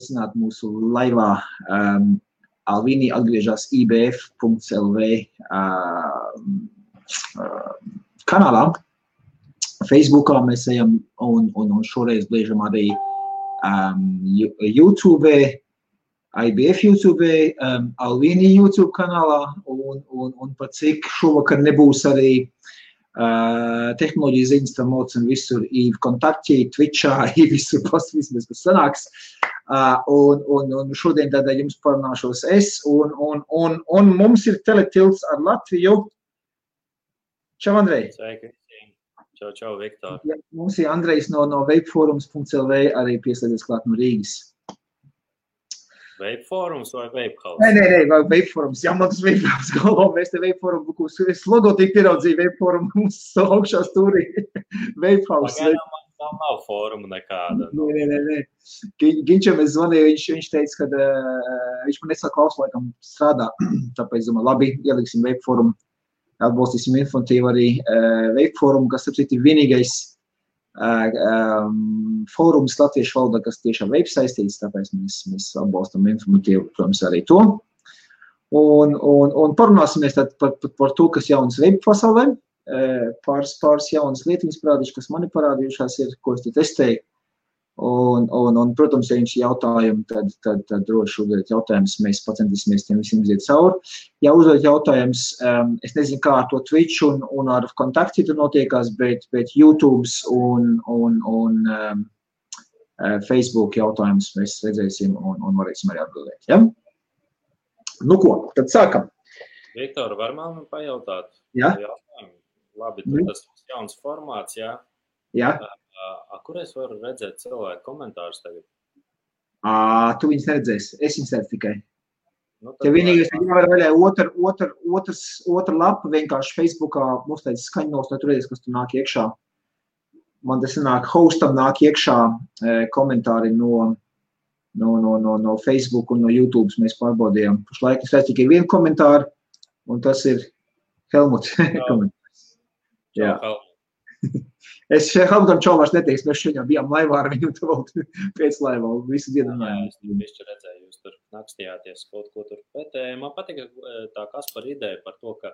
aicināt mūsu laivā. Alvīni atgriežas ibf.lv kanālā. Facebookā mēs ejam un šoreiz bliežam arī YouTube, IBF YouTube, Alvīni YouTube kanālā un pat cik šovakar nebūs arī tehnoloģija ziņas, tam un visur ir kontakti, Twitchā, visur pasvismēs, kas sanāks. Un šodien tādā jums parunāšos es, un mums ir teletilts ar Latviju. Čau, Andrej! Sveiki! Čau, Viktor! Ja, mums ir Andrejs no vapeforums.lv arī pieslēdzies klāt no Rīgas. Vapeforums vai Vapehouse? Nē, Vapeforums. Jā, man tas Vapeforums galvā. Mēs te Vapeforum, es logotīku ieraudzīju Vapeforum mums augšā stūrī. Vapehouse. Pagaidām nav foruma nekāda. Nē. Ginčam es zvanīju, viņš teica, ka viņš man nesaka klaus laikam strādā. Tāpēc, domāju, labi, ieliksim Vapeforum. Atbalstīsim informatīvu arī Vapeforum, kas ir vienīgais fórums latviešu valodā, kas tiešām vape saistīts, tāpēc mēs atbalstam informatīvu, protams, arī to. Un parunāsimies tad par to, kas jaunas vape pasaulē. Pāris jaunas lietiņas parādīšu, kas mani parādījušās ir, ko es te testēju. Un protams, ja jums ir jautājumi, tad droši uzdodiet jautājumus, mēs pacentīsimies tiem visiem iziet cauri. Ja uzdodiet jautājumus, es nezinu, kā ar to Twitch un ar kontakti tur notiekās, bet YouTube un Facebook jautājumus mēs redzēsim un varēsim arī atbildēt. Ja? Nu ko, tad sākam. Viktor, var man pajautāt? Jā. Labi, tas jauns formāts, jā? Jā. Kur es varu redzēt cilvēku komentārus tagad? Tu viņus neredzēsi, es viņus redzu tikai. Tev vienīgais ir jāvar vaļā otra lapa vienkārši Facebookā, mums tāds skaņnos, lai tu redzēs, kas tu nāk iekšā. Man tas nāk, hostam nāk iekšā komentāri no Facebook un no YouTube mēs pārbaudījām. Pašlaik es redzu tikai vienu komentāru, un tas ir Helmuts komentārs. Jā. Es Helmutam čau vairs neteiks, mēs šodien bijām laivā ar viņu pēc laivā, visu dienu runājām. Jā, es bišķi redzēju, jūs tur nakstījāties kaut ko tur. Bet man patika tā Kaspar ideja par to, ka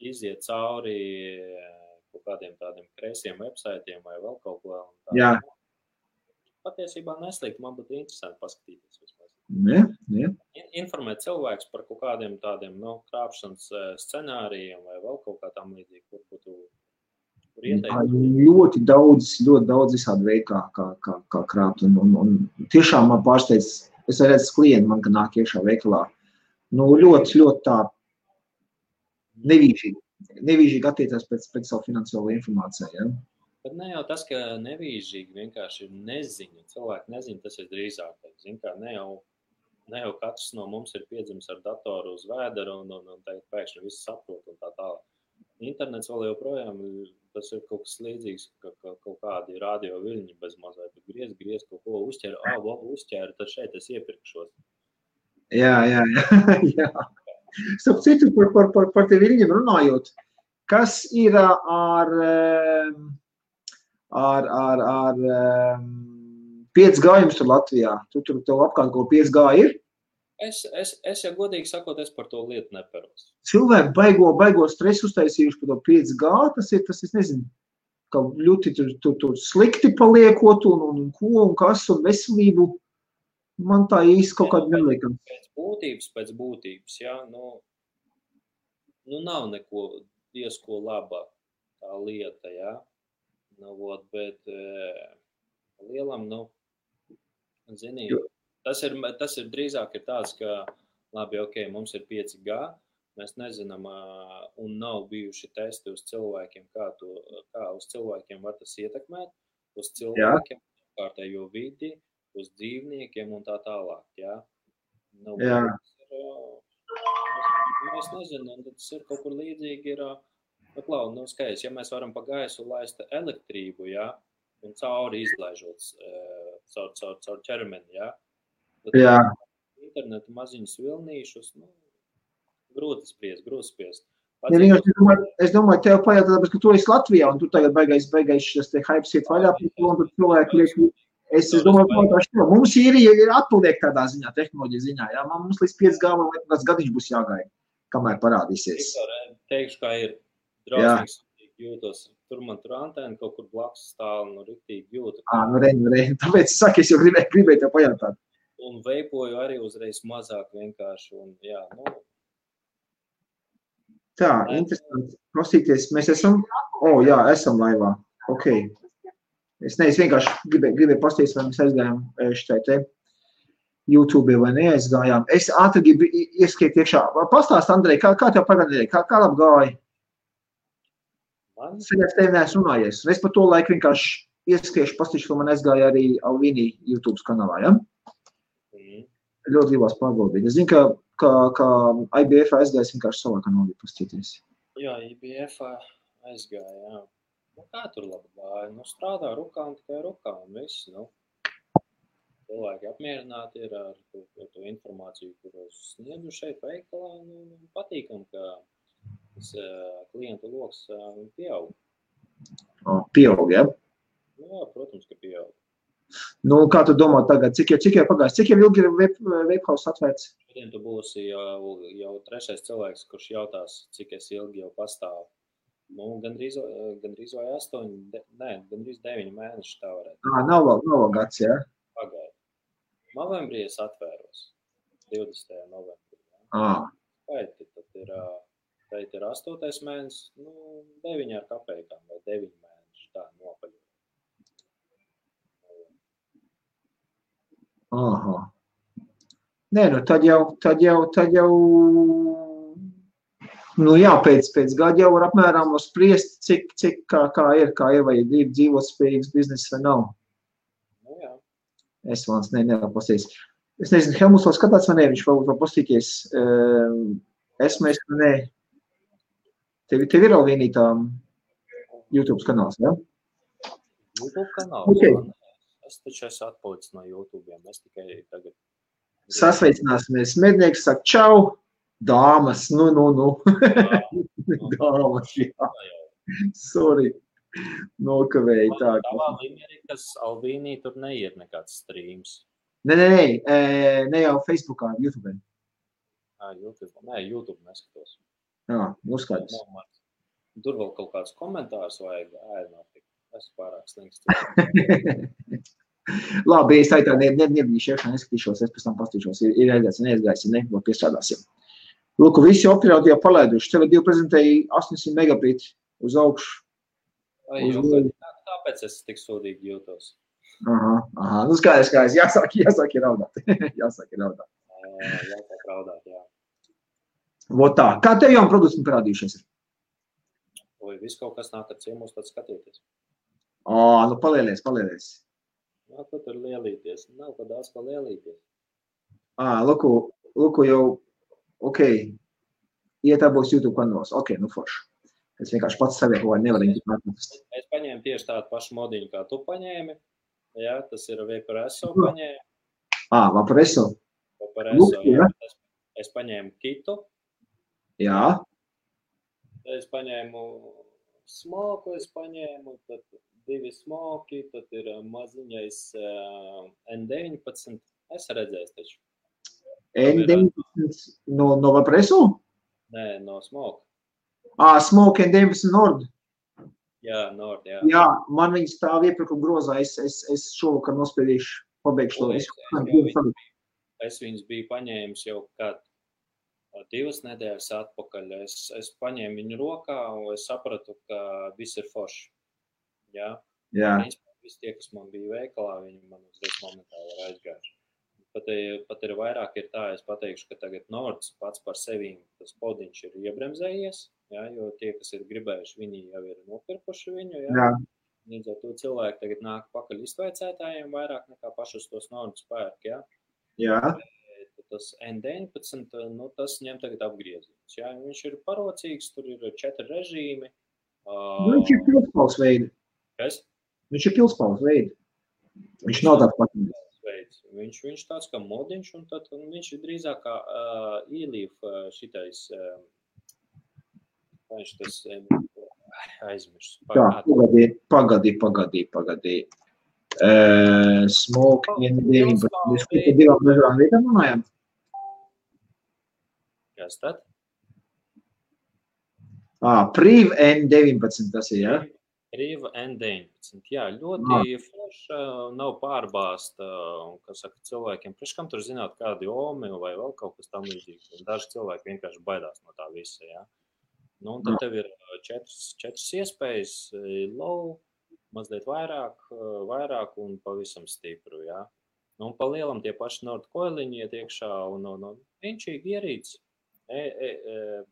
iziet cauri kaut kādiem tādiem kreisiem websaitiem vai vēl kaut ko. Jā. Patiesībā neslikt, man būtu interesanti paskatīties vismaz. Jā. Informēt cilvēkus par kaut kādiem tādiem, krāpšanas scenārijiem vai vēl kaut kā tam līdzīgi, kur būtu ļoti daudz visādi veidi, kā krāpt. Un tiešām man pārsteidz, es redzu klienti man, ka nāk iekšā veikalā. Ļoti tā nevīžīgi attiecās pēc savu finansiālo informāciju. Ja? Bet ne jau tas, ka nevīžīgi vienkārši ir neziņa. Cilvēki nezina, tas ir drīzāk. Zin kā, ne jau katrs no mums ir piedzimis ar datoru uz vēderu un tagad pēkšņi visu saprot un tā tālāk. Internets vēl joprojām, tas ir kaut kas līdzīgs, ka kaut kādi radio viļņi bez mazliet, griez kaut ko uzķēru, tad šeit es iepirkšos. Jā. Starp citu, par te viļņiem runājot, kas ir ar 5G jums tur Latvijā? Tu tev apkārt kaut 5G ir? Es jau godīgi sakot, es par to lietu neperos. Cilvēki baigo stresu uztaisījuši par to 5G, tas ir, nezinu, ka ļoti tur slikti paliekot un ko un kas un veselību. Man tā īsti kaut kāda neliekam. Pēc būtības, jā, nav neko diezko labāk tā lieta, jā. Bet lielam, zinīgi. Tas ir drīzāk ir tāds, ka, labi, mums ir 5G, mēs nezinām, un nav bijuši testi uz cilvēkiem, kā uz cilvēkiem var tas ietekmēt, uz cilvēkiem, kārtējo vidi, uz dzīvniekiem un tā tālāk, jā. Mēs nezinām, tas ir kaut kur līdzīgi ir, skaidrs, ja mēs varam pa gaisu laist elektrību, jā, un cauri izlaižot caur ķermeni, jā. Jā. Internetu maziņus vilnīšus, grūti spriest. Es domāju, tev pajautāt, ka tu esi Latvijā, un tu tagad beigais šis te hypes iet vaļā, un tur cilvēki liek Es domāju, ka mums ir atpaliek tādā ziņā, tehnoloģija ziņā. Jā? Mums līdz 5G vai kāds gadiņš būs jāgaida, kamēr parādīsies. Teikšu, kā ir drausmīgs jūtos. Tur man tur antēna kaut kur blakus stāv, riktīgi jūtu. Tāpēc es saku, es jau gribēju tev pajautāt. Un veipoju arī uzreiz mazāk vienkārši. Un, jā, Tā, interesanti. Klausīties, mēs esam? Jā, esam laivā. Ok. Es vienkārši gribēju pastīties, vai mēs aizgājām šitai te YouTube vai neaizgājām. Es ātri gribu ieskiet iekšā. Pastāst, Andrej, kā tev pagādēja? Kā labi gāja? Saļās tevi neesmu runājies. Es par to laiku vienkārši ieskiešu pastīšu, ko man aizgāja arī Alvīnī YouTube kanālā, ja? Ļoti gribās pārbaudīt. Es zinu, ka IBF aizgājas vienkārši savā kanālī pastīties. Jā, IBF aizgāja, jā. Kā tur labi gāja? Strādā rukām, tikai rukām, viss, Cilvēki apmierināti ir ar to informāciju, kuru sniedzu šeit veikalā, patīkam, ka tas klientu loks pieaug. Pieaug, ja? Jā, protams, ka pieaug. Kā tu domā tagad? Cik jau pagājis? Cik jau ilgi ir Vapehouse atvērts? Šodien tu būsi jau trešais cilvēks, kurš jautās, cik es ilgi jau pastāvu. Gandrīz vai 9 mēneši tā varētu. Nav vēl gads, jā? Pagaid. Novembrī es atvēros. 20. novembrī. Skaiti, tad ir 8. mēnesis, 9 ar kapējām vai 9 mēneši, tā nopaļot. Aha. Nē, tad jau jā, pēc gada jau var apmēram spriest, cik kā ir, vai ir dzīvot spējīgs bizness vai nav. Jā. Es vāns nevaru pastīties. Es nezinu, Helmuts vēl skatās vai ne, viņš vēl pastīties. Esmu, nē. Tev ir Alvīnī tā YouTube kanāls, ja? YouTube kanāls? Okay. Es taču esmu atpalicis no YouTube'iem, es tikai tagad... Sasveicināsimies. Mednieks saka, čau! Dāmas, Dāmas, jā. Sorry. Nokavēju tā. Tavā līmenī, kas Alvīnī tur neiet nekāds streams. Ne jau Facebookā, YouTube. YouTube. Nē, YouTube neskatos. Jā, skaidrs. Tur vēl kaut kāds komentārs vajag ēdināt. Es pārāk slings. Labi, es tā nebīšu iekšā, neskatīšos, es pēc tam pastīšos. Ir aizgājis, neaizgājis, vēl piestrādāsim. Lūk, visi operatori jau palaiduši. TV2 prezentēja 800 megabit uz augšu. Tāpēc es tik sūdīgi jūtos. Aha. Skaidrs. Jāsāk ir raudāt. Jāsāk raudāt, jā. Vot tā. Kā tev jauni produkti parādījušies ir? Viss kaut kas nāk ar ciemos, tad skatieties. Palielies. Jā, tu tur lielīties. Nav pa daudz pa lielīties. Lūku jau, ok, ietābos YouTube kanālos. Ok, forši. Es vienkārši pats savie kaut vai nevaru atrast. Es paņēmu tieši tādu pašu modiņu, kā tu paņēmi. Jā, tas ir Vaporesso paņēmi. Vaporesso. Jā. Es paņēmu kitu. Jā. Es paņēmu smoku, tad 2 smoki, tad ir maziņais N19. Es redzēju taču. N19 no Vaporesso? Nē, no smoke. Smoke N19 Nord. Jā, Nord, jā. Jā, man viņi stāv iepirkuma grozā, es šovakar nospiedīšu, pabeigšu to. Es viņus biju paņēmis jau kādu 2 nedēļas atpakaļ. Es paņēmu viņu rokā un es sapratu, ka viss ir forši. Jā. Visi tie, kas man bija veikalā, viņi man uzreiz momentāli ir aizgājuši. Pat ir vairāk ir tā, es pateikšu, ka tagad Nords pats par sevīm tas podiņš ir iebremzējies, jā, jo tie, kas ir gribējuši, viņi jau ir nopirkuši viņu, jā. Līdz ar to cilvēki tagad nāk pakaļ iztveicētājiem vairāk nekā pašus tos Nordus pērk, jā. Jā. Tas N19, tas ņem tagad apgrieziens, jā. Viņš ir parocīgs, tur ir 4 režīmi. Viņš ir pilspaules veidi. Kas? Viņš ir pilspaules veidi. Viņš nav tāds patīk. Viņš tāds kā modiņš, un tad viņš ir drīzāk kā e-leaf šitais, viņš tas aizmirst. Tā, pagadī. Smoke N19. Mēs par divām dažādām vietām runājam. Kas tad? Priv N19 tas ir, ja? Priv N19. Jā, ļoti forša, nav pārbāsta, kas saka cilvēkiem. Priekškam tur zināt kādi omi vai vēl kaut kas tam līdzīgs. Daži cilvēki vienkārši baidās no tā visa, jā. Nu, un tad tev ir četras iespējas, low, mazliet vairāk un pavisam stipru, jā. Nu, un pa lielam tie paši Nordcoiliņi iet iekšā un vienšīgi ierīts.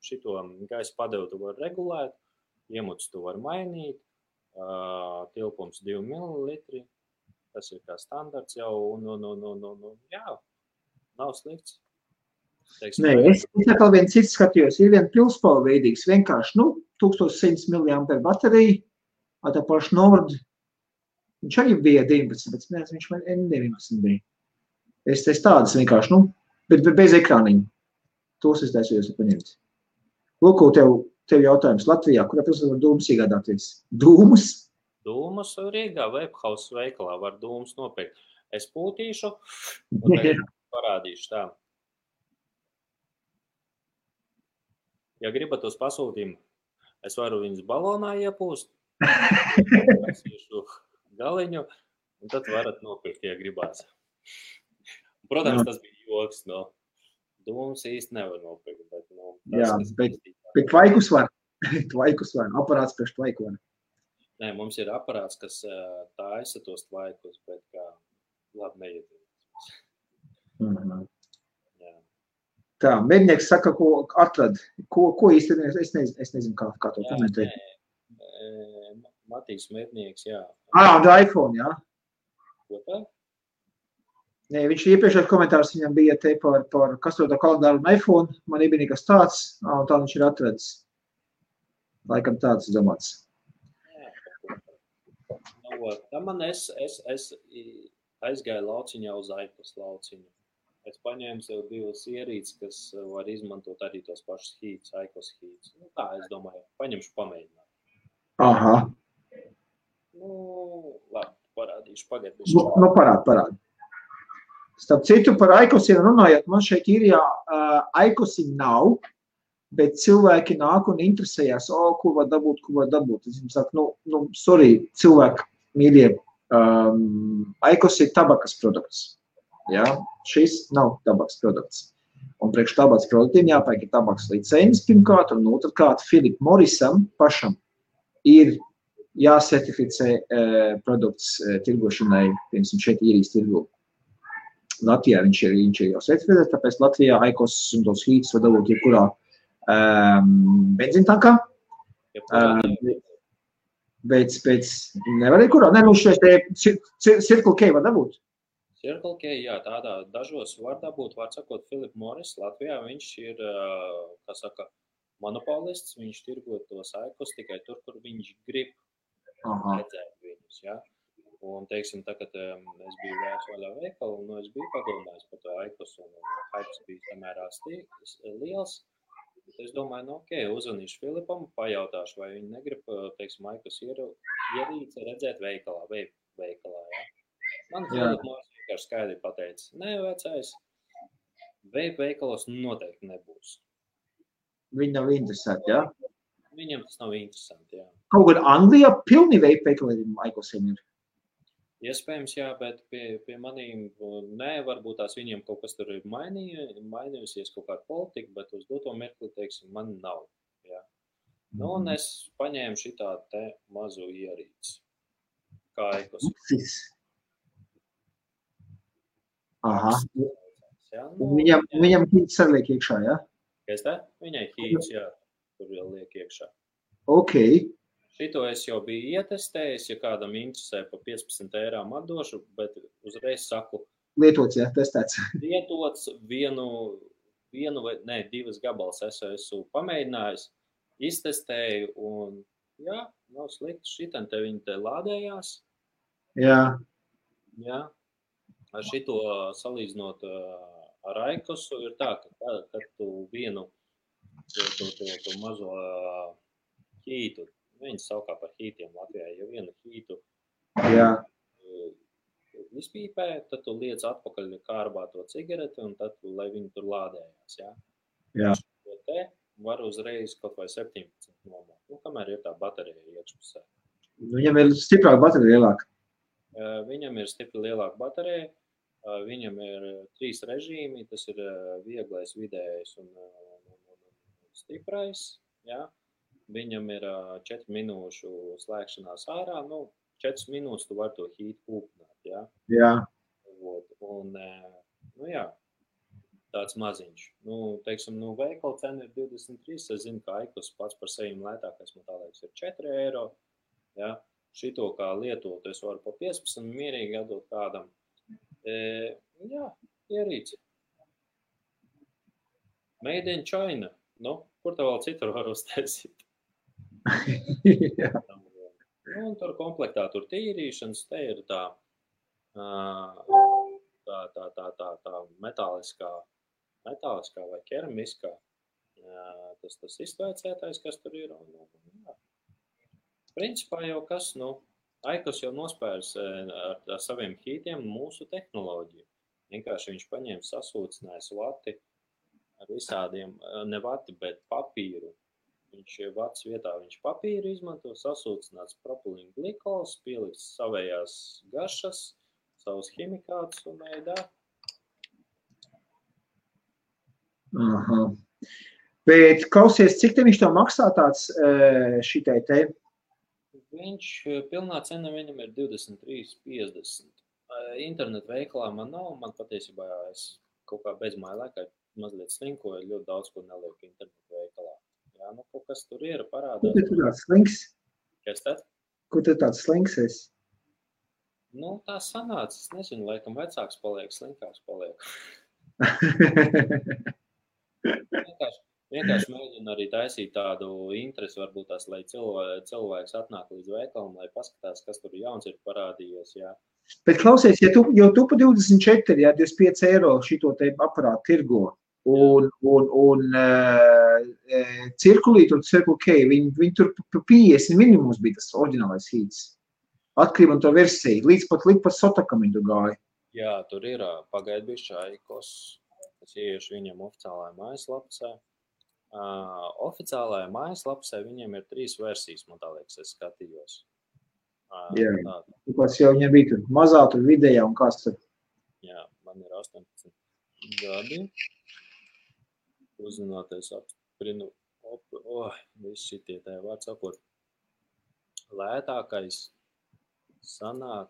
Šito gaisa padevu tu var regulēt, iemuts tu var mainīt, tilpums 2 ml, tas ir kā standarts jau, jā, nav slikts. Nē, es atkal viens cits skatījos, ir vien pilspala veidīgs, vienkārši, 1100 mAh baterija, tā paši Nord, viņš arī bija 19, bet neesmu, viņš man N19 bija. Es tādas vienkārši, bet bez ekrāniņa. Tos es taisījos paņemt. Lūko, tev jautājums Latvijā, kurā pilsētā var dūmus iegādāties? Dūmus? Dūmus Rīgā Webhouse veikalā var dūmus nopirkt. Es pūtīšu un tagad parādīšu tā. Ja gribat uz pasūtījumu, es varu viņus balonā iepūst, pasīšu galiņu, un tad varat nopirkt, ja gribās. Protams, tas bija joks, dūmus īsti nevar nopirkt, bet, jā, bet tvaikus var. Tvaikus var. Aparāts priekš tvaiku var. Nē, mums ir aparāts, kas taisa tos tvaikus, bet kā labi neiedzīvās. Jā. Tā, mednieks saka, ko atrad. Ko īsti, es nezinu, kā to komentēt. Matīs mednieks, jā. Un iPhone, jā. Ko tā? Nē, viņš iepriekšējais komentārs viņam bija te par kastrotā kalendāru un iPhone. Man nebija nekas tāds, un tā viņš ir atradis. Laikam tāds domāts. Tā man es aizgāju lauciņā uz Aikos lauciņu. Es paņēmu sev 2 ierīces, kas var izmantot arī tos pašus hītus, Aikos hītus. Tā, es domāju, paņemšu pamēģināt. Aha. Labi, parādīšu pagaidīšu. Parādi. Starp citu, par Aikosiem runājot, man šeit ir, Aikosi nav, bet cilvēki nāk un interesējās, ko var dabūt. Es jums saku, sorry, cilvēki, mīļie, Aikos ir tabakas produkts. Ja? Šis nav tabakas produkts. Un priekš tabakas produktiem jāpērk tabakas licences pirmkārt, un otrkārt Philip Morrisam pašam ir jāsertificē produkts tirgošanai, piemēram, šeit īrijas tirgu. Latvijā viņš ir jau certificēts, tāpēc Latvijā Aikos un tos hītus var dabūt jebkurā benzīntankā. Bet nevar kurā? Nē, šeit Circle K var dabūt. Circle K, jā, tādā dažos var dabūt, var sakot, Philip Morris Latvijā, viņš ir, kā saka, monopolists, viņš tirgo tos Aikos tikai tur, kur viņš grib redzēt viņus, jā. Un, teiksim, tagad es biju vaļā veikalu, un es biju padomājis par to Aikos, un hypes bija samērā liels. Es domāju, uzvanīšu Filipam, pajautāšu, vai viņi negrib, teiksim, Aikos ierīci redzēt veikalā, jā. Man Filip Morris vienkārši skaidri pateica, nē, vecais, veikalos noteikti nebūs. Viņi nav interesanti, jā? Viņam tas nav interesanti, jā. Kaut gan Anglijā pilni veikaliem Aikosiem ir. Iespējams, jā, bet pie manīm nē, varbūt tās viņiem kaut kas tur ir mainījusies, kaut kāda politika, bet uz doto mirkli, teiksim, man nav, jā. Un es paņēmu šitā te mazu ierīci, kā Aikos. Aha. Viņam hīts arī liek iekšā, jā? Kas tā? Viņai hīts, jā, tur vēl liek iekšā. Ok. Šito es jau biju ietestējis, ja kādam interesē pa 15 eirām atdošu, bet uzreiz saku. Lietots, jā, testēts. Lietots divas gabals esmu pamēģinājis, iztestēju un, jā, nav slikti. Šitan te viņi te lādējās. Jā. Jā. Ar šito salīdzinot ar Aikosu ir tā, ka kad tu vienu to mazo hītu, viņas saukā par hītiem Latvijā, ja vienu hītu izpīpē, tad tu liec atpakaļ kārbā to cigareti, un tad, lai viņi tur lādējās, jā. Jā. Šo te var uzreiz kaut vai 17 nomāt, kamēr ir tā baterija iekšpusē. Viņam ir stiprāka baterija lielāka. Viņam ir stipri lielāka baterija, viņam ir 3 režīmi, tas ir vieglais, vidējais un stiprais, jā. Viņam ir 4 minūšu slēgšanās ārā, 4 minūtes tu var to heat kūpināt, jā. Jā. Un, jā, tāds maziņš. Teiksim, veikala cena ir 23, es zinu, ka Aikos pats par sevi lētākais, man tā liekas, ir 4 eiro, jā. Šito kā lietotu es varu pa 15 mierīgi atdot kādam. Jā, ierīci. Made in China. Kur tā vēl citur var uztaisīt? Un tur komplektā tur tīrīšanas, te ir tā metāliskā vai keramiskā, tas iztvēcētais, kas tur ir. Principā jau kas, Aikos jau nospērs ar saviem hītiem mūsu tehnoloģiju. Vienkārši viņš paņēma sasūcinājis vati ar visādiem, ne vati, bet papīru. Viņš vats vietā, viņš papīru izmanto, sasūcināts propilīna glikols, pielikts savējās garšas, savus ķimikātus un ēdā. Aha. Bet klausies, cik te viņš tev maksā tāds šitai te? Viņš, pilnā cena viņam ir 23,50. Internetu veikalā man nav, man patiesībā es kaut kā bezmāja laikā mazliet slinkoju, ļoti daudz ko nelieku internetu veikalā. Jā, kaut kas tur ir parādās. Kur tu tāds slinks? Kas tad? Kur tu tāds slinks esi? Tā sanāca, es nezinu, laikam vecāks paliek, slinkāks paliek. Vienkārši mēģinu arī taisīt tādu interesi, varbūt tās, lai cilvēks atnāk līdz veikalam, lai paskatās, kas tur jauns ir parādījies, jā. Bet klausies, ja tu pa 24, jā, 25 eiro šito te aparātu tirgo, un cirkulīt un Circle K, viņi tur pa 50 minimums bija tas oriģinālais hīts. Atkarībā no to versiju, līdz pat Sotakam viņi tur gāja. Jā, tur ir pagaid bišķi Aikos, es ieiešu viņam oficiālajā mājaslapsē. Oficiālajā mājaslapsē viņiem ir 3 versijas, man tā liekas, es skatījos. Jā, kāds jau viņam bija tur mazā, tur vidējā un kāds tur. Jā, man ir 18 gadi. Uzzināties apsprinu, viss šitie tā vārds sakot. Lētākais sanāk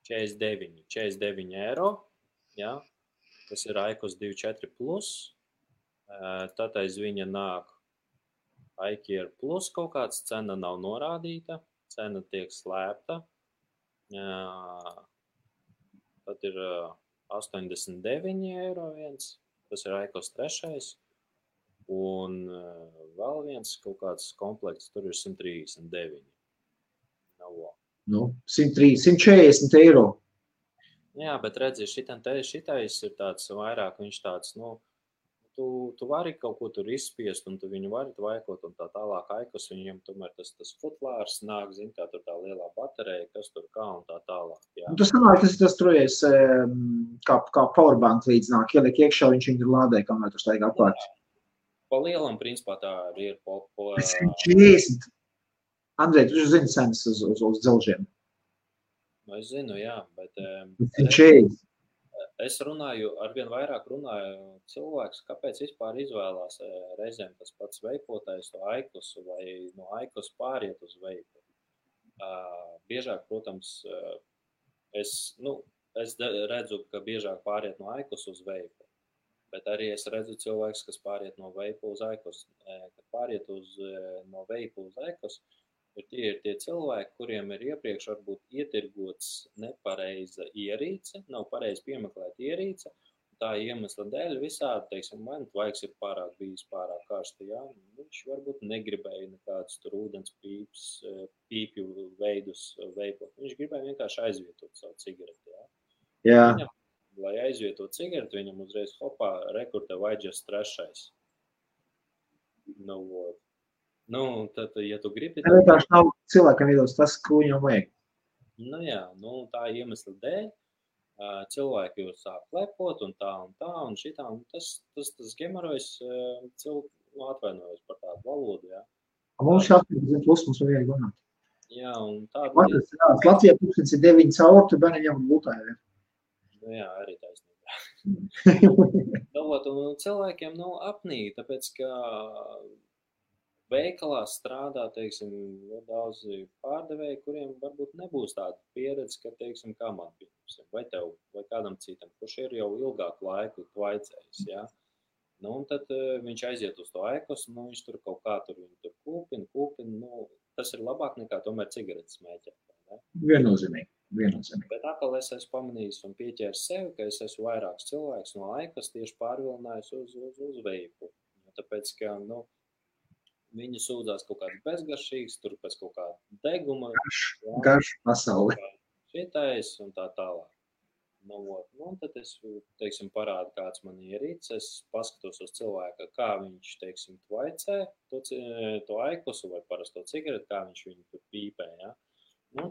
49 eiro, jā. Tas ir Aikos 24 plus. Tad aiz viņa nāk iCare plus kaut kāds, cena nav norādīta, cena tiek slēpta. Tad ir 89 eiro viens, tas ir Aikos 3. Un vēl viens kaut kāds komplekts, tur ir 139. 140 eiro. Jā, bet redzi, šitais ir tāds vairāk, viņš tāds, tu vari kaut ko tur izspiest, un tu viņu vari tvaikot, un tā tālāk Aikos, viņam tomēr tas futlārs nāk, zin, kā tur tā lielā baterija, kas tur kā un tā tālāk. Jā. Tas sanāk, tas trojies kā powerbank līdz nāk, ieliek iekšā, viņš viņu lādē, kamēr tur staigā apkārt. Pa lielam, principā, tā ir 140. Andrej, tu zini cenas uz dzelžiem? Es zinu, jā, bet 140. es arvien vairāk runāju cilvēks, kāpēc vispār izvēlās reizēm tas pats veipotais to Aikosu vai no Aikos pāriet uz veipu. Biežāk, protams, es redzu, ka biežāk pāriet no Aikos uz veipu, bet arī es redzu cilvēks, kas pāriet no veipu uz Aikos. Kad pāriet no veipu uz Aikos, ir tie cilvēki, kuriem ir iepriekš varbūt ietirgots nepareiza ierīce, nav pareizi piemeklēta ierīce, tā iemesla dēļ visādi, teiksim, man tvaiks ir bijis pārāk karsti, jā, viņš varbūt negribēja nekādus tur ūdens pīpju veidus veipot, viņš gribēja vienkārši aizvietot savu cigareti, jā. Viņam, lai aizvietot cigareti, viņam uzreiz hopā rekurte vajadžas 3. Tad, ja tu gribi... Tā vienkārši nav cilvēkam iedos tas, ko viņam vajag. Nu jā, tā iemesla dēļ cilvēki jau sāk lepot un tā un šitā, un tas gemorojs atvainojos par tādu valodu, jā. Mums šī 18 plus mums vajag runāt. Jā, un tāda lieta. Latvijā 9 caur, tu bērni ņem būtāju. Nu jā, arī taisnība. Un cilvēkiem apnīk, tāpēc, ka veikalā strādā, teiksim, daudzi pārdevēji, kuriem varbūt nebūs tāda pieredze, ka, teiksim, kā man pieņemsim, vai tev, vai kādam citam, kurš ir jau ilgāku laiku tvaicējis, jā. Un tad viņš aiziet uz to ekos, viņš tur kaut kā tur kūpina, tas ir labāk nekā tomēr cigaretes smēķēt. Viennozīmīgi. Bet atkal es esmu pamanījis un pieķēris sevi, ka es esmu vairāks cilvēks no ekos tieši pārvilinājis uz veipu. Tāpēc, ka, viņi sūdzās kaut kāds bezgaršīgs, tur pēc kaut kāda deguma. Garš pasauli. Šitais un tā tālāk. Un tad es, teiksim, parādu, kāds man ierīts, es paskatos uz cilvēku, kā viņš, teiksim, tvaicē to aikosu vai parasto cigareti, kā viņš viņu tur pīpē, ja.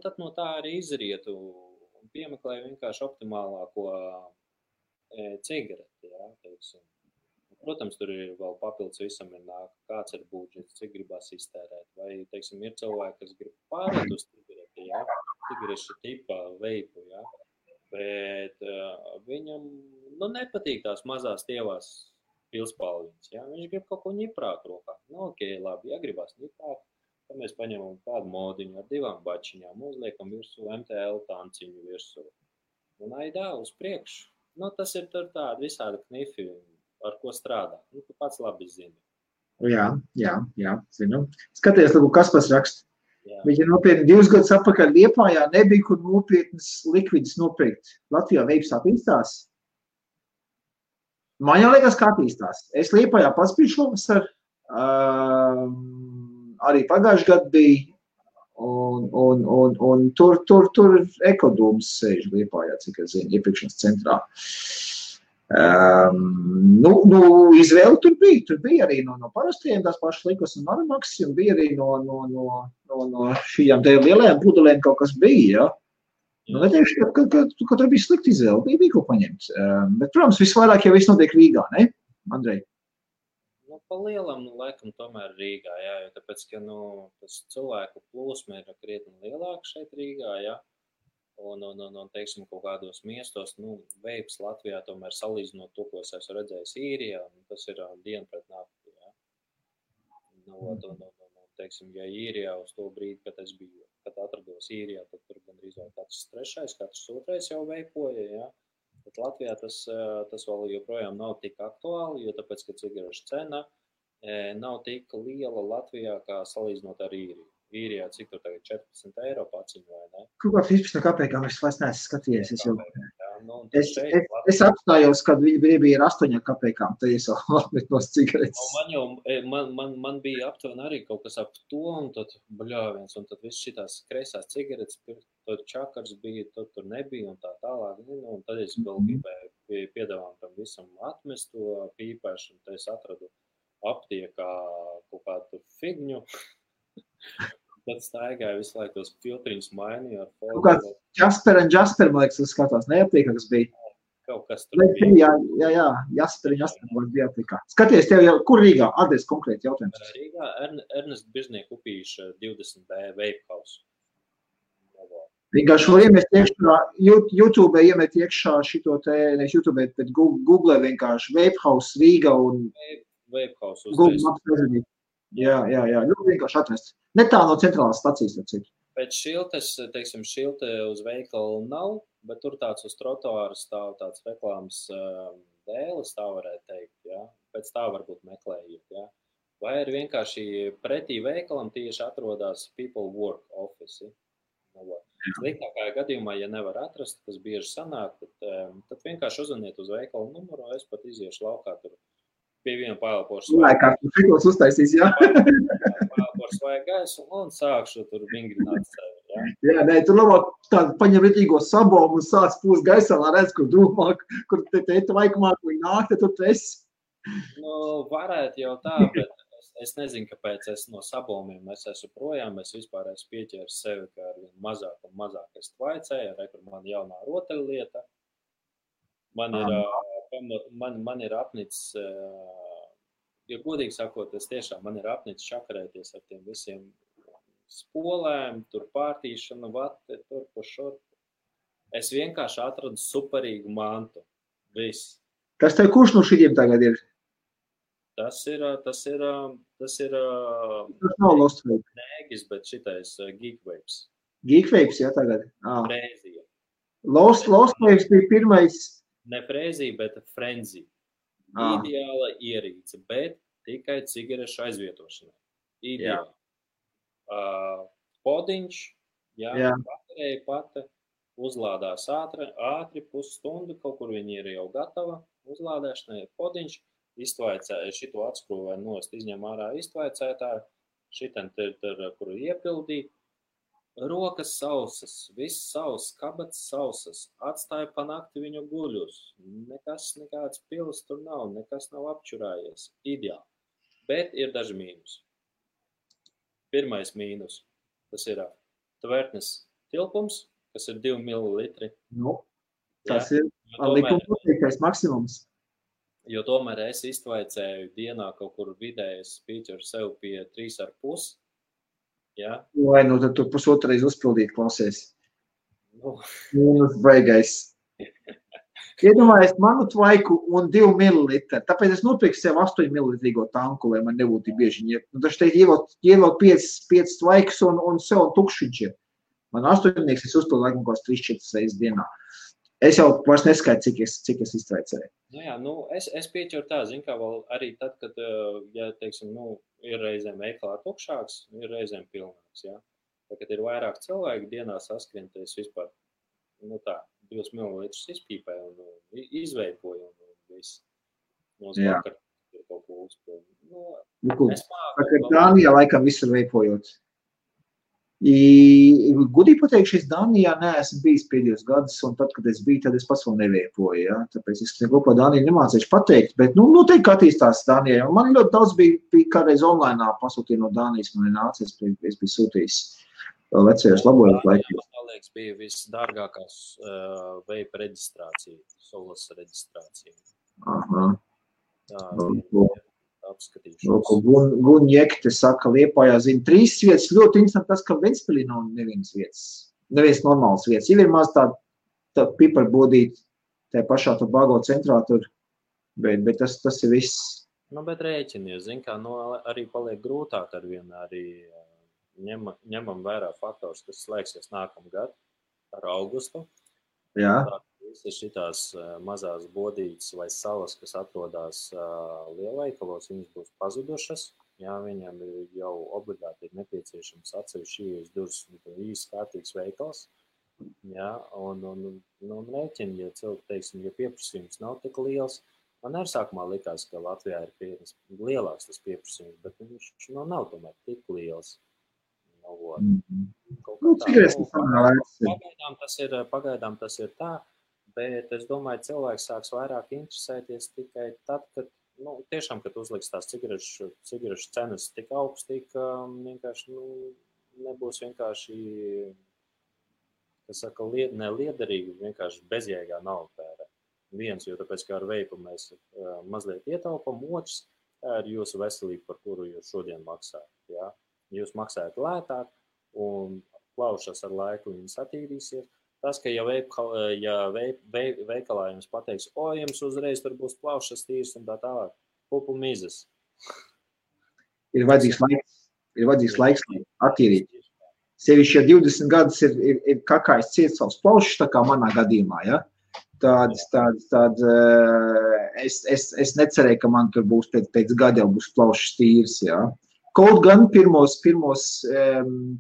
Tad no tā arī izrietu un piemeklēju vienkārši optimālāko cigareti, ja, teiksim. Protams, tur ir vēl papildus visam ir nāk, kāds ir budžets, cik gribas iztērēt, vai, teiksim, ir cilvēki, kas grib pārēt uz cigareti, ja, cigarešu tipa veipu, ja. Bet viņam nepatīk tās mazās tievās pilspalviņas. Ja? Viņš grib kaut ko ņiprāk rokā. Ok, labi, ja gribās ņiprāk, tad mēs paņemam kādu modiņu ar 2 bačiņām, uzliekam virsū MTL tanciņu virsū. Un aidā uz priekšu. Tas ir tur tādi visādi knifi, ar ko strādā. Tu pats labi zini. Jā, zinu. Skaties, kas pats raksta. Jā. Viņa nopietni 2 gadus atpakaļ Liepājā nebija, kur nopietnas likvidus nopirkt. Latvijā veips attīstās. Man jau liekas, kā attīstās. Es Liepājā pats biju šovasar, arī pagājuši gadu bija, un tur ekodūms sēž Liepājā, cik es zinu, iepirkšanas centrā. Izvēle tur bija arī no parastiem tās pašas Likos un Maramaxs, un bija arī no šījām te lielajām pudelēm kaut kas bija, ja. Neteikšu, ka tur bija slikta izvēle, bija ko paņemt. Bet, protams, visvairāk jau viss notiek Rīgā, ne, Andrej? Pa lielam, laikam, tomēr Rīgā, jā, jo tāpēc, ka, tas cilvēku plūsma ir krietni lielāka šeit Rīgā, jā. Un, teiksim, kaut kādos miestos, veips Latvijā tomēr salīdzinot to, ko es esmu redzējis Īrijā, tas ir diena pret nakti, jā. Teiksim, ja Īrijā uz to brīdi, kad atrados Īrijā, tad tur gandrīz katrs 3., katrs 2. jau veipoja, jā. Bet Latvijā tas vēl joprojām nav tik aktuāli, jo tāpēc, ka cigarešu cena nav tik liela Latvijā, kā salīdzinot ar Īriju. Īrijā, cik tur tagad 14 eiro paciņu, vai ne? Kaut kā 15 kapekām es vairs neesmu skatījies. Es apstājos, kad viņi bija ar 8 kapekām, tad es jau atmet no cigaretes. Man bija aptuveni arī kaut kas ap to, un tad bļāviens, un tad viss šitās kreisās cigaretes, tad čakars bija, tad tur nebija, un tā tālāk. Un tad es vēl gribēju piedāvām tam visam atmest to pīpēšanu, tad es atradu aptiekā kaut kādu figņu. Tad staigāju visu laiku tos filtriņus mainīju ar foliju. Kaut kāds Jasper, man liekas, skatās, neaptiekā, kas bija. Kaut kas tur bija. Jā, Jasper bija aptiekā. Skaties, tev jau, kur Rīgā? Adres konkrēti jautājums. Rīgā Ernest Biržnieku upīša 20B Vape House. Vienkārši var iemest iekšā, YouTube iemet iekšā šito te, nevis YouTube, bet Google vienkārši Vape House Rīga un Vape House Google Maps prezidīt. Jā, vienkārši atrast. Ne tā no centrālās stacijas, cik. Pēc šiltes, teiksim, šilte uz veikalu nav, bet tur tāds uz trotuāra stāv tāds reklāmas dēles, tā varētu teikt, jā. Pēc tā varbūt meklējiet, jā. Vai arī vienkārši pretī veikalam tieši atrodas People Work Office. Sliktākajā gadījumā, ja nevar atrast, kas bieži sanāk, tad vienkārši uzvaniet uz veikalu numuru, es pat iziešu laukā tur. Pie viena paelpošu uztaisīs, jā. Paelpošu vai gaisu un sākšu tur vingrināt sevi, jā. Jā, nē, tur labāk tādu paņem ritīgo sabomu un sāc pūst gaisā, lai redz, kur drūmā, kur te vaikumā, kur viņi nāk, tad tur tu esi. Varētu jau tā, bet es nezinu, kāpēc es no sabomiem es esmu projām, es vispār esmu pieķēris sevi, ka ar vien mazāk un mazāk es tvaicēju, kur man jaunā rotaļlieta. Man ir apnicis, ja godīgi sakot, man ir apnicis čakarēties ar tiem visiem spolēm, tur pārtīšana, vate, tur pa šurp. Es vienkārši atradu superīgu mantu. Viss. Kas tev kurš no šiem tagad ir? Tas ir nav Lost Waves. Nēgis, bet šitais Geek Waves. Geek Waves, jā, tagad. Frēzija. Lost Waves bija pirmais. Ne frēzija, bet frenzy. Ideāla ierīce, bet tikai cigarešu aizvietošanai. Ideāli. Podiņš, baterija pati, uzlādās ātri pusstundu, kaut kur viņi ir jau gatava, uzlādēšanai podiņš, iztvaicēja, šito atskrūvēju nost, izņem ārā iztvaicētāju, šitan kuru iepildīja, rokas sausas, viss sauss, kabats sausas, atstāja pa nakti viņu guļus, nekāds pils tur nav, nekas nav apčurājies, ideāli, bet ir daži mīnus. Pirmais mīnus, tas ir tvertnes tilpums, kas ir 2 millilitri. Tas ir likuma maksimums. Jo tomēr es iztvaicēju dienā kaut kur vidējas pīķeru sev pie 3,5. Ja? Vai, tad tu pusotreiz uzpildīt klausies. Baigais. Iedomājies manu tvaiku un 2 millilitri. Tāpēc es nopirku sev 8 millilitrīgo tanku, lai man nebūtu bieži. Taču te ievilk 5 tvaikus un sev tukšiņš ir. Man 8 es uzpildu laikam kaut 3-4 reizes dienā. Es jau vairs neskaitu, cik es iztvaicēju. Es pieķeru tā, zin kā vēl arī tad, kad, ja, teiksim, ir reizēm veikalā tukšāks, ir reizēm pilnāks, ja. Tā, kad ir vairāk cilvēki dienā saskrienties vispār, 2 millilitrus izpīpēju un izveipoju un viss. Mums vakar ir kaut ko uzpildu. Dānijā laikam visur veipojot. Gudīgi pateikšu, es Dānijā neesmu bijis pēdējos gadus, un tad, kad es biju, tad es pats vēl neveipoju, ja? Tāpēc es neko par Dāniju nemācīšu pateikt, bet, noteikti attīstās Dānijā. Man ļoti daudz bija kādreiz online pasūtīja no Dānijas, man ir nācies, es biju sūtījis vecajos labojot laikos. Man liekas, bija visdārgākās veipa reģistrācija, solas reģistrācija. Aha. Apskatīšanos. Gunjekte saka, Liepājā zina 3 vietas. Ļoti interesanti tas, ka Ventspilī nav nevienas vietas. Neviens normāls vietas. Ir maz tā piparbodīt tajā pašā Tobago centrā tur, bet tas ir viss. Bet rēķinies, zin kā, arī paliek grūtāk ar vienu, arī ņemam vērā faktors, kas slēgsies nākamgad ar augustu. Jā. Visas šitās mazās bodītes vai salas, kas atrodas lielveikalos, viņas būs pazudušas. Jā, viņam jau obligāti ir nepieciešams atsevišķi ieejas durvis īsti kārtīgs veikals. Jā, un rēķini, ja cilvēki, teiksim, ja pieprasījums nav tik liels, man arī sākumā likās, ka Latvijā ir lielāks tas pieprasījums, bet viņš nav tomēr tik liels. Pagaidām tas ir tā. Bet es domāju, cilvēks sāks vairāk interesēties tikai tad, kad, tiešām, kad uzliks tās cigarešu cenas tik augstī, ka vienkārši, nebūs vienkārši, kas saka, neliederīgi, vienkārši bezjēgā naudu tērē. Viens, jo tāpēc, kā ar veipu mēs mazliet ietaupam, otrs, tā ir jūsu veselība, par kuru jūs šodien maksājat. Ja? Jūs maksājat lētāk un plaušas ar laiku viņas attīrīsies. Tas, ka ja veikalā jums pateiks, jums uzreiz tur būs plaušas tīrs un tā tālāk, pupu mizas. Ir vajadzīgs laiks, lai attīrīt. Sevišķi, ja 20 gadus ir kakājs ciet savus plaušas, tā kā manā gadījumā, ja? Tad es necerēju, ka man tur būs pēc gada jau būs plaušas tīrs, ja? Kaut gan pirmos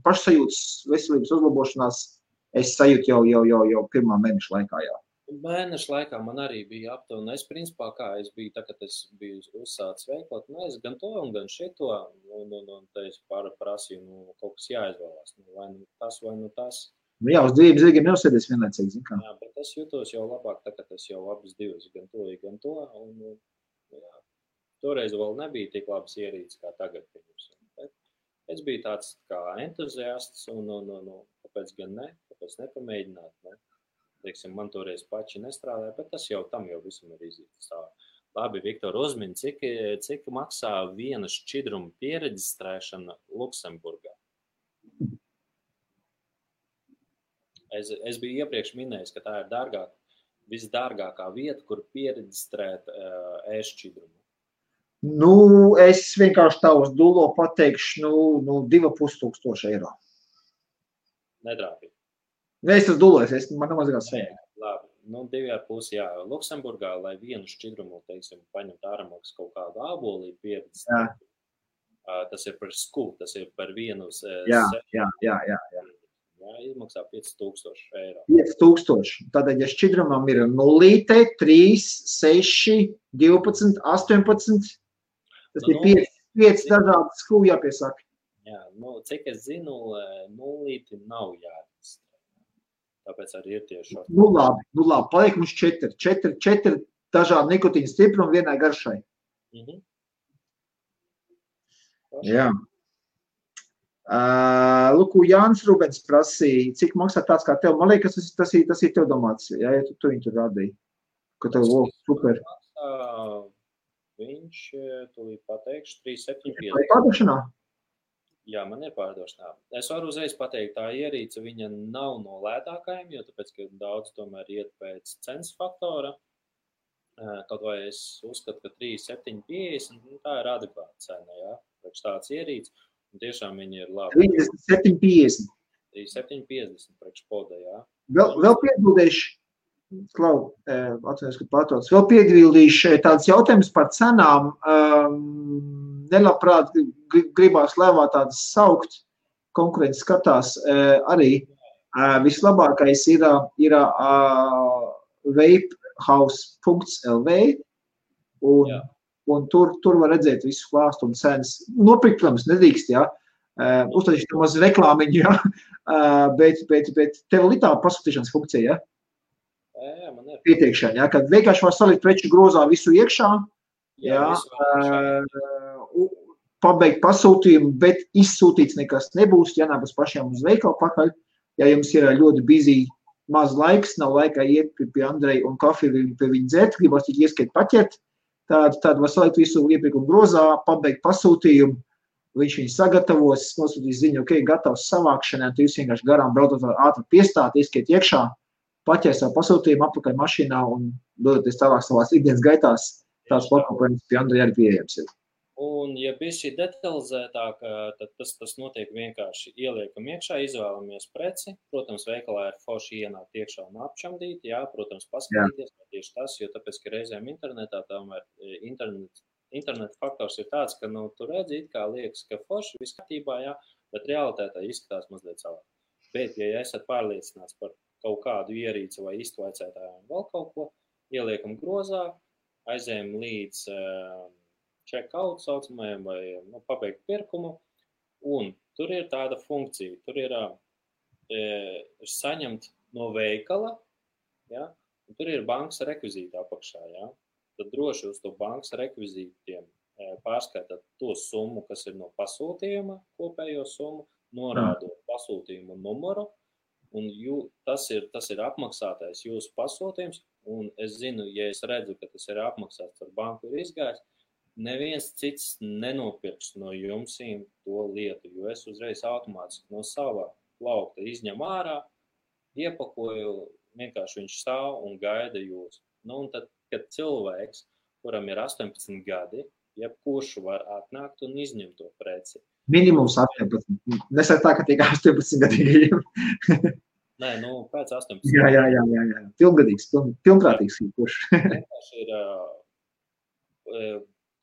pašsajūtas veselības uzlabošanās es sajūtu jau pirmā mēneša laikā, jā. Mēneša laikā man arī bija aptuveni. Es principā, kā es biju, tā, kad es biju uzsācis veikot, es gan to un gan šito, un te es prasīju, kaut kas jāizvēlās, vai tas, vai tas. Jā, uz 2 zirgiem neuzsēdies vienlaicīgi, zin kā. Jā, bet es jūtos jau labāk, tā, kad es jau abas divas, gan to, un jā. toreiz vēl nebija tik labas ierīces kā tagad. Bet es biju tāds kā entuziasts un kāpēc gan ne, kāpēc nepamēģināt, ne? Teiksim, man toreiz paši nestrādāja, bet tas jau tam jau visam ir izjūtas tā. Labi, Viktor, uzmini, cik maksā viena šķidruma piereģistrēšana Luksemburgā? Es biju iepriekš minējis, ka tā ir visdārgākā vieta, kur piereģistrēt e-šķidrumu. Nu, es vienkārši tā uz dūlo pateikšu, 2,5 eiro. Nedrāpīgi. Es uz dūlo, man nav mazāk sēja. Labi. 2,5, jā, Luksemburgā, lai vienu šķidrumu, teiksim, paņemt āramaksas kaut kādu ābolī pieredzēt, tas ir par skū, tas ir par vienu Jā, izmaksā 5,000 eiro. 5,000. Tātad, ja šķidrumam ir 0, 3, 6, 12, 18, tas ir 5 dažādas skū jāpiesaka. Jā, cik es zinu, 0 nav jāreģistrē. Tāpēc arī ir tieši šādi. Nu labi, paliek mums 4 dažādi nikotīna stiprumi vienai garšai. Jā. Luku, Jānis Rubens prasīja, cik maksā tāds kā tev. Man liekas, tas ir tev domāts, ja tu viņu tur radīji. Ka tev super. Viņš, tūlīt pateikšu, 3,750. Vai pārdošanā? Jā, man ir pārdošanā. Es varu uzreiz pateikt, tā ierīce viņa nav no lētākajiem, jo tāpēc, ka daudz tomēr iet pēc cenas faktora. Kaut vai es uzskatu, ka 3,750, tā ir adekvāta cena, jā, priekš tāds ierīce. Un tiešām viņi ir labi. 3,750. 3,750 priekš poda, jā. Vēl piebildīšu, Klau, atceros, ka pārtots, vēl piebildīšu tāds jautājums par cenām. Nelabprāt gribās lēvā tādas saukt, konkurence skatās arī. Vislabākais ir vapehouse.lv un tur var redzēt visu klāstu un cenas. Nopirkt, protams, nedrīkst, jā. Uztaisīt maz reklāmiņu, jā. Bet tev ir tā pasūtīšanas funkcija, jā? Jā, man ir. Pieteikšana, jā, kad vienkārši var salikt preču grozā visu iekšā, jā, pabeigt pasūtījumu, bet izsūtīts nekas nebūs, jānākas pašiem uz veikalu pakaļ. Ja jums ir ļoti busy, maz laiks, nav laika iet pie Andreja un kafiju pie viņa dzert, gribas tik ieskiet paķert, tad var salikt visu iepirkumu grozā, pabeigt pasūtījumu, viņš viņu sagatavos, nosūtīs ziņu, ok, gatavs savākšanai, tu jūs vienkārši garām brautot ātri piestāt, ieskiet iekšā, paķer savu pasūtījumu apakaļ mašīnā un dodaties tālāk savās ikdienas gaitās, tās pakalpojums pie Andreja arī pieejams ir. Un, ja bišķi detalizētāk, tad tas notiek vienkārši ieliekam iekšā, izvēlamies preci. Protams, veikalā ir forši ienākt iekšā un apčamdīt, jā, protams, paskatīties, tieši tas, jo tāpēc, ka reizēm internetā tomēr internet faktors ir tāds, ka, tu redzi, it kā liekas, ka forši viss kārtībā, jā, bet realitātē izskatās mazliet savā. Bet, ja esat pārliecināts par kaut kādu ierīci vai iztvaicētāju un vēl kaut ko, ieliekam grozā, aizējam līdz check-out saucamajam vai pabeigt pirkumu, un tur ir tāda funkcija, tur ir saņemt no veikala, ja, un tur ir bankas rekvizīti apakšā, ja, tad droši uz to bankas rekvizītiem pārskatāt to summu, kas ir no pasūtījuma, kopējo summu, norādot pasūtījumu numuru, un tas ir apmaksātais jūsu pasūtījums, un es zinu, ja es redzu, ka tas ir apmaksāts ar banku ir izgājis, neviens cits nenopirks no jums to lietu, jo es uzreiz automātiski no savā plaukta izņem ārā, iepakoju, vienkārši viņš stāv un gaida jūs. Un tad, kad cilvēks, kuram ir 18 gadi, jebkurš var atnākt un izņemt to preci. Minimums 18. Nesaka tā, ka tiek 18 gadīgajiem. Nē, pēc 18. Jā. Pilngadīgs, pilnprātīgs. Kurš. Vienkārši ir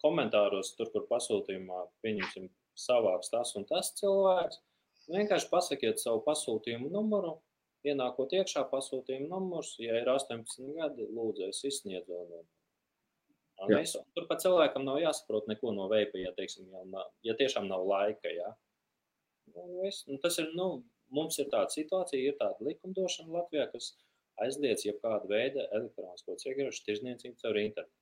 komentāros, tur, kur pasūtījumā, pieņemsim, savāks tas un tas cilvēks, vienkārši pasakiet savu pasūtījumu numuru, ienākot iekšā pasūtījumu numurs, ja ir 18 gadi, lūdzu, es izsniedzu. Tur pat cilvēkam nav jāsaprot neko no veipa, ja, teiksim, ja tiešām nav laika, jā. Tas ir, mums ir tāda situācija, ir tāda likumdošana Latvijā, kas aizliedz jebkādu veidu elektronisko cigarešu tirdzniecību caur internetu.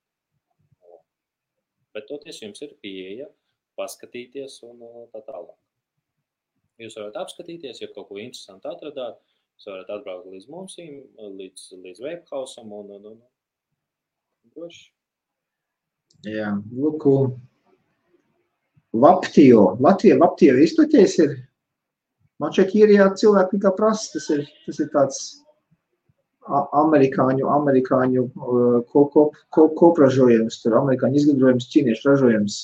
Bet toties jums ir pieeja paskatīties un tā tālāk. Jūs varat apskatīties, ja kaut ko interesantu atradāt, jūs varat atbraukt līdz mums, līdz Vapehausam un droši. Jā, lūku. Vaptio. Latvija Vaptio izplaties ir. Man šeit ir jā, cilvēki kā prasa, tas ir tāds amerikāņu kopražojums, tur amerikāņu izgudrojums, ķīniešu ražojums.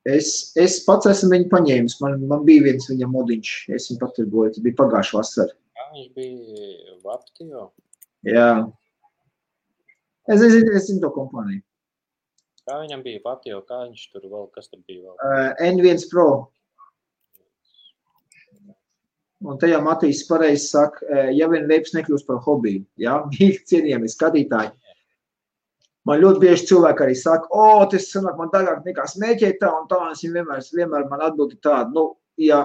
Es pats esmu viņu paņēmis, man bija viens viņa modiņš, es viņu patirgoju, tas bija pagājuši vasar. Jā, viņš bija Vaptio? Jā. Es zinu to kompāniju. Kā viņam bija Vaptio, kā viņš tur vēl, kas tur bija vēl? N1 Pro. Un tajā Matīs pareizi saka, ja vien veips nekļūst par hobiju, jā, cienījami skatītāji. Man ļoti bieži cilvēki arī saka, tas sanāk man dārgāk nekā smēķēt tā un tā, un es vienmēr man atbildi tādu, nu, ja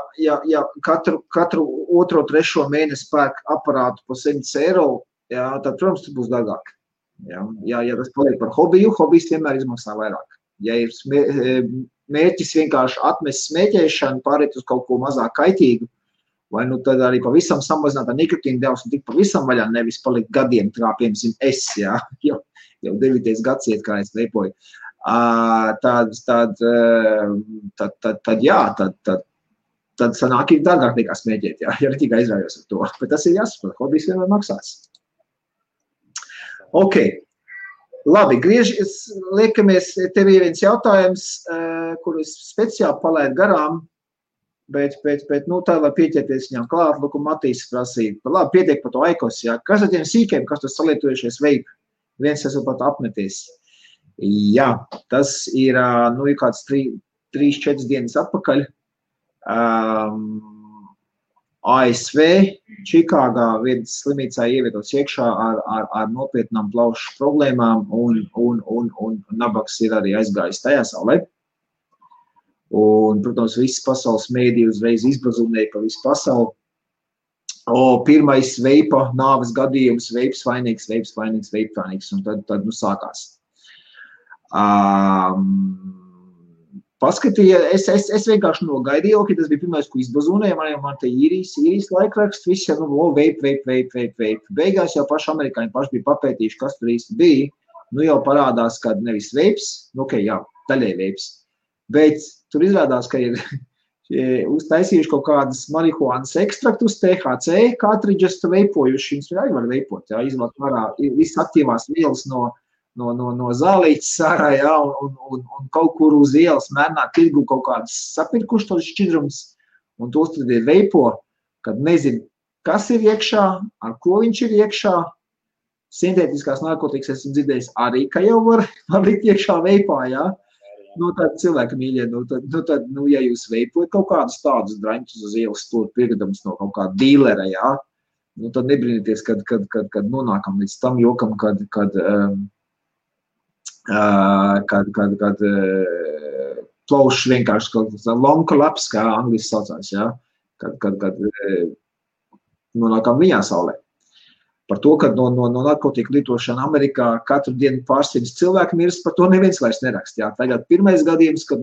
katru otro, trešo mēnesi pērk aparātu po 100 eiro, jā, tad, protams, tas būs dārgāk. Ja tas paliek par hobiju, hobijs vienmēr izmaksā vairāk. Ja ir mērķis vienkārši atmest smēķēšanu, pāriet uz kaut ko mazāk kaitīgu, vai nu tad arī pavisam samazināt nikotīnu devas un tik pavisam vaļā, nevis palikt gadiem, kā piemēram es, jā, jau 9. gads iet, kā es veipoju. Tad sanāk ir dārgāk nekā smēķēt, jā, ja tikai aizrājos ar to. Bet tas ir jāsaprot, hobijs vienmēr maksās. Ok, labi, liekamies, tev ir viens jautājums, kuru es speciāli palaidu garām, bet nu tā, lai pieķerties viņam klāt, lūk, Matīs prasīja, labi, pietiek par to Aikos, jā, kas ar tiem sīkiem, kas tur salietojušies vape, viens esmu pat apmeties. Jā, tas ir, nu, kāds 3-4 dienas atpakaļ, ASV, Čikāgā viens slimnīcā ievietots iekšā ar nopietnām plaušu problēmām un nabaks ir arī aizgājis tajā saulē. Un, protams, visas pasaules mēdī uzreiz izbazunēja pa visu pasauli. Pirmais veipa nāves gadījums, veips vainīgs, un tad nu sākās. Paskatīja, es vienkārši nogaidīju, ka tas bija pirmais, ko izbazunēja, man te īrijas laikraksts, viss jau, nu, vape. Beigās jau paši amerikāņi paši bija papētījuši, kas tur īsti bija, nu jau parādās, ka nevis veips, nu, ok, jā, daļai veips, bet tur izrādās, ka ir uztaisījuši kaut kādas marihuānas ekstraktus, THC, cartridges veipojuši, viņas arī var veipot, jā, izvāk varā visas aktīvās vielas no zālītes sārā, jā, un kaut kur uz ielas mērnā tirgu kaut kādas sapirkuši tos šķidrums, un tos tad ir veipo, kad nezinu, kas ir iekšā, ar ko viņš ir iekšā. Sintētiskās narkotikas esmu dzirdējis arī, ka jau var likt iekšā veipā, jā. Nu, tad cilvēki mīļie, nu, ja jūs veipojat kaut kādus tādus draņķus uz ielas stūri pirkdams no kaut kāda dīlera, jā, nu, tad nebrīnieties, kad nonākam līdz tam jokam, kad plaušs vienkārši kaut kāds long collapse, kā angliski saucās, jā, kad nonākam viņā saulē. Par to, ka no narkotiku lietošana Amerikā katru dienu pārsimts cilvēku mirst, par to neviens vairs nerakst, jā. Tagad pirmais gadījums, kad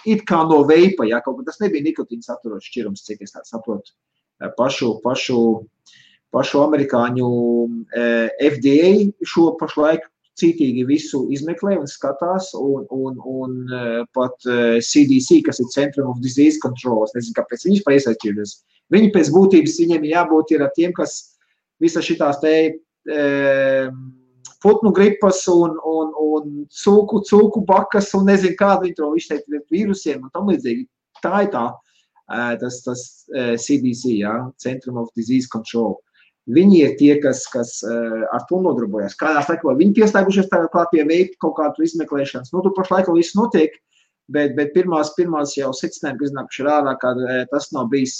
it kā no veipa, jā, kaut kā tas nebija nikotīna saturots šķirums, cik es tā saprotu, pašu amerikāņu FDA šo pašlaik cītīgi visu izmeklē un skatās, un pat CDC, kas ir Centrum of Disease Control, es nezinu, kāpēc viņš paiesaistījušies. Viņi pēc būtības, viņiem jābūt ir ar tiem, kas visas šitās te putnu gripas un cūku bakas un nezinu, kādu viņi to izteikt vīrusiem un tam līdzīgi. Tā ir tas CDC, jā, Centrum of Disease Control. Viņi ir tie, kas ar to nodarbojas. Kādās laikā viņi pieslēgušies tagad klāt pie veipa kaut kādu izmeklēšanas. Nu, tu pašlaik viss notiek, bet pirmās jau secinājumi, kas iznākuši ārā, ka tas nav bijis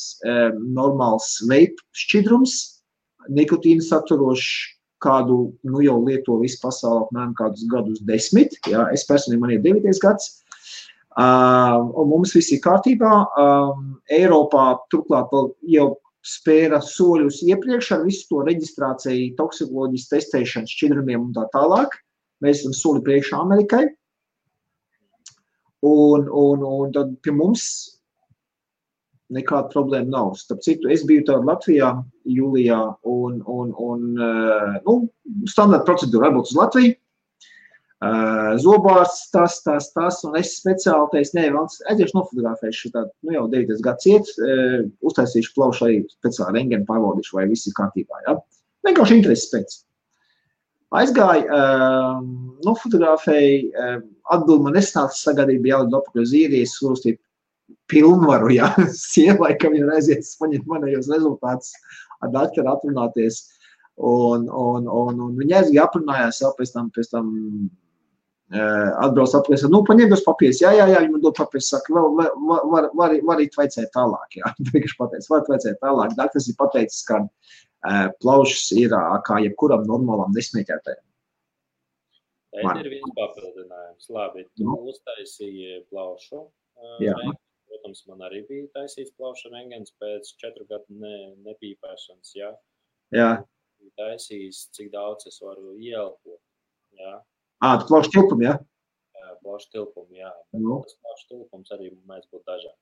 normāls veipa šķidrums, nikotīnu saturošs, kādu nu jau lieto visu pasauli apmēram kādus gadus 10. Jā, es personīgi man ir 9. gads. Un mums viss ir kārtībā. Eiropā turklāt jau spēra soļus iepriekš ar visu to reģistrāciju, toksikoloģijas testēšanu, šķidrumiem un tā tālāk. Mēs esam soli priekšā Amerikai. Un tad pie mums nekāda problēma nav. Starp citu, es biju tāda Latvijā jūlijā nu, standarta procedūra varbūt uz Latviju. Zobārsts, tas, un es speciāli teicu, nē, aiziešu nofotografēšu tādu, nu jau 9 gads iet, uztaisīšu plaušu arī speciāli rengenu pārbaudīšu, vai viss ir kārtībā, ja? Vienkārši intereses pēc. Aizgāju, nofotografēju, atbildi man nesnāca sagadība jālidu apakaļ uz Īrijas, uzstīt pilnvaru, ja, sievai, ka viņa aiziet paņemt manējos rezultātus ar daktaru atrunāties, un viņa aizgāja aprunājās, pēc tam atbrauc apakaļ, nu, paņem tos papīrus, jā, viņa man dod papīrus, saka, varīt vajadzēt tālāk, jā, vienkārši pateicis, var vajadzēt tālāk, daktars ir pateicis, ka plaušas ir kā jebkuram normālam nesmēķētājam. Te ir viens papildinājums, labi, tu uztaisīji plaušu, protams, man arī bija taisīts plaušu rengens pēc 4 gadu nepīpēšanas, jā. Jā. Taisījis, cik daudz es varu ieelpot, jā. Tu plaušu tilpumu, jā? Jā, plaušu tilpumu, jā. Tas plaušu tilpums arī mēs būtu dažādi.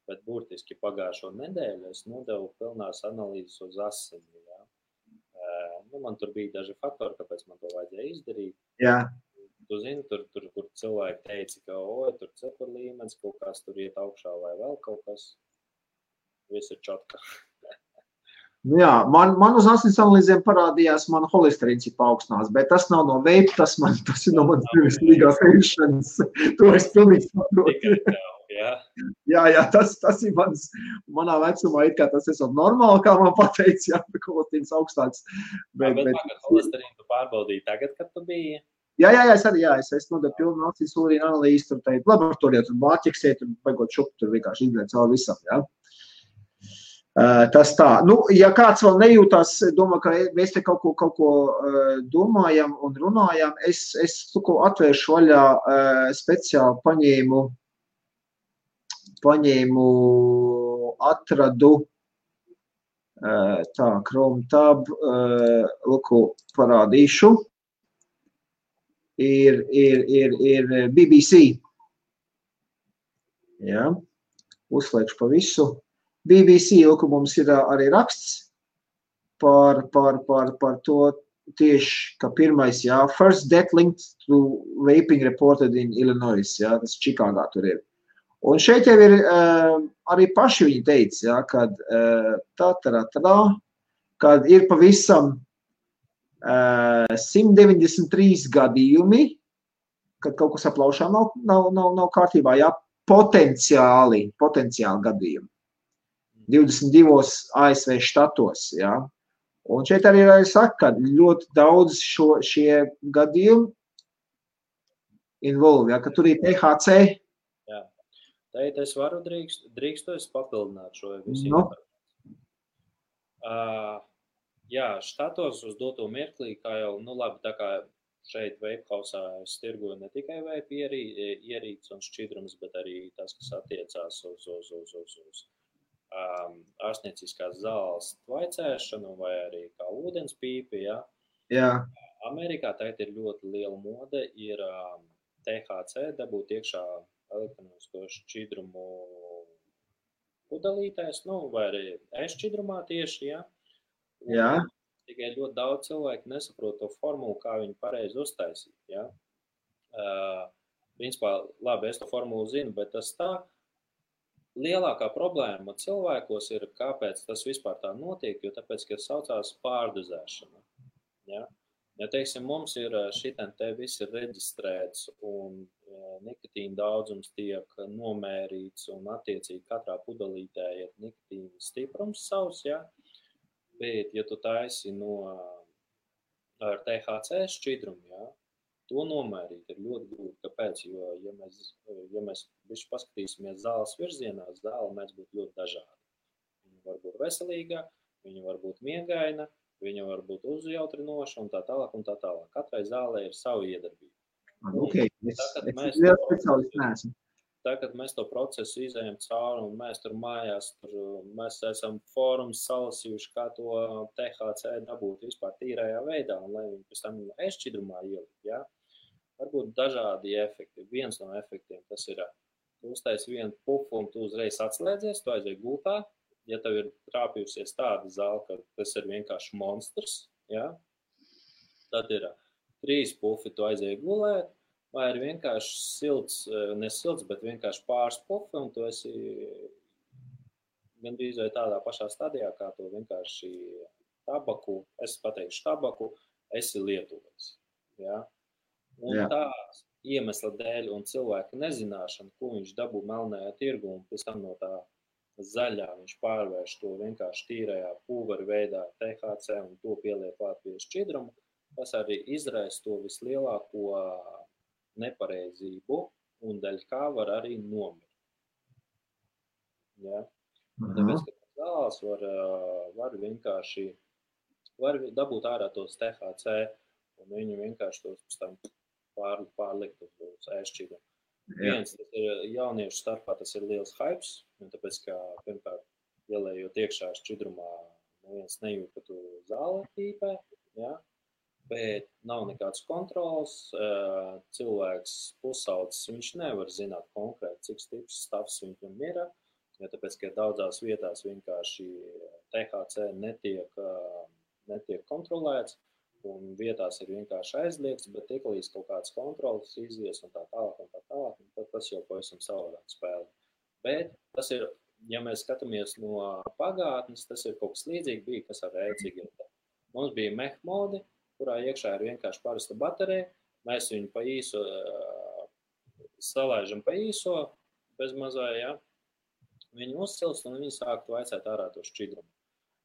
Bet burtiski pagājušo nedēļu es nodevu pilnās analīzes uz asini, jā. Nu, man tur bija daži faktori, kāpēc man to vajadzēja izdarīt. Jā. Tu zini, tur kur cilvēki teica, ka, tur cepur līmenis, kaut kas tur iet augšā vai vēl kaut kas. Viss ir čotka. Nu jā, man uz asins analīzēm parādījās, man holesterīns ir paaugstinās, bet tas nav no veipa, tas ir no manas pirmstīgās ēšanas. To es pilnīgi saprotu. Jā, tas ir manā vecumā, it kā tas esot normāli, kā man pateica, jā, holesterīns augstāks. Bet holesterīnu tu pārbaudīji tagad, kad tu biji? Jā, es nodevu pilnu asins analīzi, tur teikt laboratorijā, tur bāķeksē, tur baigot šupu, tur vienkārši izglēt cauri visam, jā. Tas tā. Nu, ja kāds vēl nejūtās, domā, ka mēs te kaut ko domājam un runājam, es atvēršu vaļā speciāli atradu Chrome tab, luku parādīšu. Ir BBC. Jā, uzslēgšu pa visu. BBC, ka mums ir arī raksts par to tieši, ka pirmais, jā, first death linked to vaping reported in Illinois, jā, tas Čikāgā tur ir. Un šeit jau ir arī paši viņi teica, jā, kad ir pavisam 193 gadījumi, kad kaut kas aplaušām nav kārtībā, jā, potenciāli gadījumi. 22 ASV štatos, jā. Un šeit arī saka, ka ļoti daudz šie gadījumi involve, jā, ka tur ir THC. Jā. Teit, es varu drīkstu es papildināt šo visu. No. Jā, štatos uz doto mirklī, kā jau, nu labi, tā kā šeit Vapehausā es tirgoju ne tikai vape ierīces un šķidrums, bet arī tas, kas attiecās uz ārstnieciskās zāles tvaicēšanu vai arī kā ūdens pīpi, ja? Jā. Amerikā tagad ir ļoti liela mode, ir THC dabūt iekšā elektronisko šķidrumu pudelītēs, nu, vai arī šķidrumā tieši, ja? Jā. Tikai ļoti daudz cilvēku nesaprot to formulu, kā viņi pareizi uztaisīt, ja? Principā, labi, es to formulu zinu, bet tas tā, lielākā problēma cilvēkos ir, kāpēc tas vispār tā notiek, jo tāpēc, ka saucās pārdozēšana. Ja? Ja, teiksim, mums ir šitien te viss ir reģistrēts un nikotīna daudzums tiek nomērīts un attiecīgi katrā pudelītē ir nikotīna stiprums savs, ja? Bet, ja tu taisi ar THC šķidrumu, ja? To nomērīt ir ļoti grūti. Kāpēc? Jo, ja mēs bišķi paskatīsimies zāles virzienā, zāle mēs būtu ļoti dažādi. Viņa var būt veselīga, viņa var būt miegaina, viņa var būt uzjautrinoša un tā tālāk un tā tālāk. Katrai zālē ir savu iedarbību. Okay. tagad mēs to procesu izējam cauri un mēs tur mājās, mēs esam fórums salasījuši, kā to THC dabūt vispār tīrajā veidā, un lai viņi pēc tam ēstšķidrumā ielikt, ja? Varbūt dažādi efekti. Viens no efektiem tas ir, tu uztaisi vienu pufu un tu uzreiz atslēdzies, tu aizēji gultā, ja tev ir trāpījusies tāda zāle, ka tas ir vienkārši monstrs, ja? Tad ir 3 pufi, tu aizēji gulēt, vai ir vienkārši silts, ne silts, bet vienkārši pāris pufi, un tu esi gandrīz vai tādā pašā stadijā, kā tu vienkārši tabaku, es pateikšu tabaku, esi lietuvais. Ja? Un tās iemesla dēļ un cilvēka nezināšana, ko viņš dabū melnajā tirgu, un pēc tam no tā zaļā viņš pārvērš to vienkārši tīrajā pulvera veidā THC un to pieliek klāt pie šķidrumu, tas arī izraisa to vislielāko nepareizību un daļ kā var arī nomirt. Ja? Tāpēc, ka zāles var vienkārši dabūt ārā tos THC un viņi vienkārši tos pēc tam pārlikt uz ēstšķidrumu. Viens, tas ir jauniešu starpā, tas ir liels hypes, tāpēc, ka, pirmkārt, ielējot iekšā šķidrumā, neviens nejūt, ka tu zāle tīpē, ja? Bet nav nekāds kontrols, cilvēks pusaudzis, viņš nevar zināt konkrēti, cik stiprs stāvs viņam ir, ja tāpēc, ka daudzās vietās vienkārši THC netiek kontrolēts, un vietās ir vienkārši aizliegts, bet tiklīdz kaut kāds kontrols izies un tā tālāk, un tad tas jau pavisam savādāk spēlē. Bet tas ir, ja mēs skatāmies no pagātnes, tas ir kaut kas līdzīgi bija, kas ar e-cigaretēm. Mums bija mehmodi, kurā iekšā ir vienkārši parasta baterija, mēs viņu pa īso salaižam pa īso, bez mazā, ja? Viņu uzsilst un viņi sāktu vaicāt ārā to šķidrumu.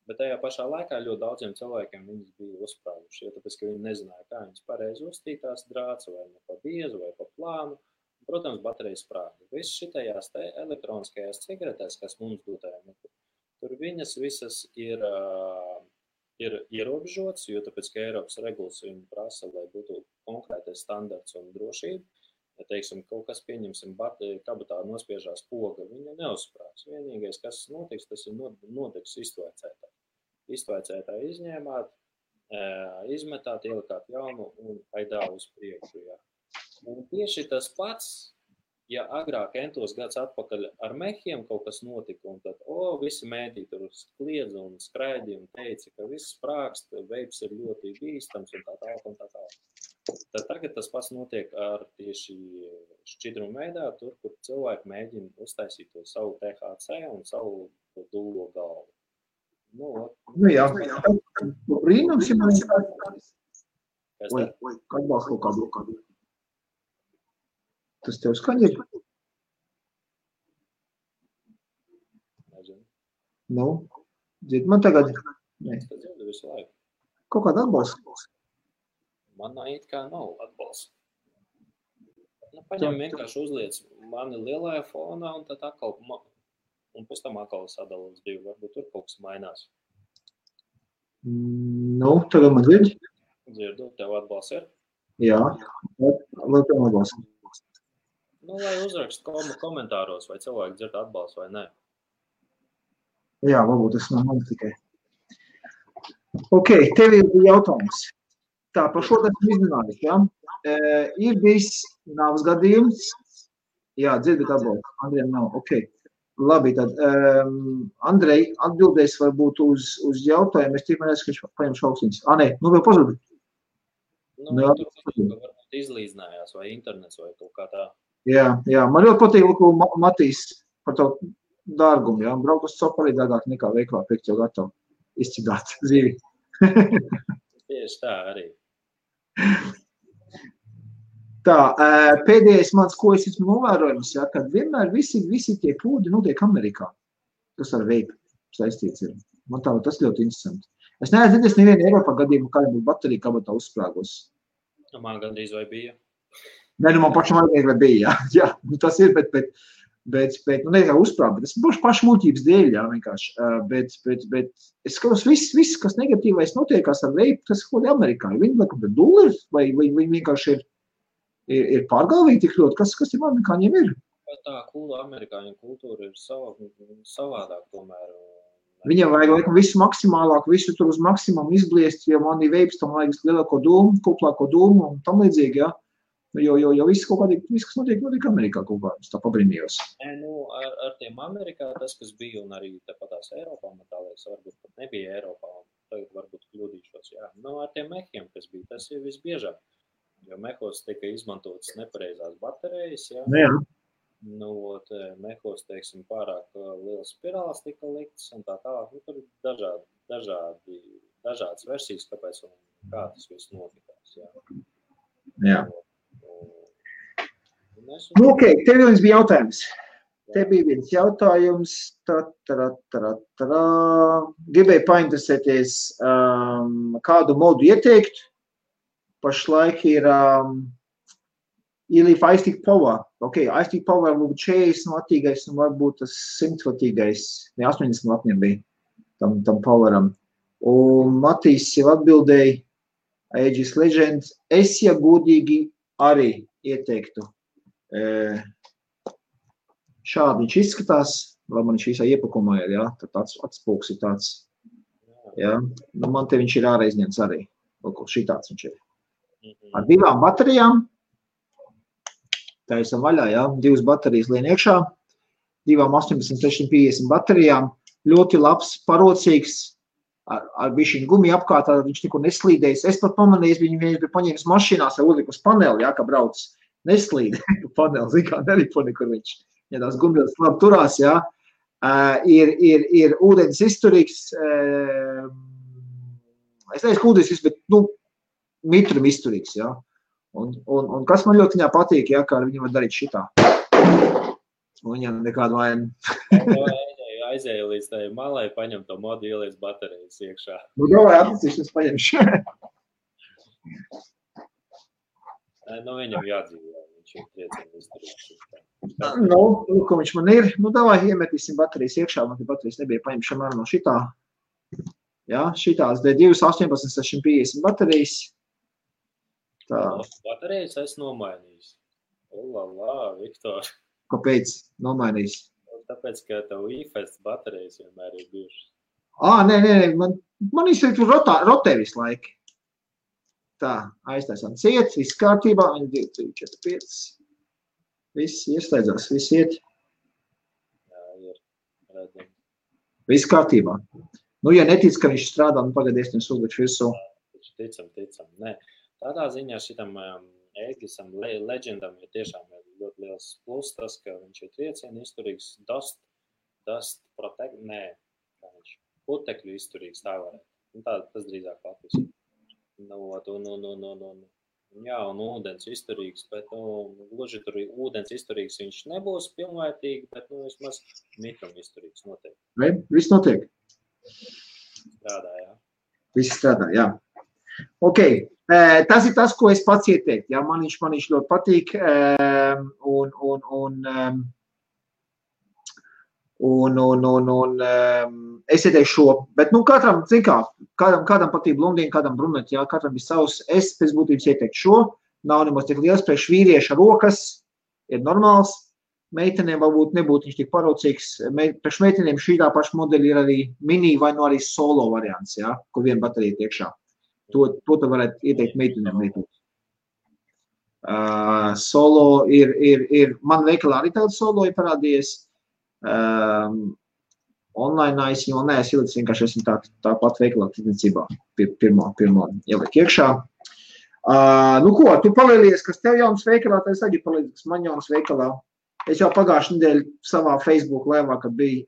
Bet tajā pašā laikā ļoti daudziem cilvēkiem viņas bija uzsprāguši, ja tāpēc, ka viņi nezināja, kā viņas pareizi uztītās drāts, vai ne pa biezu, vai pa plānu. Un, protams, baterija sprāga. Viss šitajās elektroniskajās cigaretēs, kas mums dotajā metā, tur viņas visas ir ierobežots, jo tāpēc, ka Eiropas regulas viņu prasa, lai būtu konkrētais standarts un drošība. Ja, teiksim, kaut kas pieņemsim kabatā nospiežās poga, viņa neuzsprāgs. Vienīgais, kas notiks, tas ir notiks iztvaicētā. Iztvaicētā izņēmāt, izmetāt, ielikāt jaunu un aidā uz priekšu. Ja. Un tieši tas pats, ja agrāk entos gads atpakaļ ar mehiem kaut kas notika, un tad, visi mēdī tur kliedza un skraidīja un teica, ka viss sprākst, veips ir ļoti bīstams un tā tālāk un tā tālāk. Tad tagad tas pats notiek ar tieši šķidrumu veidā, tur, kur cilvēki mēģina uztaisīt to savu THC un savu dūlo galvu. Nu jā, brīnums, ja man ir atbalstu kādu. Tas tev skaņa ir? Nezinu. Nu, dzird man tagad? Nē. Es dzirdu visu laiku. Kaut kāda atbalsta? Man it kā nav atbalsta. Paņem vienkārši uzliec mani lielajā fonā un tad atkal, un pēc tam atkal sadala uz 2. Varbūt tur kaut kas mainās. Nu, tagad man dzird? Dzirdu, tev atbalsts ir? Jā, vēl tev atbalsts. Lai uzrakst komentāros, vai cilvēki dzird atbalstu vai nē. Jā, varbūt tas nav man tikai. Ok, tev ir jautājums. Tā, par šo esmu izrunājis, ja? Ir bijis nāves gadījums. Jā, dzirdat atbalstu. Andrejam nav, ok. Labi, tad Andrej atbildēs varbūt uz jautājumu. Es tikmēr esmu, ka viņš paņemšu austiņas. Nē, vēl pazudīt. Tur varbūt izlīdzinājās vai internets vai kaut kā tā. Jā, man ļoti patīk, ko Matīs par tavu dārgumu, jā, braukt uz copu arī dārgāk nekā veiklā pirkt jau gatavu izcigāt dzīvi. Tieši tā arī. Tā, pēdējais mans, ko es esmu novērojams, jā, kad vienmēr visi tie pūdi notiek Amerikā. Tas ar veipu saistīts ir. Man tā, tas ļoti interesanti. Es neesmu dzirdējis nevienu Eiropā gadījumu, kā būtu baterija kabatā uzsprāgos. Man gandrīz vai bija. Nē, man pašam vai bija, jā, tas ir, bet nu, nekā uzsprāg, bet tas būs pašmūtības dēļ, jā, vienkārši, bet es skatos, viss, kas negatīvais notiekās ar veipu, tas kaut kādi Amerikāņi, viņi laikam ir dulleri, vai viņi vienkārši ir pārgalvīgi tik ļoti, kas tiem amerikāņiem ir? Tā amerikāņu kultūra ir savādāk tomēr. Viņam vajag laikam visu maksimālāk, visu tur uz maksimumu izbliest, jo man ir veips, tam vajag lielāko dūmu, kuplāko dūmu un tam līdzīgi, jā. Jo viss kaut kādīgi, viss, kas notiek Amerikā kaut kā, es tā pabrīnījos. Ar tiem Amerikā tas, kas bija, un arī tāpatās Eiropā, man tā liekas, varbūt pat nebija Eiropā, un tagad varbūt kļūdīšos, jā. Ar tiem mehiem, kas bija, tas ir visbiežāk, jo mehos tika izmantotas nepareizās baterijas, jā. Jā. Mehos, teiksim, pārāk liels spirāls tika liktas, un tā tālāk, tur ir dažādas versijas, kāpēc un kā tas viss notikās, jā. Jā. Ok, tev viens bija jautājums. Te bija viens jautājums. Gribēju painteresēties, kādu modu ieteikt. Pašlaik ir ielīf iStick Power. Ok, iStick Power varbūt 40 vatīgais un varbūt tas 100 vatīgais. Ne, 80 vatiem bija tam Poweram. Un Matīs jau atbildēja Aegis Legends. Es, ja godīgi, arī ieteiktu. Šādi viņš izskatās, lai man viņš visā iepakumā ir, jā, tad atspūks ir tāds, jā, man te viņš ir ārā izņemts arī, šitāds viņš ir. Ar 2 baterijām, taisam vaļā, jā, 2 baterijas lien iekšā, 2 18650 baterijām, ļoti labs, parocīgs, ar bišķiņu gumiju apkārt, viņš neko neslīdējis. Es pat pamanīju, viņu bija paņēmis mašīnās, jau uzliku uz paneli, jā, kā brauc. Neslīd paneli, zin kā, nelipo nekur viņš. Ja tās gumijas labi turās, jā. Ir ūdens izturīgs, es neesmu ūdens izturīgs, bet, mitrum izturīgs, jā. Un kas man ļoti viņā patīk, jā, kā viņi var darīt šitā. Un viņam nekādu vainu. Aizēju līdz tai malai, paņem to modu, ieliec baterijas iekšā. Davai atlicīšanas paņemšu. Viņam jādzīvē, viņš ir triecieni izdarīts. Ko viņš man ir? Davai, iemetīsim baterijas iekšā, man te baterijas nebija paņemšana no šitā. Jā, šitās D2 18650 baterijas. Tā. Baterijas es nomainījis. Viktor. Kāpēc nomainījis? Tāpēc, ka tev iFest baterijas vienmēr ir bijušas. Nē, man ir rotē visu laiku. Tā, aiztaisām ciet, viss kārtībā, 1, 2, 3, 4, 5. Viss ieslēdzās, viss iet. Jā, ir redzam. Viss kārtībā. Ja netic, ka viņš strādā, pagadies, uzlikšu virsū. Ticam. Nē, tādā ziņā šitam Aegisam Legendam ir tiešām ļoti liels plus tas, ka viņš ir triecieni izturīgs, dust protect, nē, kā viņš, putekļu izturīgs, tā varētu. Tas drīzāk latvijas. Jā, un ūdens izturīgs, bet, gluži tur ūdens izturīgs viņš nebūs pilnvērtīgi, bet, vismaz mitrum izturīgs notiek. Viss notiek? Strādā, jā. Viss strādā, jā. Ok, tas ir tas, ko es pats ieteiktu, jā, man viņš ļoti patīk, es ieteikšu šo, bet, katram, zin kā, kādam patīk blondīni, kādam bruneti, jā, katram ir savs, es pēc būtības ieteiktu šo, nav nemaz tik liels, priekš vīrieša rokas, ir normāls, meitenēm varbūt nebūtu viņš tik parocīgs, priekš meitenēm šī tā paša modeļa ir arī mini vai arī solo variants, jā, kur viena baterija iekšā. To tu varētu ieteikt meitenēm lietot. Solo ir, man veikalā arī tāda solo ir parādījies, online es jau neesmu ielicis, vienkārši esmu tā pat veikalā tirdzniecībā pirmo ieliek iekšā. Tu palielies, kas tev jauns veikalā, tad es arī palīdzu, kas man jauns veikalā. Es jau pagājušajā nedēļā savā Facebook laivā, kad bija,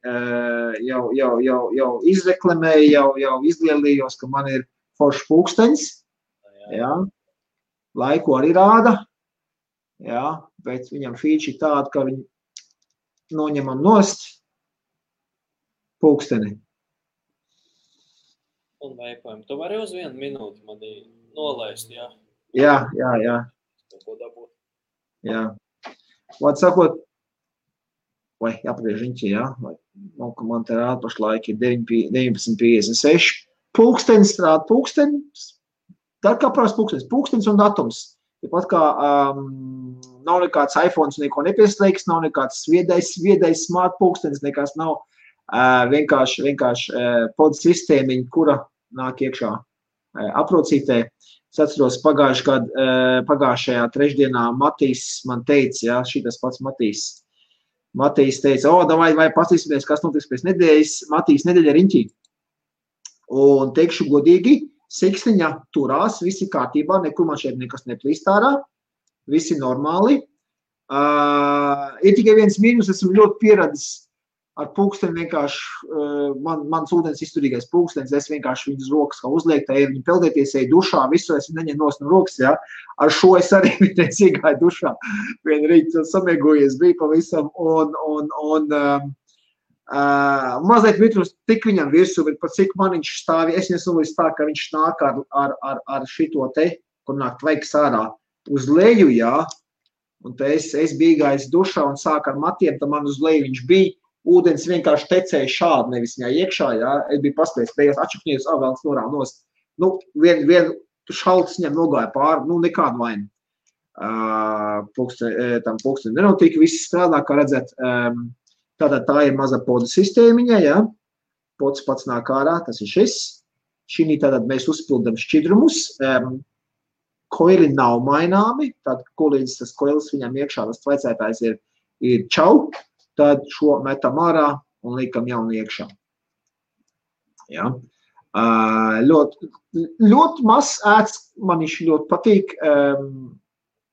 jau izreklamēju, jau izlielījos, ka man ir foršs pulkstenis, jā, laiku arī rāda, jā, bet viņam feature ir tāda, ka viņi noņemam nost pulksteni. Un veipojam. Tu vari uz 1 minūti mani nolaist, jā? Jā. Ko dabūt? Jā. Vārds sakot, vai jāpagriež riņķi, jā, vai man te rāda pašlaik ir 19.56. Pulkstenis strāda, pulkstenis, tā kā prās pulkstenis un datums. Tāpat kā nav nekāds iPhones, neko nepieslēgs, nav nekāds viedais smart pulkstenis, nekas nav. Vienkārši pod sistēmiņa, kura nāk iekšā aprocītē. Es atceros pagājušajā trešdienā Matīs man teica, ja, šitas pats Matīs. Matīs teica, vai paskatīsimies, kas notiks pēc nedēļas. Matīs nedēļa riņķī. Un teikšu godīgi, siksniņa turās, visi kārtībā, nekur man šeit nekas neplīst ārā, visi normāli. Ir tikai viens mīnus, esmu ļoti pieradis ar pulksteni vienkārši, mans ūdens izturīgais pulkstenis, es vienkārši viņas rokas kā uzliek, tā viņi peldēties, eju dušā, visu es neņem no rokas, ja. Ar šo es arī vienreiz iegāju dušā, vien rīt samiegojies bija pavisam, un mazliet mitrus tik viņam virsū, bet par cik man viņš stāvi, es nesolīju tā, ka viņš nāk ar šito te, kur nāk tvaiks ārā uz leju, jā, un te es biju gājis dušā un sāk ar matiem, tā man uz leju viņš bija, ūdens vienkārši tecēja šādi, nevis viņā iekšā, jā, es biju paspējis, beigās atšakņījos, vēlams norām nost. Nu, vien šalts viņam nogāja pāri, nu, nekādu vainu. Tam pulksteni nenotika, viss strādā, kā redzēt, tātad tā ir maza poda sistēmiņa, jā, pods pats nāk ārā, tas ir šis. Šī tātad mēs uzpildam šķidrumus, koili nav maināmi, tad, ko līdz tas koilis viņam iekšā, tas tvaicētājs ir čau, tad šo metam ārā un liekam jaunu iekšā. Ja. Ļoti mazs ēds, man viņš ļoti patīk,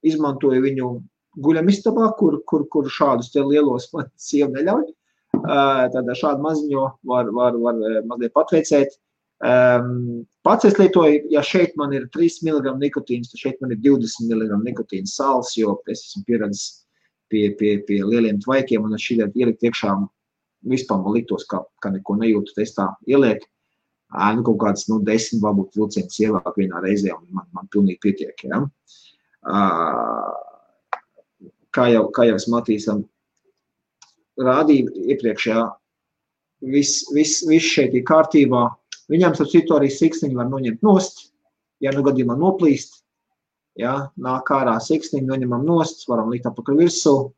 izmantoju viņu guļamistabā, kur šādus te lielos man sieva neļauj. Tad šādu maziņo var mazliet patveicēt. Pats es lietoju, ja šeit man ir 3 mg nikotīns, tad šeit man ir 20 mg nikotīns sāls, jo es esmu pieredzis pie lieliem tvaikiem, un es šķiet ielikt iekšā vispār man liktos, ka neko nejūtu, es tā ieliek, nu kaut kāds, 10 varbūt vilciens ievāk vienā reizē, un man pilnīgi pietiek, ja. Kā jau es Matīsam rādīju iepriekšējā, viss šeit ir kārtībā, viņam starp citu arī siksniņu var noņemt nost, ja nu gadījumā noplīst, ja, nāk ārā siksniņu, noņemam nost, varam likt apakaļ virsū.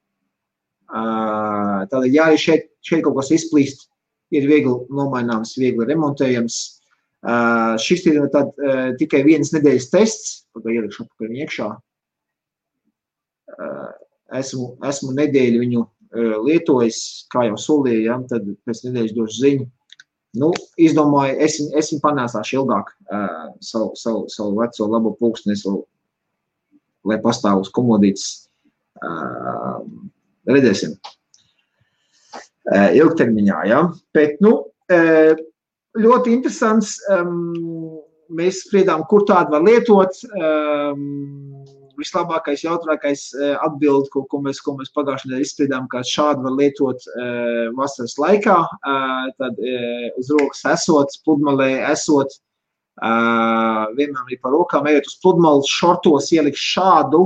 Tātad, ja arī šeit kaut kas izplīst, ir viegli nomaināms, viegli remontējams. Šis ir tad tikai vienas nedēļas tests, pagāju ielikšu apakaļ iekšā. Esmu nedēļu viņu lietojis, kā jau solīju, ja, tad pēc nedēļas došu ziņu. Nu, izdomāju, es viņu panēsāšu ilgāk savu veco labo pulksteni, lai pastāv uz komodītes, redzēsim, ilgtermiņā, ja. Bet, nu, ļoti interesants, mēs spriedām, kur tādu var lietot, vislabākais, jautrākais atbild, ko mēs pagājušajā nedēļā izspriedām, ka šādu var lietot vasaras laikā, tad uz rokas esot, pludmalē esot, vienmēr arī par rokām, ejot uz pludmali, šortos ielikt šādu,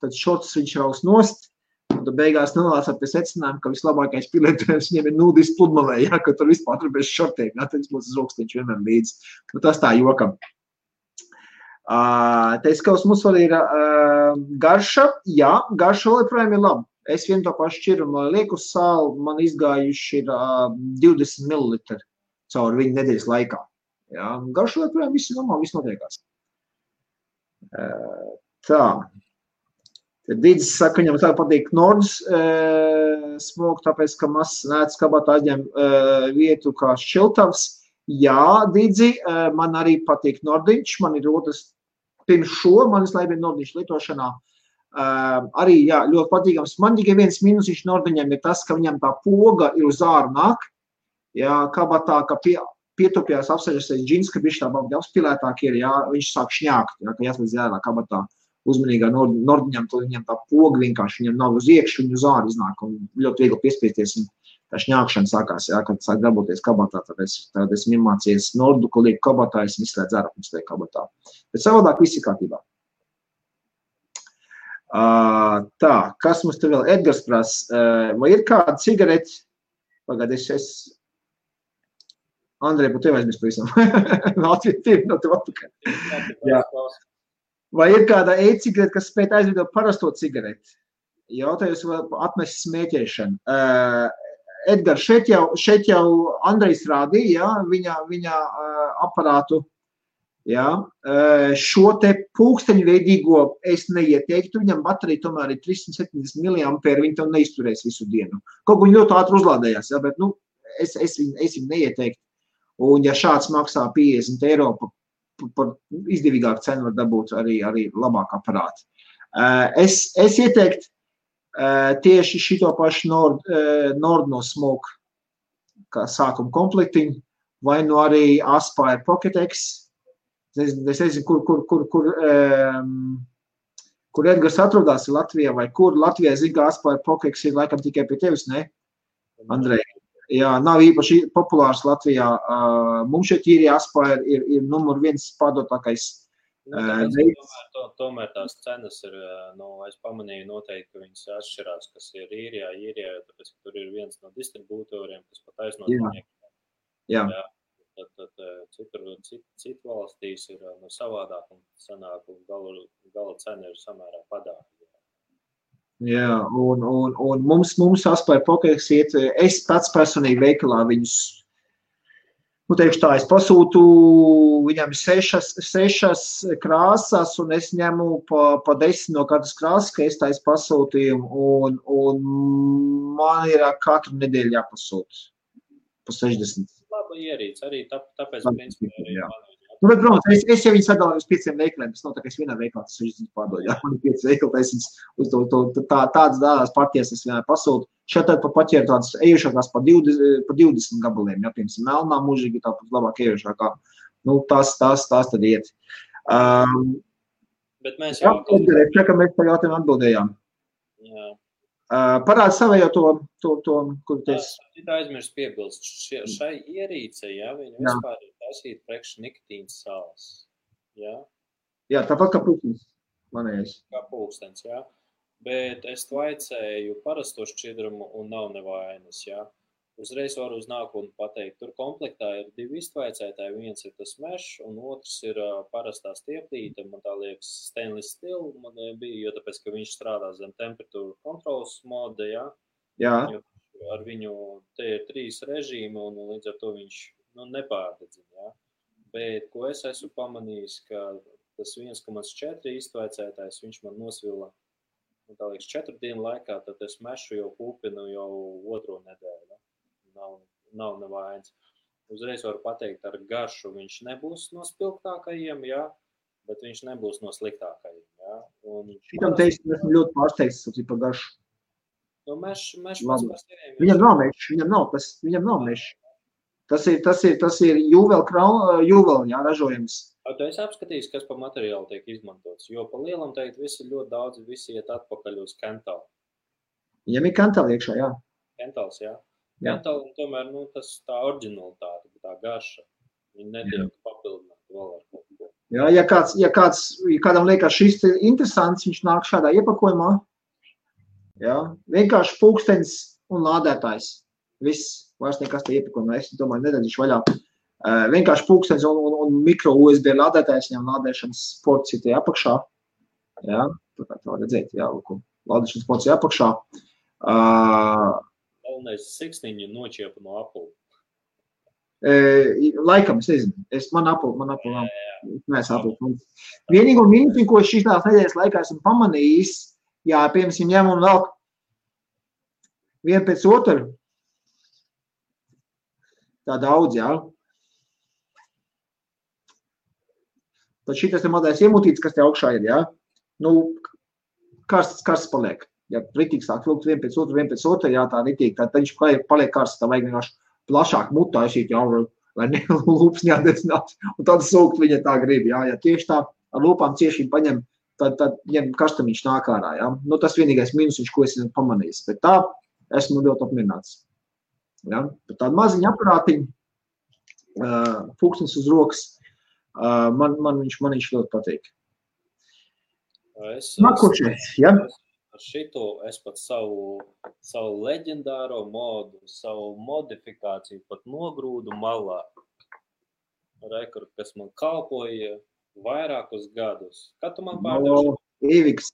tad šortus viņš raus nost, un tad beigās nonāca pie secinājuma, ka vislabākais pielietojums viņiem ir nudis pludmalē, ja, ka tur vispār tur bez šortiem, ja, tad viņš būs uz rokas, viņš vienmēr līdz. Nu, tas tā jokam. Teiskaus mums vēl ir garša, jā, garša vēl joprojām ir laba. Es vienu to pašu šķirumu lieku uz sāli, man izgājuši ir 20 ml caur viņu nedēļas laikā. Jā, garša joprojām viss normāli, viss notiekās. Tā. Tad Dīdzis saka, viņam tā patīk Nordus smoke, tāpēc, ka mazs nēts kabatā aizņem vietu kā šķiltavs. Jā, Dīdzi, man arī patīk Nordiņš, man ir otrs pirms šo, man vislabāk ir Nordiņš lietošanā. Arī, jā, ļoti patīkams. Man tikai viens minusiņš Nordiņam ir tas, ka viņam tā poga ir uz āru nāk. Jā, kabatā, ka pietupjās apsaļasies džins, ka viņš tā baudi apspilētāk ir, jā, viņš sāk šņākt, jā, ka jāslēdz ārā kabatā uzmanīgā Nordiņam, tad viņam tā poga vienkārši, viņam nav uz iekšu, viņu uz āru iznāk un ļoti viegli piespiesties. Tā šņākšana sākās, jā, kad sāk darboties kabatā, tad es iemācījies Nordu, ko lieku kabatā, es izslēdzu ārā, pirms lieku kabatā. Bet savādāk viss ir kārtībā. Tā, kas mums te vēl? Edgars prasa, vai ir kāda cigareti? Pagād, Andrej, par tevi aizmirst pavisam. No tev atpakaļ. Jā. Vai ir kāda e-cigarete, kas spēj aizvidot parasto cigareti? Jautājums vēl atmest smēķēšanu. Edgar, šeit jau Andrejs rādīja, viņa aparātu. Ja, šo te pulksteņveidīgo es neieteiktu, viņam baterija tomēr ir 370 mAh, viņi tev neizturēs visu dienu. Kaut viņi ļoti ātri uzlādējās, ja, bet es viņu neieteiktu. Un ja šāds maksā 50 eiro par izdevīgāku cenu var dabūt arī labāk aparāti. Es ieteiktu tieši šito pašu Nord no Smoke kā sākuma komplektiņu, vai no arī Aspire Pocket X. Es nezinu, kur Edgars atrodās Latvijā, vai kur Latvijā zina, ka Aspire Pocket X ir laikam tikai pie tevis, ne? Andrej. Jā, nav īpaši populārs Latvijā. Mums šeit īrija Aspire ir numur 1 pārdotākais. Tomēr tās cenas ir, es pamanīju noteikti, ka viņas atšķirās, kas ir īrijā, tāpēc, ka tur ir viens no distribūtoriem, kas pat aizno viņiem. Jā. Citu valstīs ir savādāk un sanāk, un gala cena ir samērā padāvīga. Jā, un mums Aspire Pocket X iet, es pats personīgi veikalā viņus, teikšu tā, es pasūtu viņam 6 krāsas, un es ņemu pa 10 no katras krāsas, ka es taisu pasūtījumu, un man ir katru nedēļu jāpasūt pa 60. Laba ierīce, arī tāpēc, principā, arī bet, protams, es jau viņu sadalīju uz 5 veikaliem, tas nav tā, ka es vienā veikalā tas 60 pārdodu, jā, man ir 5 veikali, es tādas dādās partijas es vienā pasūtu. Šeit tad paķēru tādas ejušākās pa 20 gabaliem, jā, piemēram, melnā mūžīgi tāpat labāk ejušākā. Tās tad iet. Bet mēs jau... Jā, ka mēs par jautājumu atbildējām. Jā. Parādi savējo to, kur teiks. Tā aizmirst piebilst. Šai ierīce, jā, viņa vispār ir taisīt priekš nikotīnas sāls. Jā? Jā, tāpat kā pulkstens. Manējais. Kā pulkstens, jā. Bet es tvaicēju parasto šķidrumu un nav nevainas, jā. Uzreiz varu uz nākotni pateikt. Tur komplektā ir 2 iztvaicētāji. Viens ir tas mešs un otrs ir parastā stieplīte. Man tā liekas stainless steel man bija, jo tāpēc, ka viņš strādā zem temperatūra kontrolas moda, jā. Jā. Jo ar viņu te ir 3 režīmi un līdz ar to viņš nepārdedzina, jā. Bet, ko es esmu pamanījis, ka tas 1,4 iztvaicētājs, viņš man nosvila, tā liekas, 4 dienu laikā, tad es mešu jau pūpinu jau 2. nedēļu. Nav nevainas. Uzreiz varu pateikt, ar garšu viņš nebūs no spilgtākajiem, jā, bet viņš nebūs no sliktākajiem, jā. Šitam teikt, esmu ļoti pārsteigts par garšu. Mešs pats par seviem. Viņam nav mešs, viņam nav mešs. Tas ir jūvel, jā, ražojums. Tu esi apskatījis, kas pa materiālu tiek izmantots, jo pa lielam teikt, visi ļoti daudz, visi iet atpakaļ uz Kental. Viņam ir Kental iekšā, jā. Kentals, jā. Kental, tomēr, tas tā oriģinalitāte, tā garša, viņi netiek papildināti vēl ar kaut ko. Jā, ja kādam liekas šis interesants, viņš nāk šādā iepakojumā, jā, vienkārši pulkstenis un lādētājs. Viss, vairs nekas te iepakojumā, es domāju, nedadīšu vaļā. Vienkārši pulkstenis un mikro USB lādētājs, viņam lādēšanas ports ir tie apakšā. Jā, tā kā tā redzēt, jā, lādēšanas ports ir apakšā. Galvenais siksniņu nočiepa no Apple. Laikam, es nezinu. Man Apple nav. Mēs Apple. Vienīgo minūti, ko šīs nedēļas laikā esmu pamanījis, jā, piemēram, ņem un vēl vienu pēc otru. Tā daudz, jā. Tad šitas te mazais iemutīts, kas te augšā ir, jā. Karsts paliek. Ja ritīgi sāk vilkt vien pēc otru, jā, tā ritīgi, tad viņš paliek karsts, tā vajag vienkārši plašāk mutā aizīt, jā, lai lūpas neatdecināt, un tad sūkt viņa tā grib, jā, ja tieši tā ar lūpām cieši paņem, tad ņem karstamiņš nāk ārā, jā. Tas vienīgais minus, ko es pamanījis, bet tā esmu ļoti apmierināts. Ja? Tāda maziņa aparātiņa, pulkstenis uz rokas, man viņš ļoti patīk. Nākošais, ja? Ar šito es pat savu leģendāro modu, savu modifikāciju pat nogrūdu malā. Rekord, kas man kalpoja vairākus gadus. Kad tu man pārdevi? Eviks.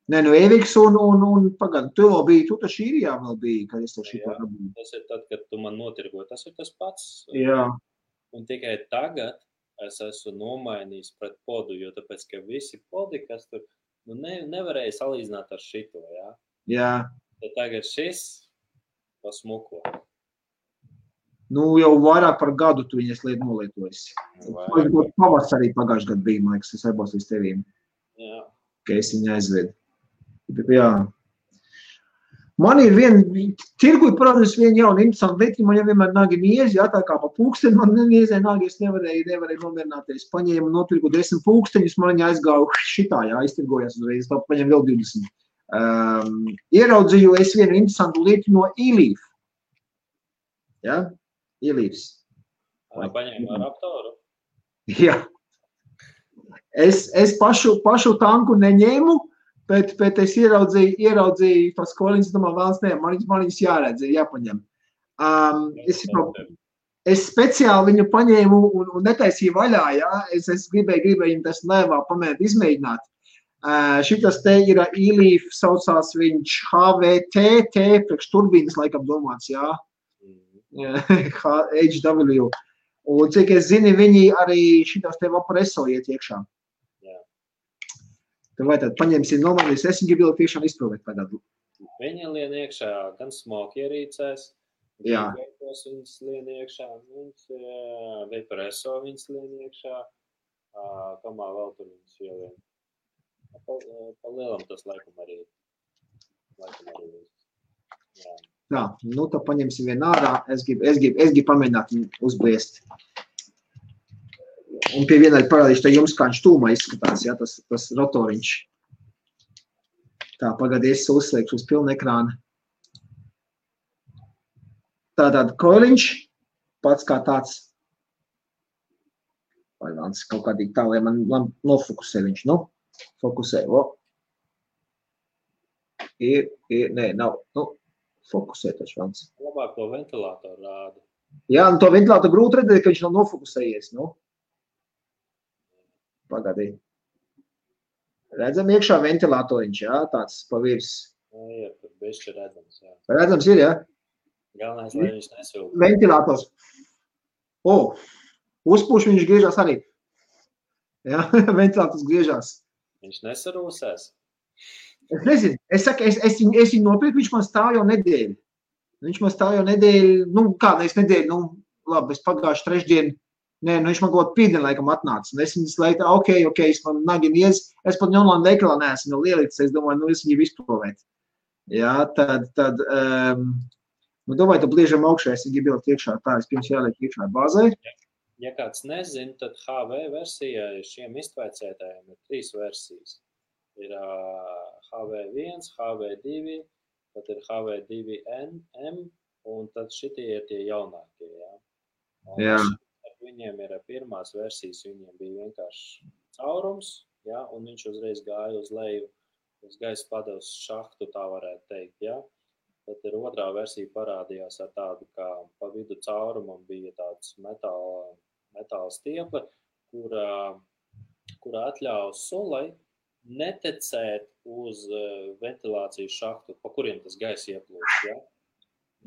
Nē, nu Eviks un pagad, tu vēl biji, tu taču īrijā vēl biji, kad es to šito dabīju. Tas ir tad, kad tu man notirgoji, tas ir tas pats. Jā. Un tikai tagad es esmu nomainījis pret podu, jo tāpēc, ka visi podi, kas tur, nu nevarēja salīdzināt ar šito, jā? Jā. Tad tagad šis pasmuko. Nu, jau vairāk par gadu tu viņas nolietojas. Pavasarī pagājuši gadu bija, man liekas, es aibos līdz tevīm. Jā. Ka es viņu aizvedu. Jā. Man ir tirgu parādījis viena jauna interesanta lieta, man jau vienmēr nāgi niezi, jā, tā kā pa pulksteni man niezē nāgi, es nevarēju nomierināties. Paņēmu notirgu 10 pulksteņus, man viņa aizgāju šitā, jā, iztirgojās uzreiz, tā paņem vēl 20. Ieraudzīju es vienu interesantu lietu no e-leaf. Jā, e-leafs. Paņēmu ar aptoru? Jā. Es pašu tanku neņēmu, bet es ieraudzīju tos koliņus, domāju, vēlas ne, man viņus jāredz, jāpaņem. Es speciāli viņu paņēmu un netaisīju vaļā, jā, es gribēju viņu tas lēvā pamēģināt, izmēģināt. Šitas te ir e-leaf, saucās viņš HVT, priekš turbīnas laikam domāts, jā, HW. Un cik es zinu, viņi arī šitas te vapreso iet iekšā. Vai tad paņemsim nomainīs, es viņu gribu tiešām izprovēt tagad. Viņi lien iekšā gan smoke ierīcēs, gan veipos viņas lien iekšā, vaporeso viņas lien iekšā, kamā vēl tur viņas ielien. Pa lielam tas laikam arī. Jā. Tā, nu tad paņemsim vienu ārā, es gribu pamēģināt viņu uzbliest. Un pie vienai parādīšu, tā jums kā viņš tūmā izskatās, jā, tas rotoriņš. Tā, pagadies, uzslēgšu uz pilnu ekrānu. Tātad koiliņš, pats kā tāds. Vai vāns kaut kādīgi tā, lai man nofokusē viņš, nu, fokusē, nē, nav, nu, fokusē taču vāns. Labāk to ventilātoru rāda. Jā, nu to ventilātoru grūti redzēt, ka viņš nav nofokusējies, nu. Pagadī. Redzam iekšā ventilātoriņš, jā, tāds pa virs. Jā, tur bišķi redzams, jā. Redzams ir, jā? Galvenais, lai viņš nesūk. Ventilators. Uzpūš viņš griežās arī. Jā, ventilators griežās. Viņš nesarūsēs? Es nezinu. Es saku, es viņu nopirku, viņš man stāv jau nedēļu. Viņš man stāv jau nedēļu, nu, kādreiz nedēļu, nu, labi, es pagājuši trešdienu. Nē, nu viņš man kaut pīdien laikam atnāca. Un es viņas laikā, ok, es man nagi niez, es pat online veikalā neesmu jau lielītis, es domāju, nu es viņu izprovēt. Jā, tad, nu domāju, tad bliežam augšā, es viņu bildu iekšā, tā es pirms jāliek iekšā bāzē. Ja kāds nezin, tad HV versijā šiem iztvaicētājiem ir 3 versijas. Ir HV1, HV2, tad ir HV2M, un tad šitie ir tie jaunākie, jā. Jā. Viņiem ir pirmās versijas, viņiem bija vienkārši caurums, ja, un viņš uzreiz gāja uz leju, uz gaisa padevas šahtu, tā varētu teikt, ja. Tad ir otrā versija parādījās ar tādu, kā pa vidu caurumam bija tāds metāla stieple, kura atļauj sulai netecēt uz ventilācijas šahtu, pa kuriem tas gaisa ieplūst, ja.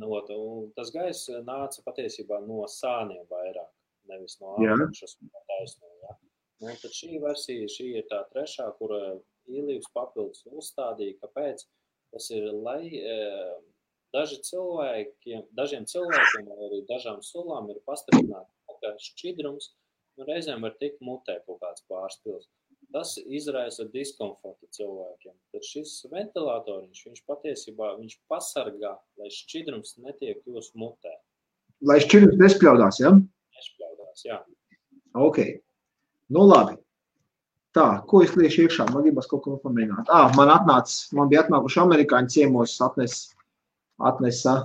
Un tas gaisa nāca patiesībā no sāniem vairāk. Nevis no apakšas un taisno, ja. Un tad šī versija, šī ir tā trešā, kura e-leafs papildus uzstādīja, kāpēc tas ir, lai dažiem cilvēkiem vai arī dažām sulām ir pastiprināta, ka šķidrums reizēm var tikt mutē kaut kāds pārspils. Tas izraisa diskomfortu cilvēkiem. Tad šis ventilātoriņš, viņš patiesībā, viņš pasargā, lai šķidrums netiek jūs mutē. Lai šķidrums nespļaudās, ja? Nespļaudās, jā. Ok. Nu labi. Tā, ko es liešu iekšā? Man gribas kaut ko pamēģināt. Man bija atnākuši amerikāņu ciemos, atnesa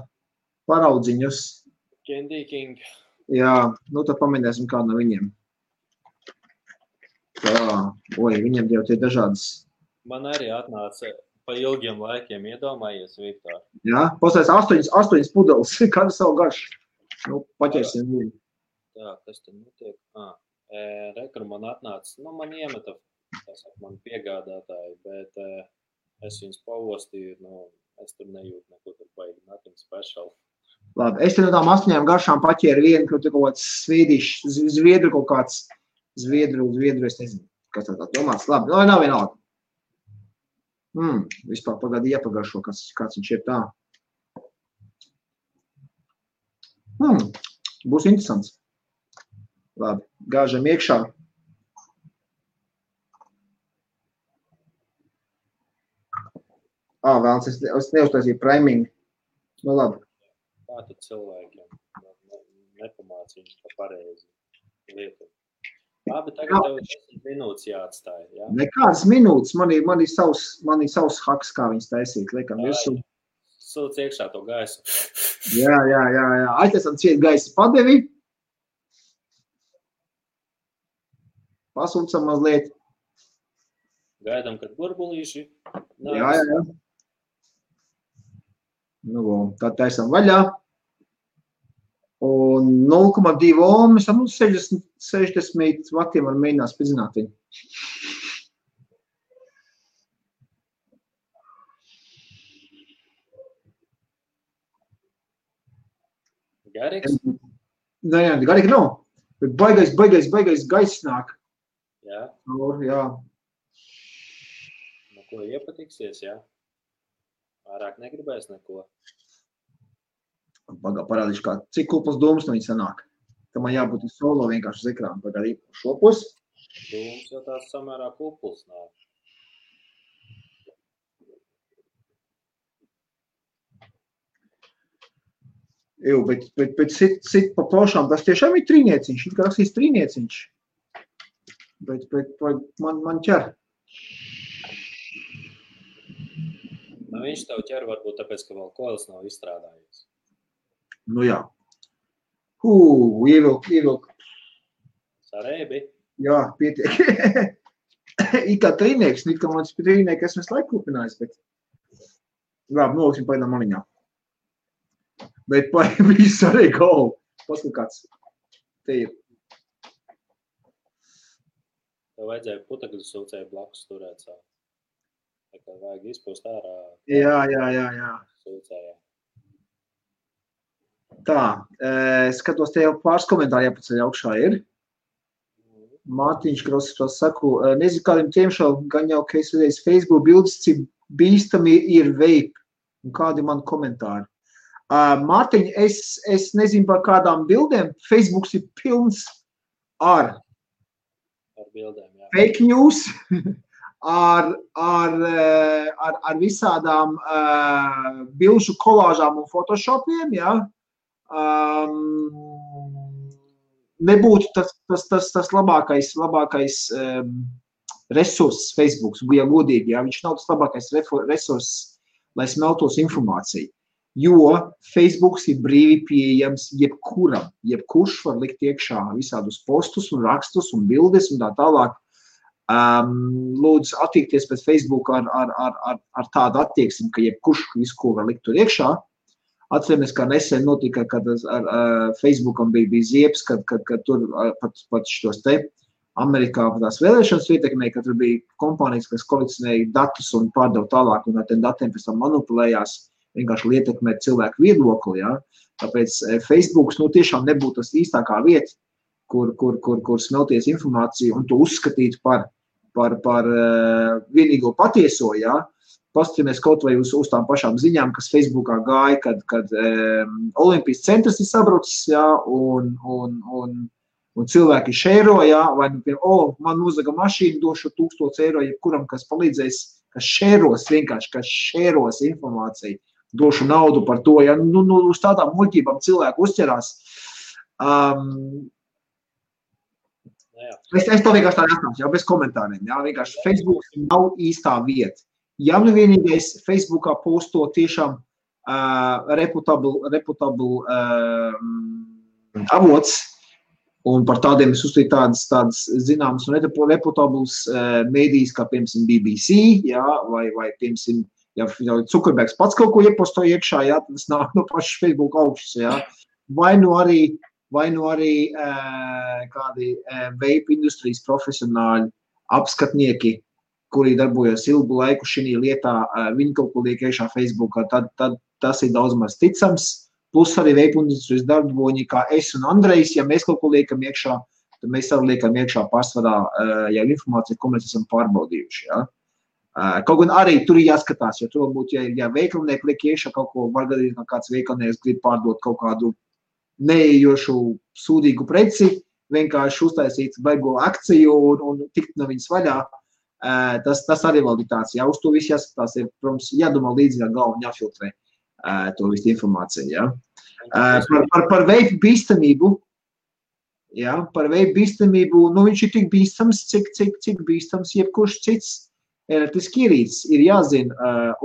paraudziņus. Candy King. Jā, nu tad pamēģināsim kādu no viņiem. Tā, viņiem jau tie dažādas. Man arī atnāca pa ilgiem laikiem, iedomājies, Viktor. Jā, pastājas 8 pudeles, kādu savu garšu. Nu, paķersim viņu. Tā, kas tad notiek? Rekru man atnāca, man iemeta, man piegādātāji, bet es viņus pavostīju, es tur nejūtu neko tur baigi, nothing special. Labi, es te no tām 8 garšām paķēru vienu, kur tu kaut kāds zviedru kaut kāds, zviedru, es nezinu, kas tā domāts. Labi, nav vienalga. Vispār pagādi iepagaršo, kāds viņš ir tā. Būs interesants. Labi, gāžam iekšā. Vēlams, es neuztaisīju priming. Labi. Kā tad cilvēkiem nepamāc viņus pa pareizi lietu? Labi, tagad tev 10 minūtes jāatstāj, jā? Nekādas minūtes, man ir savs haks, kā viņas taisīt, liekam virsū. Sūc iekšā to gaisu. Jā. Aiztaisam ciet gaisa padevi. Pasūcam mazliet. Gaidām, kad burbulīši. Jā. Tad taisam vaļā. Un 0,2 ohmas, 60 vatiem var mēģināt spridzināt viņu. Garīgs? Nē, garīgi nav. Bet baigais gaiss nāk. Jā? Jā. Ko iepatiksies, jā? Vairāk negribēs neko. Parādīšu, cik kupls dūmus no viņa sanāk. Tam man jābūt solo vienkārši uz ekrānu. Pagādīt šopus. Dūmus jau tās samērā kupls nāk. Bet sit pa plošām, tas tiešām ir trīnieciņš. It kā rakstīs trīnieciņš. Bet man ķer. Viņš tev ķer varbūt tāpēc, ka vēl koils nav izstrādājies. Jā. Ievilk. Sarēbi? Jā, pietiek. It kā trīnieks, it kā mans trīnieki esmu laiku kupinājis, bet... Labi, noliksim paidām maliņā. Bet viss arī gau. Paskat kāds. Te ir. Tev vajadzēja putekļu sūcēju blakus turēt savu. Tā kā vajag izpūst ārā. Jā. Sūcējā. Tā, skatos, te jau pāris komentāri jāpaceļ augšā ir. Mārtiņš Krosas saku, nezinu kādiem tiemšēl, gan jau, ka es redzēju Facebook bildes, cik bīstami ir vape. Un kādi man komentāri. Mārtiņ, es nezinu par kādām bildēm. Facebooks ir pilns ar bildēm, jā. Fake news, ar visādām bilžu kolāžām un photoshopiem, jā. Nebūtu tas labākais resurss Facebooks, ja godīgi, jā. Viņš nav tas labākais resurss, lai smeltos informāciju. Jo Facebooks ir brīvi pieejams jebkuram. Jebkurš var likt iekšā visādus postus un rakstus un bildes un tā tālāk. Lūdzu attiekties pēc Facebook ar tādu attieksmi, ka jebkurš visu, ko var likt tur iekšā. Atceramies, kā nesen notika, kad ar Facebookam bija ziepes, kad tur pat šitos te Amerikā tās vēlēšanas ietekmēja, ka tur bija kompānijas, kas kolekcionēja datus un pārdeva tālāk un ar tiem datiem pēc tam manipulējās. Vienkārši ietekmēt cilvēku viedokli, jā. Tāpēc Facebooks, tiešām nebūtu tas īstākā vieta, kur smelties informāciju un to uzskatīt par vienīgo patieso, jā. Paskatāmies kaut vai uz tām pašām ziņām, kas Facebookā gāja, kad Olimpijas centrs ir sabrucis, jā, un cilvēki šēro, jā, vai, man uzlaga mašīnu, došu 1000 eiro, jebkuram, kas palīdzēs, kas šēros informāciju. Došu naudu par to, ja uz tādām muļķībām cilvēku uzķerās. Es to vienkārši tā atstāšu, jau bez komentāriem. Jā, vienkārši Facebook nav īstā vieta. Ja vienīgais Facebookā posto tiešām reputable avots, un par tādiem es uzstīju tādas zināmas un reputables mēdīs, kā piemēram BBC, jā, vai piemēram, ja Zuckerbergs pats kaut ko ieposto iekšā, jā, tas nāk no pašas Facebook augšas, jā. Vai arī vai nu arī kādi vape industrijas profesionāļi, apskatnieki, kuri darbojas ilgu laiku šī lietā, viņi kaut ko liek iekšā Facebookā, tad tas ir daudz maz ticams. Plus arī vape industrijas darboņi, kā es un Andrejs, ja mēs kaut ko liekam iekšā, tad mēs arī liekam iekšā pārsvarā jau informāciju, ko mēs esam pārbaudījuši. Ja? Kaut gan arī tur ir jāskatās, jo tur varbūt, ja veikalnieki liek iekšā kaut ko, var gadīt, ka kāds veikalnieks grib pārdot kaut kādu neejošu sūdīgu preci, vienkārši uztaisīt baigo akciju un tikt no viņas vaļā. Tas arī vēl ir tāds, ja uz to visu jāskatās, ir, protams, jādomā līdzi ar galvu un jāfiltrē to visu informāciju. Ja? Par veipu bīstamību, ja? Par veipu bīstamību, nu viņš ir tik bīstams, cik bīstams jebkurš cits elektriski ierīces. Ir jāzina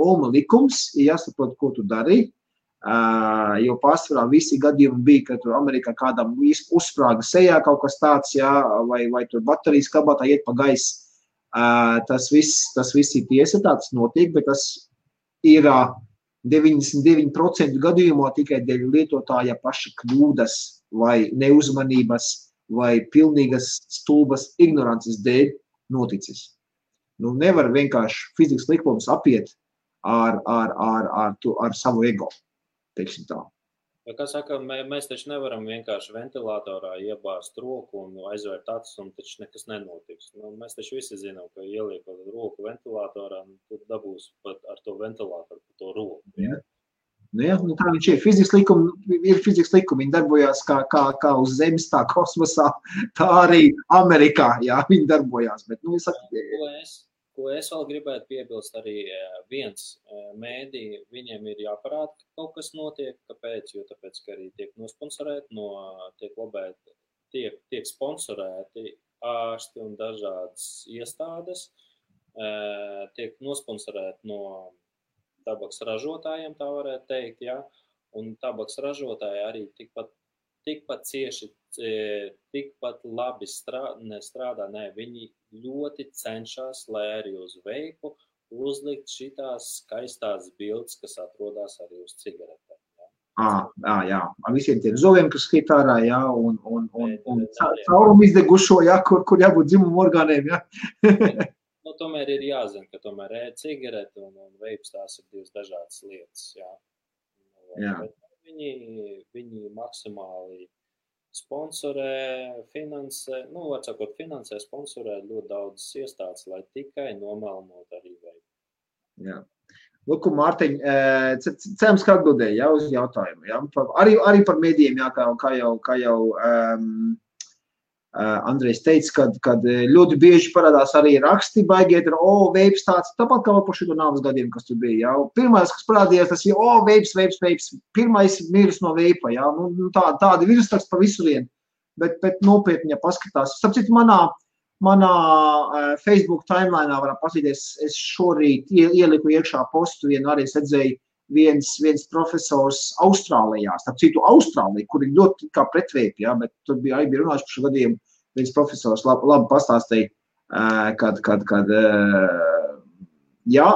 Ohma likums, ir jāsaprot, ko tu dari, jo pārsvarā visi gadījumi bija, ka tur Amerikā kādam uzsprāga sejā kaut kas tāds, ja? vai tur baterijas kabatā iet pa gaisu. Tas viss ir tiesa, tāds notiek, bet tas ir 99% gadījumā tikai dēļ lietotāja paša kļūdas vai neuzmanības vai pilnīgas stulbas ignorances dēļ noticis. Nu, nevar vienkārši fizikas likums apiet ar savu ego, teiksim tā. Ja, kā saka, mēs taču nevaram vienkārši ventilatorā iebāzt roku un aizvērt acis, un taču nekas nenotiks. Nu, mēs taču visi zinām, ka ieliekot roku ventilatorā, tu dabūs pat ar to ventilatoru pa to roku. Ja? Nu, ja, nu tā viņš ir. Fizikas likumi, viņi darbojās kā uz zemes, tā kosmosā, tā arī Amerikā, jā, viņi darbojās. Bet, nu, Ko es vēl gribētu piebilst, arī viens mēdī, viņiem ir jāparāda, ka kaut kas notiek, kāpēc, jo tāpēc, ka arī tiek nosponsorēti, tiek sponsorēti ārsti un dažādas iestādes, tiek nosponsorēti no tabaks ražotājiem, tā varētu teikt, ja, un tabaks ražotāji arī tikpat cieši, tikpat labi strādā, viņi ļoti cenšas, lai arī uz veipu uzlikt šitās skaistās bildes, kas atrodas arī uz cigaretēm. Ja? Jā. Ar visiem tiem zoviem, kas skīt ārā, jā, un caurumu izdegušo, jā, kur jābūt dzimumu orgāniem, jā. Nu, tomēr ir jāzina, ka tomēr cigarete un veips tās ir divas dažādas lietas, jā. Jā. Bet viņi maksimāli sponsorē, finansē, sponsorē ļoti daudzas iestādes, lai tikai nomelnot arī veidu. Jā. Lūk, Mārtiņ, cerams, ka atbildēja, jā, uz jautājumu, jā. Arī par medijiem, jā, kā jau Andrejs teica, kad ļoti bieži parādās arī raksti, baigiet ar, veips tāds, tāpat kā par šo nāves gadiem, kas tur bija, jā. Pirmais, kas parādījās, tas ir, veips, pirmais miris no veipa, jā, nu tādi virsraksti pa visu vienu, bet nopietni, ja paskatās. Sapcīt, manā Facebook timelineā varam paskatīties, es šorīt ieliku iekšā postu, arī es redzēju viens profesors Austrālijā, starp citu Austrālija, kur ir ļoti kā pretveipi, jā, bet tur bija runājuši par šo gadījumu, viens profesors labi pastāstīja, kad jā,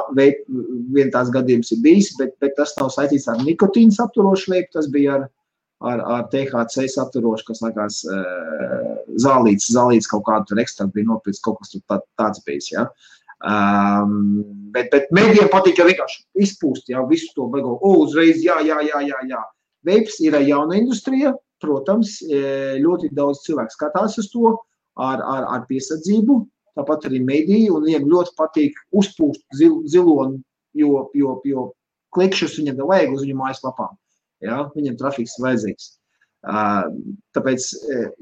vien tās gadījums ir bijis, bet tas nav saistīts ar nikotīnu apturošu veipu, tas bija ar THC apturošu, kas likās zālīts kaut kādu tur ekstraktu bija nopirts, kaut kas tur tāds bijis, jā. Bet medijiem patīk jau vienkārši izpūst, jā, visu to beigo, uzreiz, jā. Veips ir jauna industrija, protams, ļoti daudz cilvēku skatās uz to ar piesardzību, tāpat arī mediji, un viņiem ļoti patīk uzpūst zilonu, jo klikšus viņam vajag uz viņu mājaslapām, jā, viņam trafiks vajadzīgs. Tāpēc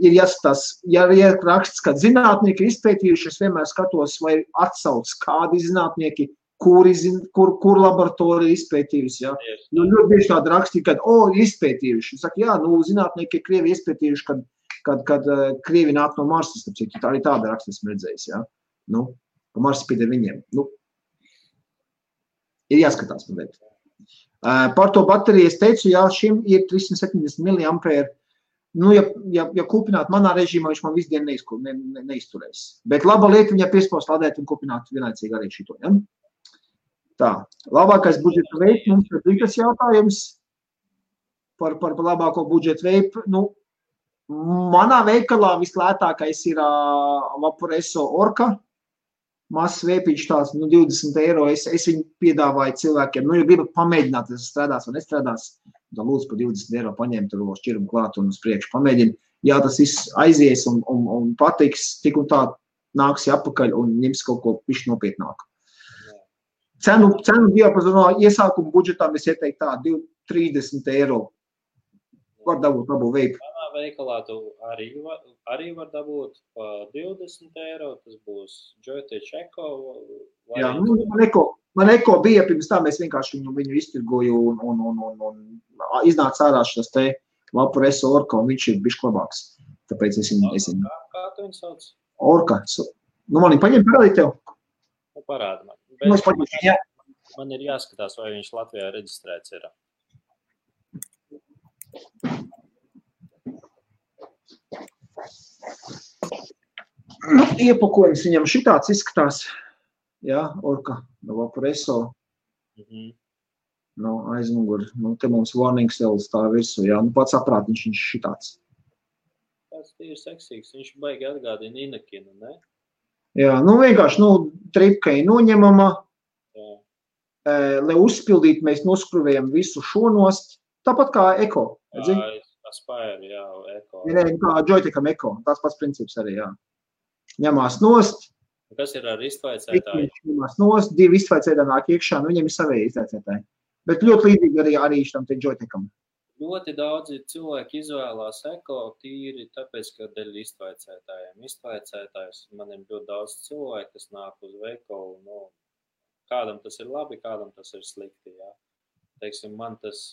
ir jāskatās, ja ir raksts, kad zinātnieki ir izpētījuši, es vienmēr skatos, vai atsauc kādi zinātnieki, kur laboratorija izpētījusi, jā. Nu, ļoti bieži tādi raksti, kad, izpētījuši. Saka, jā, nu, zinātnieki ir Krievi izpētījuši, kad Krievi nāk no Marsas, tā arī tāda raksta esmu redzējis, jā. Nu, pa Marsa pīd ar viņiem. Nu, ir jāskatās, man liekas. Par to bateriju es teicu, jā, šim ir 370 mAh. Nu, ja kupināt manā režīmā, viņš man visu dienu neizturēs. Bet laba lieta viņa piespaust lādēt un kupināt vienlaicīgi arī šito, ja? Tā, labākais budžeta veids, mums ir tas jautājums par labāko budžeta veidu. Nu, Manā veikalā vislētākais ir Vaporeso Orka. Mazs vēpiņš tās 20 eiro. Es viņu piedāvāju cilvēkiem. Ja gribat pamēģināt, tas strādās vai nestrādās, tad lūdzu par 20 eiro paņemt to šķirumu klāt un uz priekšu pamēģinu. Jā, tas viss aizies un patiks, tik un tā nāks atpakaļ un ņems kaut ko pišķi nopietnāku. Cenu diapazonā iesākuma budžetām es ieteiktu tā 30 eiro. Var dabūt labu veipu. Manā veikalā tu arī var dabūt pa 20 eiro. Tas būs Joytech Eko. Jā, man Eko bija pirms tā, mēs vienkārši viņu iztirgoju un iznāca ārā šis te Vaporeso Orka, un viņš ir bišķi labāks. Tāpēc es viņu... Kā tu viņu sauc? Orka. Man viņu paņem parādīt tev? Parādi man. Man ir jāskatās, vai viņš Latvijā reģistrēts ir. Iepakojums viņam šitāds izskatās. Jā, Orka, no Vaporeso. No aizmugur. Te mums warning cells tā virsū. Jā, pats aprātiņš viņš šitāds. Tas ir seksīgs. Viņš baigi atgādina Inakinu, ne? Jā, vienkārši, tripka ir noņemama. Lai uzpildītu, mēs noskruvējam visu šo nost. Tāpat kā Eko. Aspire, jā, Eko. Kā Joytecham Eko. Tās pats princips arī, jā. Ņemās nost. Kas ir ar iztvaicētāju? Ņemās nost, 2 iztvaicētāji nāk iekšā, viņiem ir savēji iztvaicētāji. Bet ļoti līdzīgi arī šitam te Joytecham. Ļoti daudzi cilvēki izvēlās Eko tīri, tāpēc, ka dēļ iztvaicētājiem. Iztvaicētājs man ir ļoti daudz cilvēku, kas nāk uz veikalu, kādam tas ir labi, kādam tas ir slikti, jā. Teiksim, man tas,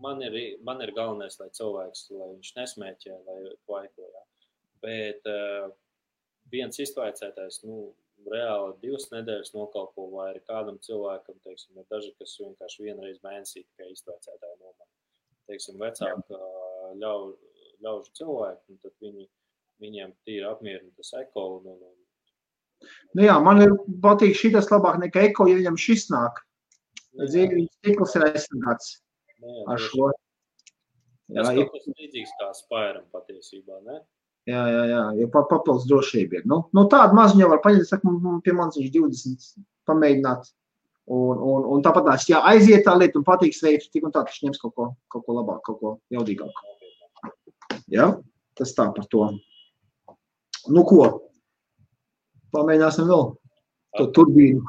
man ir galvenais, lai cilvēks, lai viņš nesmēķē, lai vaiko, jā. Bet viens iztvaicētājs, reāli 2 nedēļas nokalpo, vai arī kādam cilvēkam, teiksim, ir daži, kas vienkārši vienreiz mēnesī tikai iztvaicētāji nomana. Teiksim, vecāka ļaužu cilvēki, un tad viņiem tīri apmierina tas Eko. Jā, man patīk šitas labāk nekā Eko, ja viņam šis nāk. Dzīvības stikls ir aizsargāts ar šo. Tas kaut kas līdzīgs kā Spairam patiesībā, ne? Jā, jo papildus drošība ir. Tādu mazu jau var paņemt, saka, pie manis viņš 20 pamēģināt. Un tāpat jā, aiziet tā lieta un patīks veids, tik un tā taču ņems kaut ko labāk, kaut ko jaudīgāku. Jā, tas tā par to. Ko? Pamēģināsim vēl to turbīnu.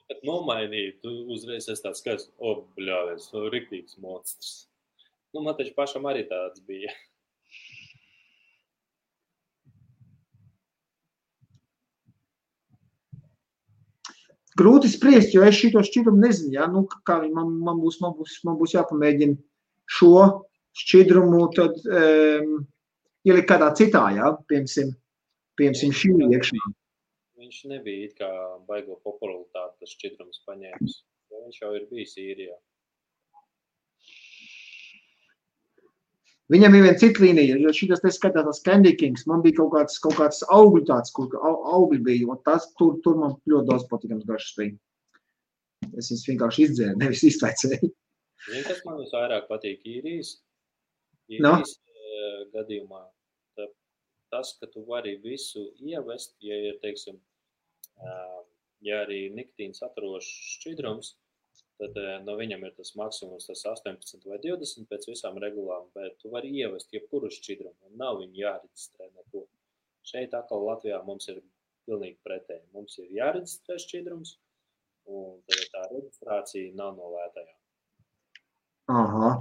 Kad nomainīju, tu uzreiz esi tāds skaits, bļāvies, riktīgs monstrs. Man taču pašam arī tāds bija. Grūti spriest, jo es šito šķidrumu nezinu, jā, kā man būs jāpamēģina šo šķidrumu, tad ielikt kādā citā, jā, piemēram šī iekšā. Viņš nebija it kā baigo popularitāti, tas šķidrums paņēmis, jo viņš jau ir bijis īrijā. Viņam ir viena cita līnija, jo šitas te skatās tas Candy Kings, man bija kaut kāds augļu tāds, kur augļi bija, un tas tur man ļoti daudz patīkams garšas bija. Es viņus vienkārši izdzēru, nevis iztvaicēju. Zini, kas man visvairāk patīk īrijas gadījumā? Tas, ka tu vari visu ievest, ja ir, teiksim, ja arī nikotīns saturošs šķidrums, tad no viņam ir tas maksimums, tas 18 vai 20 pēc visām regulām, bet tu vari ievest jebkuru šķidrumu, un nav viņu jāreģistrē neko. Šeit atkal Latvijā mums ir pilnīgi pretēji. Mums ir jāreģistrē šķidrums, un tad tā reģistrācija nav no lētajām. Aha.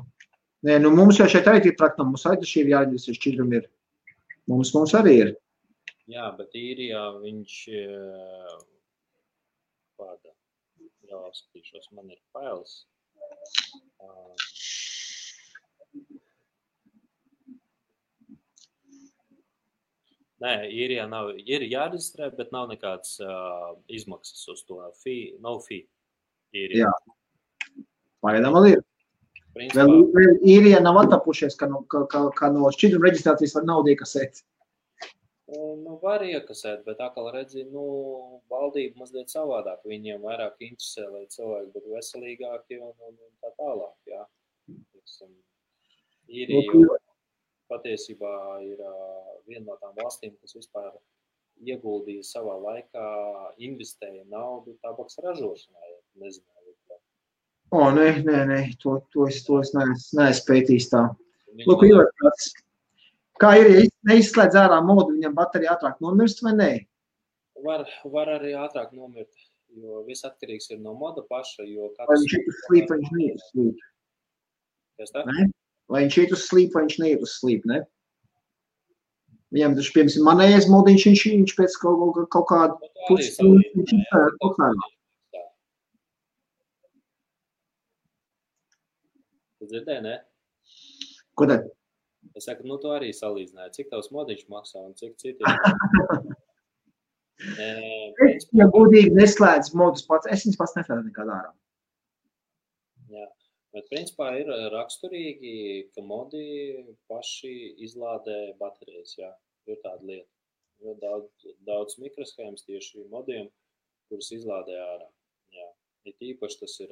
Nē, mums jau šeit arī ir praktam, mums arī šī ir jāreģistrē šķidrumi ir. Mums arī ir. Jā, bet īrijā viņš kāda. Jā, skatīšos, man ir fails. Nē, īrijā ir jāreģistrē, bet nav nekāds izmaksas uz to. No fee īrijā. Jā, pagaidām vēl ir. Vēl īrijā nav attapušies, ka no šķidruma reģistrācijas var naudu iekasēt. Var iekasēt, bet atkal redzi, valdība mazliet savādāk. Viņiem vairāk interesē, lai cilvēki būtu veselīgāki un tā tālāk, jā. patiesībā ir viena no tām valstīm, kas vispār ieguldīja savā laikā, investēja naudu tabaks ražošanā, ja nezināju. Nē, to es neesmu pētījis tā. Lūk, kā ir, ja neizslēdz ārā modu, viņam baterija ātrāk nomirst vai nē? Var arī ātrāk nomirt, jo viss atkarīgs ir no moda paša, jo vai viņš iet uz sleep, vai viņš neiet uz sleep? Ne? Vai viņš iet uz sleep, vai viņš neiet uz sleep, ne? Viņam taču, piemēram, manējais modiņš, viņš pēc kaut kādu pusstundu, viņš ir kaut kādā. Tu dzirdēji, ne? Ko tad? Es saku, tu arī salīdzināji, cik tavs modiņš maksā un cik citi. Ja godīgi neslēdz modus pats, es viņas pats neslēdzu nekādā ārā. Jā, bet principā ir raksturīgi, ka modi paši izlādē baterijas, jā, ir tāda lieta. Ir daudz mikroshēmas tieši modiem, kuras izlādē ārā. Jā, ir īpaši tas ir,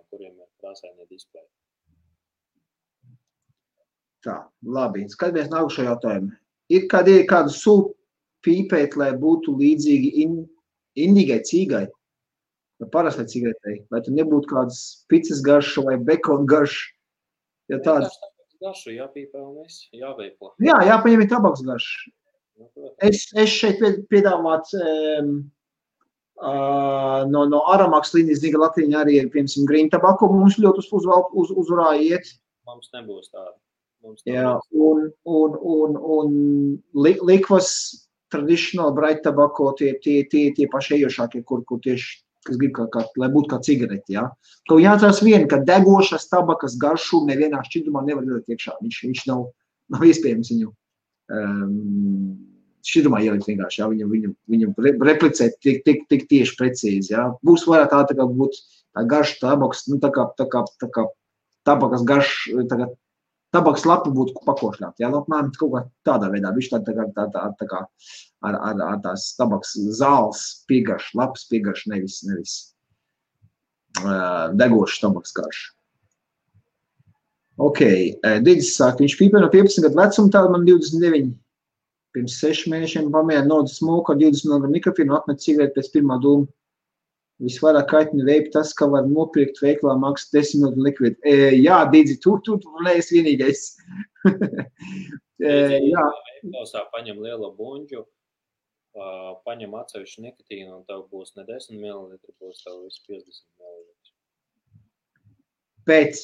kuriem ir krāsainie displeji. Tā, labi. Skatāmies nākušo jautājumu. Ir kādu sulu pīpēt, lai būtu līdzīgi indīgai cīgai, vai parastai cigaretei, vai tu nebūtu kādas picas garša vai bekona garša? Ja tāds... Garšu jāpīpē un viss, jāveipo. Jā, jāpaņem ir tabaks garša. Es šeit piedāvāt no Aramaks līnijas, zinu, ka Latvija arī ir, piemēram, green tabako, mums ļoti uzvarā iet. Mums nebūs tāda. Jā, un likvas traditional bright tobacco tie paši ejošākie, kur tieši, kas grib lai būtu kā cigareti, jā. Kaut jāatcerās viena, ka degošas tabakas garšu nevienā šķidrumā nevar ielikt iekšā. Viņš nav iespējams viņu šķidrumā ielikt vienkārši, jā. Viņu replicēt tik tieši precīzi, jā. Būs vairāk tā kā būt tā garša tabaks, tā kā tabakas garš, tabaks lapa būtu pakošļāt, jā, apmēram kaut kā tādā veidā, viņš tā kā ar tās tabaks zāles piegarš, lapas piegarš, nevis degošs tabaks garš. Ok, Digis saka, viņš pīpē no 15 gadu vecuma, tāda man 29, pirms 6 mēnešiem pamēģināja nodu smoku ar 20 mg mikrofīnu un atmet cigareti pēc pirmā dūma. Visvairāk kaitina veipi tas, ka var nopirkt veiklā maksas 10 minūtu likvidu. Jā, Didzi, tu neesi vienīgais. Jā. Veiklosā paņem lielo buņģu, paņem atsevišķu nikotīnu un tev būs ne 10 ml, būs tev visu 50 ml. Pēc.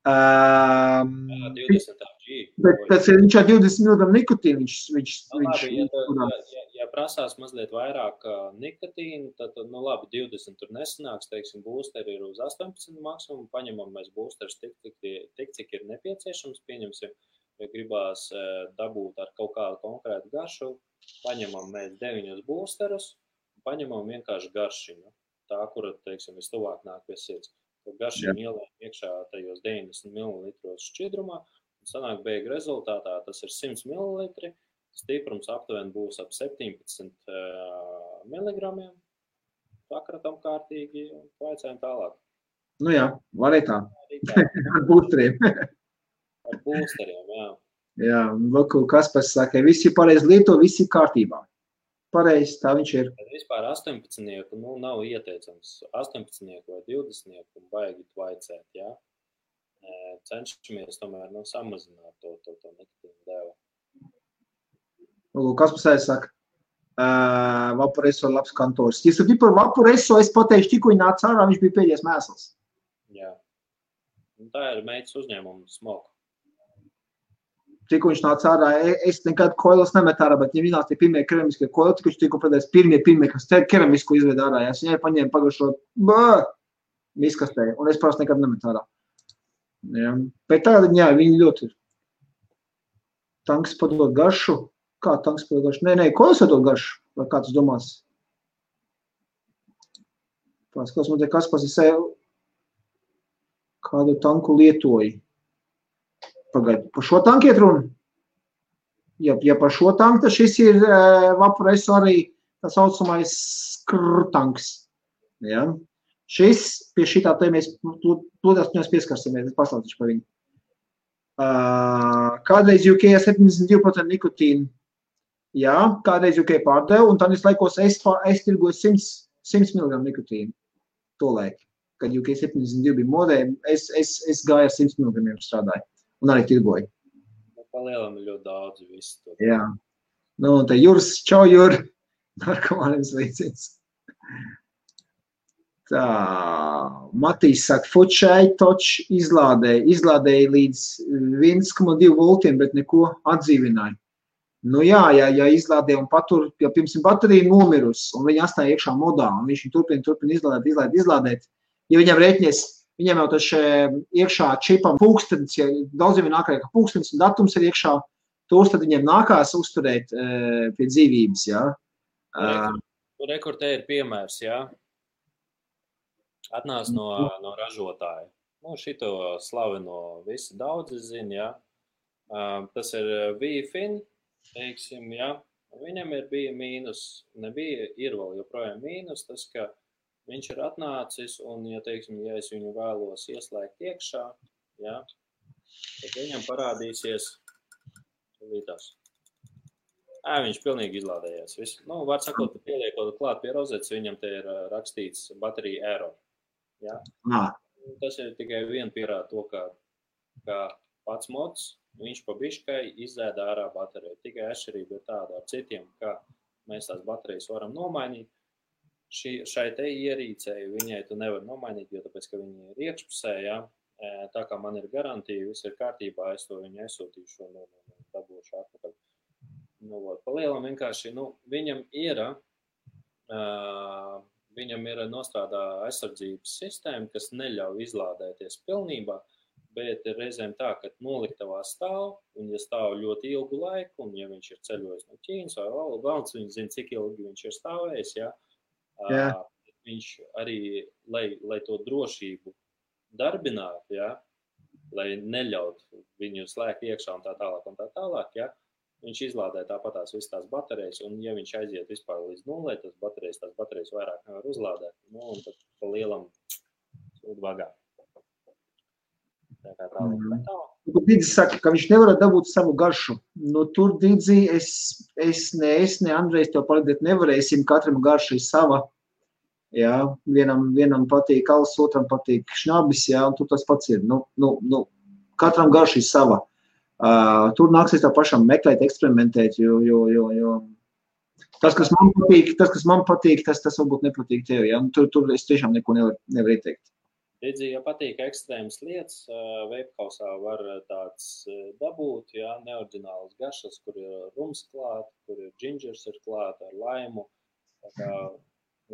20 G. Bet viņš ar 20 mg nikotīnu, Ja prasās mazliet vairāk nikotīnu, tad, labi, 20 tur nesanāks, teiksim, boosteri ir uz 18 maksimumu, paņemam mēs boosterus tik, cik ir nepieciešams, pieņemsim, ja gribās dabūt ar kaut kādu konkrētu garšu, paņemam mēs 9 boosterus, paņemam vienkārši garšiņu, tā, kura, teiksim, vistuvāk nāk pie sirds. Garšiņu ielējam iekšā tajos 90 ml šķidrumā, un sanāk beigu rezultātā, tas ir 100 ml, stiprums aptuveni būs ap 17 mg, sakratam kārtīgi un vaicājam tālāk. Nu jā, var arī tā. Ar būsteriem. Ar būsteriem, jā. Jā, lūk, Kaspars saka, visi pareizi lieto, visi kārtībā. Pareizi, tā viņš ir. Vispār 18-nieku, nav ieteicams 18-nieku vai 20-nieku baigi vaicēt, jā. Cenšamies tomēr samazināt to nikotīnu devu. Kaspars saka, Vaporeso labs kantors. Ja sapratu par Vaporeso, es pateikšu, tikko viņi nāca ārā, viņš bija pēdējais mēsls. Jā. Tā ir meitas uzņēmuma smoka. Tikko viņš nāca ārā, es nekad koilas nemet ārā, bet viņi nāca tie pirmie keramiskie koili, tikko viņš tikko pēdējais pirmie, kas keramisku izved ārā. Es viņai paņēmu pagašo miskastē, un es parasti nekad nemet ārā. Jā. Bet tagad, jā, viņi ļoti ir. Tanks padod garšu. Kā tanks padod garšu? Nē, koilas padod garšu. Vai kā tas domās? Paskatās, man te Kaspars ir kādu tanku lietoji. Pagaid, par šo tanku iet runa? Ja par šo tanku, tad šis ir Vaporeso arī tā saucamais skrtanks. Ja? Šis, pie šitā te mēs plūdās pieskarsimies, es paslautīšu par viņu. Kādreiz UK 72% nikotīnu. Jā, kādreiz UK pārdevu, un tad laikos es tirgoju 100 mg nikotīnu. Tolaik, kad UK 72 bija modē, es gāju ar 100 mg strādāju, un arī tirgoju. Palielam ir ļoti daudz visu to. Jā. Nu, un te Juris, čau, Juri, narkomāniem sveiciens. Tā, Matīs saka, Fučai toč izlādēja līdz 1,2 voltiem, bet neko atdzīvināja. Nu jā, ja izlādē un patur, ja pirms baterija nomirus, un viņa atstāja iekšā modā, un viņš turpina izlādēt, ja viņam rēķinies, viņam jau taču iekšā čipam pulkstenis, ja daudziem ir nākā, ka pulkstenis un datums ir iekšā, tos tad viņiem nākās uzturēt pie dzīvības, jā. Rekord te ir piemērs, jā. Atnāc no ražotāja. Nu, šito slaveno visi daudzi zina, jā. Tas ir VFIN, teiksim, jā. Viņam bija mīnus, ir vēl joprojām mīnus, tas, ka viņš ir atnācis, un, ja, teiksim, ja es viņu vēlos ieslēgt iekšā, jā, tad viņam parādīsies līdās. Viņš pilnīgi izlādējies. Nu, var sakot, pieliekot klāt pie rozetes, viņam te ir rakstīts baterija error. Ja? Tas ir tikai vien pierāda to, ka pats mods, viņš pa biškai izzēda ārā bateriju. Tikai atšķirība ir tāda ar citiem, ka mēs tās baterijas varam nomainīt. Šai te ierīcei viņai tu nevar nomainīt, jo tāpēc, ka viņi ir iekšpusē, ja? Tā kā man ir garantija, viss ir kārtībā, es to viņu aizsūtīšu un dabūšu atpakaļ. Nu, palielam vienkārši, viņam ir nostrādā aizsardzības sistēma, kas neļauj izlādēties pilnībā, bet ir reizēm tā, ka noliktavā stāv, un ja stāv ļoti ilgu laiku, un ja viņš ir ceļojis no Ķīnas vai valsts, viņš zina, cik ilgi viņš ir stāvējis, ja? Viņš arī, lai to drošību darbinātu, ja? Lai neļaut viņu slēgt iekšā un tā tālāk, ja? Viņš izlādē tāpatās visas tās baterijas, un ja viņš aiziet vispār līdz nulē, tās baterijas vairāk nevar uzlādēt, nu, un tad pa lielam sūd vagā. Tā kā tālāk. Dīdzi saka, ka viņš nevar dabūt savu garšu. Nu, tur, Dīdzi, es ne Andrejs tev palīdēt nevarēsim, katram garša ir sava. Jā, vienam patīk alus, otram patīk šnabis, jā, un tur tas pats ir. Nu, katram garša ir sava. Tur nāksies tā pašam meklēt, eksperimentēt, jo tas, kas man patīk, tas varbūt nepatīk tev, ja? Tur es tiešām neko nevar ieteikt. Redzi, ja patīk ekstrēmas lietas, veipkausā var tāds dabūt, ja? Neordinālas garšas, kur ir rums klāt, kur ir džingers ir klāt ar laimu, tā kā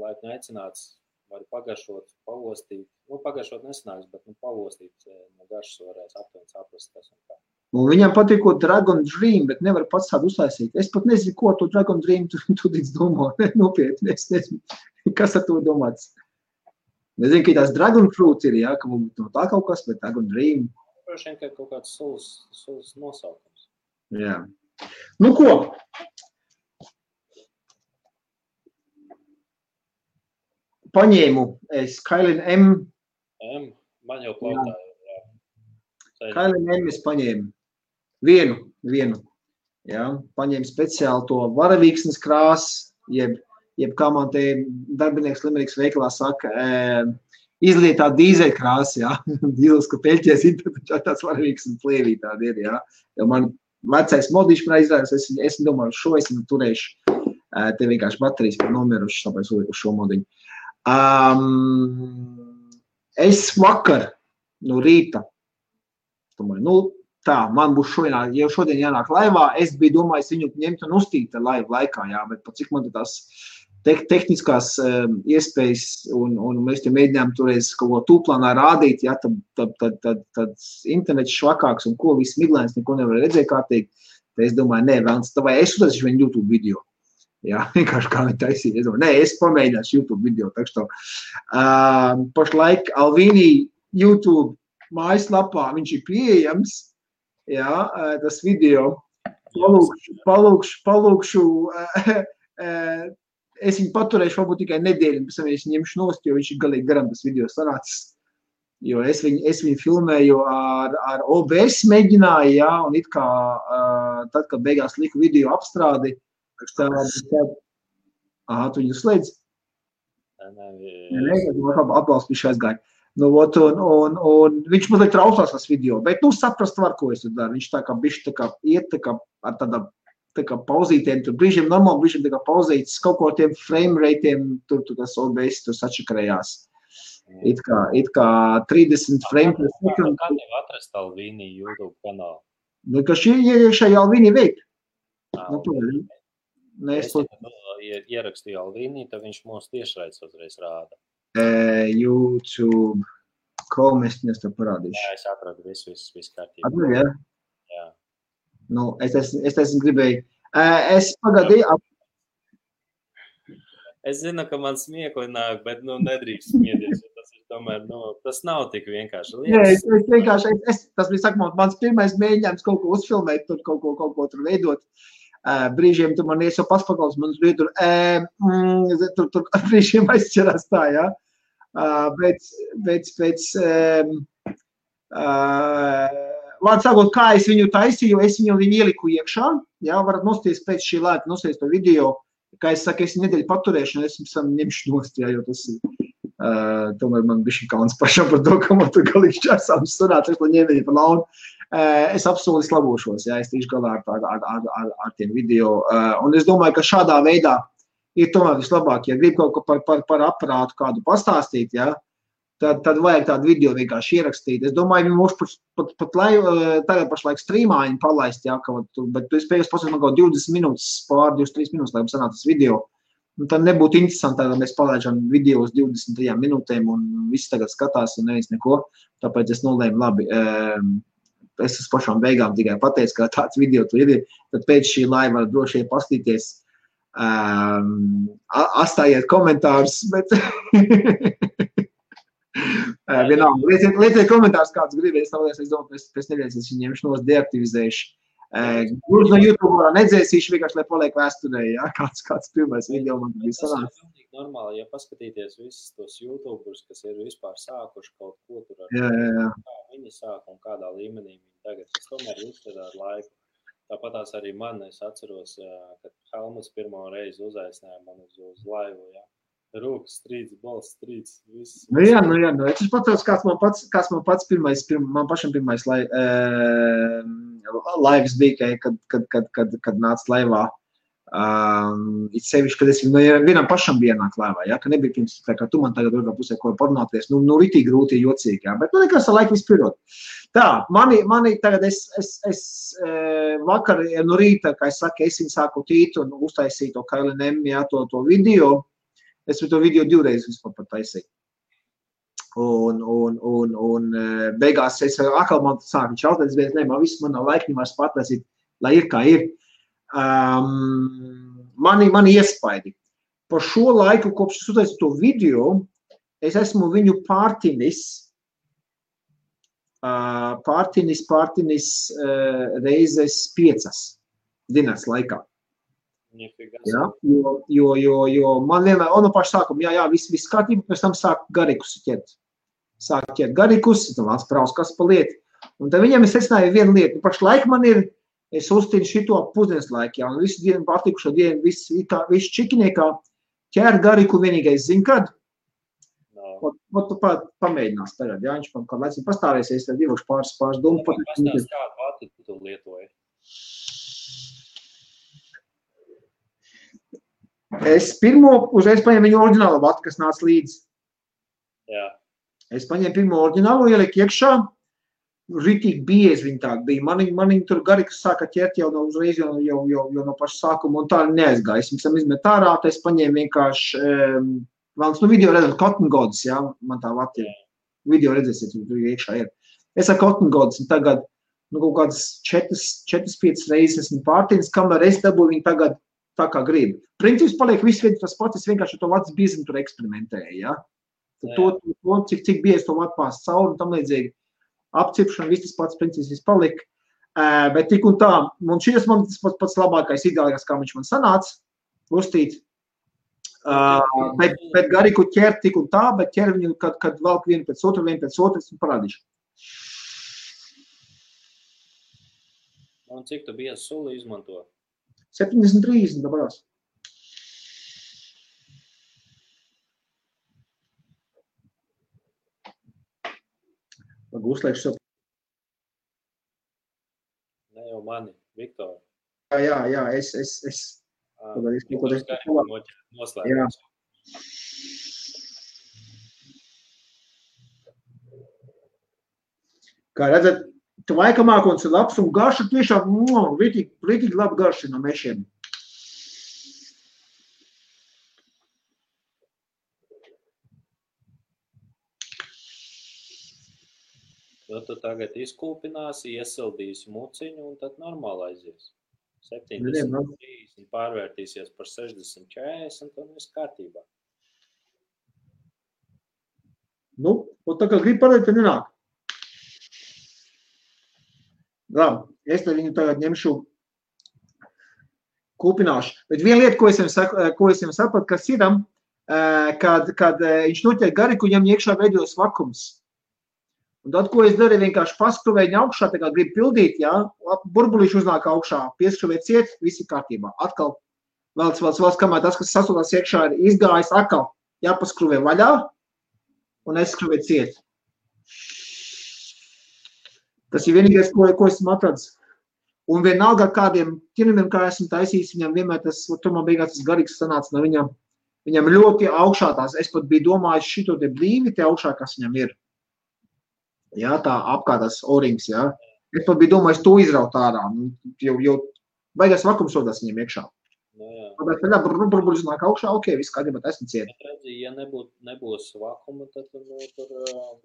laipni aicināts, var pagaršot, pavostīt, nu pagaršot nesanāks, bet pavostīt no garšas varēs aptuveni saprast, kas un kā. Un viņam patīko Dragon Dream, bet nevar pats tādu uztaisīt. Es pat nezinu, ko to Dragon Dream tu domā. Nopietni, es nezinu, kas ar to domāts. Nezinu, ka tās Dragon Fruit ir, jā, ka mums no tā kaut kas, bet Dragon Dream. Prošiem, ka kaut kāds sulas nosaukums. Jā. Nu ko? Paņēmu es Kailin M. Man jau klautā. Kailin M es paņēmu. Vienu. Jā, paņēmu speciāli to varavīksnes krāsu, jeb kā man te darbinieks Limeriks veikalā saka, izlietā dīzeļu krāsu, jā. Dīles, ka peļķies interpretā tāds varavīksnes plēvī tādi ir, jā. Jo man vecais modīši man izrādās, es domāju, šo es turēšu. Te vienkārši baterijas par nomiruši, tāpēc uz šo modiņu. Es vakar no rīta, domāju, tā, man būs šodien jānāk laivā, es biju domājis viņu ņemt un uztīt laivu laikā, jā, bet pat cik man tās tehniskās iespējas un mēs te mēģinājām toreiz kaut ko tūplānā rādīt, jā, tad internets švakāks un ko viss miglēns, neko nevar redzēt kārtīgi, tad es domāju, nē, vēlams, tā vai es uztaisīšu viņu YouTube video. Jā, vienkārši kā viņi taisīja. Es domāju, nē, es pamēģināšu YouTube video, takš to. Pašlaik Alvīnī YouTube mājaslapā viņš ir pieejams, jā, tas video. Palūkšu, es viņu paturēšu varbūt tikai nedēļu, pēc tam es ņemšu nost, jo viņš ir galīgi garam tas video sanācis. Jo es viņu filmēju ar OBS mēģināju, jā, un it kā tad, kad beigās liku video apstrādi, tad tu viņu slēdz? Nē, atbalstu viņš aizgāja. Nu, un viņš mazliet traucās tas video, bet, saprast var, ko es tur daru. Viņš tā kā bišķi tā kā iet tā kā ar tā kā pauzītiem, tur brīžiem normāli, brīžiem tā kā pauzītas, kaut ko tiem frame rateiem, tur tas OBS tur sačakarējās. It kā 30 frame per second. Kā tev atrast Alvīni YouTube kanālu? Nu, ka šī iekšēji Alvīni veik. Ierakstīju Alvīni, tad viņš mūs tiešraides uzreiz rāda. YouTube, ko mēs tev parādīšu? Jā, es atradu visu kārtībā. Atradu, jā? Jā. Nu, es gribēju. Es pagadīju. Es zinu, ka man smiekli nāk, bet, nedrīkst smieties, jo tas ir tomēr, tas nav tik vienkārši. Nē, es vienkārši, tas bija, mans pirmais mēģinājums kaut ko uzfilmēt, tur kaut ko tur veidot. Brīžiem tur man iesau paspakaus, man tur brīžiem aizķerās tā, jā. Vārds sākot, kā es viņu taisīju, es viņu ieliku iekšā, jā, varat nosties pēc šī lēta, nosties to video. Kā es saku, es nedēļu paturēšanu, es ņemšu nost, jā, jo tas tomēr man bišķi kauns pašam par to, ka man tur galīgi čāsām sunāts, es to ņēmēju par launu. Es apsoli labošos, jā, es tīšu galā ar tiem video. Un es domāju, ka šādā veidā ir tomēr vislabāk, ja grib kaut ko par aparātu kādu pastāstīt, jā, tad vajag tādu video vienkārši ierakstīt. Es domāju, viņi mūs pat tagad pašlaik streamā viņi palaist, jā, bet tu spējas pasaka, man kaut 20 minūtes, pār 23 minūtes, lai sanāk tas video. Un tad nebūtu interesanti, tad mēs palaižam video uz 23 minūtēm un viss tagad skatās un neviens neko. Tāpēc es nolēmu, labi, es uz pašām beigām tikai pateicu, ka tāds video tur ir. Tad pēc šī laiva var droši pastīties, atstājiet komentārus, bet... Vienalga, lieciet komentārus, kāds gribēs, es domāju, pēc nedēļas es viņu ņemšu nos deaktivizējuši. Gluži no YouTube nedzēsīšu vienkārši, lai paliek vēsturē, jā, kāds pirmais video man bija sanāks. Tas ir pilnīgi normāli, ja paskatīties visus tos YouTuberus, kas ir vispār sākuši kaut ko tur ar kā viņi sāk un kādā līmenī viņi tagad. Tas tomēr uzsver ar laiku. Tāpatās arī man, es atceros, kad Helmuts pirmo reizi uzaicināja man uz laivu, jā. Rūkas strīds, balss strīds, viss. Nu jā, es pateicu, kāds man pats pirmais, man pašam pirmais laivas bija, kad nāca laivā. It sevišķi, kad es vienam pašam bija nāk laivā, ja, ka nebija pirms, tā kā tu man tagad otrā pusē ko parunāties, ritīgi grūti, jocīgi, ja, bet nekas ar laiku vispirot. Tā, mani tagad es vakar no rīta, kā es saku, es viņu sāku tīt un uztaisīju to KLNM, ja, to video. Es to video 2 reizes vispār pat taisīju. Un beigās es atkal man sāku čautēt, bet man viss man nav laika vairs patlaisīt, lai ir kā ir. Mani iespaidi. Par šo laiku, kopš es uztaisīju to video, es esmu viņu pārtinis reizes 5 dienas laikā. Jā, jo man vienmēr, no paša sākuma, jā, viss kārtībā, pēc tam sāk garikus ķert. Sāk ķert garikus, tad vāc praus, kas pa lieti. Un tad viņam es secināju vienu lietu. Pašlaik man ir, es uztīnu šito pusdienas laiku, jā, un visu dienu pārtikušo dienu, visu čikiniekā ķēr gariku vienīgais zin, kad? Tu pamēģinās tagad, jā, viņš man kādu laicinu pastāvēsies, tad ievošu pāris domu. Pastāst, kādu vati tu lietoji? Es uzreiz paņēmu viņu oriģinālo vatu, kas nāca līdzi. Jā. Es paņēmu pirmo oriģinālo, ieliku iekšā, ritīgi biezi viņi tādi bija. Mani tur garikas sāka ķert jau no uzreiz, jau no paša sākuma, un tā neaizgāja. Es viņam izmet ārā, tad es paņēmu vienkārši, video redzam, Cotton Gods, jā, man tā vati ir. Video redzēsiet, tur iekšā ir. Es ar Cotton Gods, un tagad, kaut kādas 4-5 reizes esmu pārtīnis, kamēr es dabūju viņu tagad tā kā gribu. Princips paliek viss viens tas pats, es vienkārši to vats biezinu tur eksperimentēju, ja? To, cik biezi to vat pās cauri un tam līdzīgi apcipšana, viss tas pats princips viss palika. Bet tik un tā, un šis man tas pats labākais ideālākais, kā viņš man sanāca, uztīt. Bet gariku ķer tik un tā, bet ķer viņu, kad valk vienu pēc otras un parādīšu. Un cik tu biezu suli izmanto? 70-30 dabarās. Lagu uzliekšu sev. Ne jau mani, Viktor. Jā, es. Noslēgums. Kā redzat, tu vaikamākons ir labs un garša tiešām rītīgi labi garši no mešiem. Tu tagad izkūpināsi, iesildīsi muciņu un tad normāli aizies. 70-30 pārvērtīsies par 60-40 un viss kārtībā. Nu, un tā kā grib parādīt, tad nenāk. Labi, es te viņu tagad ņemšu kūpināšu. Bet viena lieta, ko es jums sapratu, kas ir, kad viņš noķer gariku, viņam iekšā veidojas vakums. Un tad, ko es darīju, vienkārši paskruvēju augšā, tā kā gribu pildīt, jā, burbulīši uznāk augšā, pieskruvēt ciet, visi kārtībā. Atkal, vēl kamēr tas, kas sasūtās iekšā, ir izgājis, atkal jāpaskruvē vaļā un aizskruvēt ciet. Tas ir vienīgais, ko esmu atradis. Un vienalga kādiem ķinumiem, kā esmu taisījis, viņam vienmēr tas, tomēr beigās tas garīgs sanāca no viņam ļoti augšā tās. Es pat biju domājis šito te blīvi te augšā, kas viņam ir. Jā, tā apkārtās orings, jā. Es pat biju domājis to izraut ārā. Jau baigās vakums rodās viņam iekšā. Tāpēc tā burbuļs nāk augšā, ok, viss kārtībā esmu ciet. Bet redzi, ja nebūs vakuma, tad tur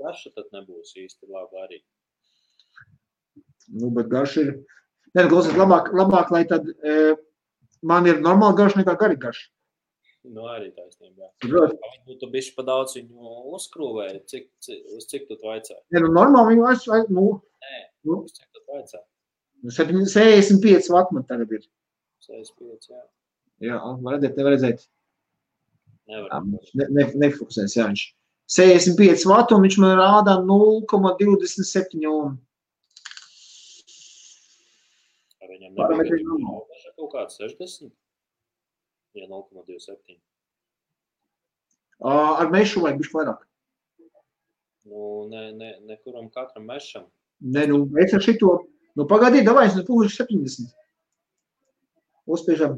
garša tad nebūs īsti labi arī. Nu, bet garša ir... Nē, klausies, labāk, lai tad man ir normāli garša nekā garīga garša. Nu, arī taisnība, jā. Tu bišķi pa daudz viņu uzkrūvēji, uz cik tu vaicāji? Nē, nu, normāli viņu Nē, uz cik tu vaicāji? 65 vati man tagad ir. 65, jā. Jā, var redzēt. Nevar. Nefokusēs, jā, viņš. 65 vati un viņš man rādā 0,27 ohm. Viņam nebija kaut kāds 60? Ja 0,27. Ar mešu vajag bišķi vairāk. Nu, nekuram katram mešam. Nē, nu, es ar šito, nu, pagaidī, davai, es pūlišu 70. Uzspiežam.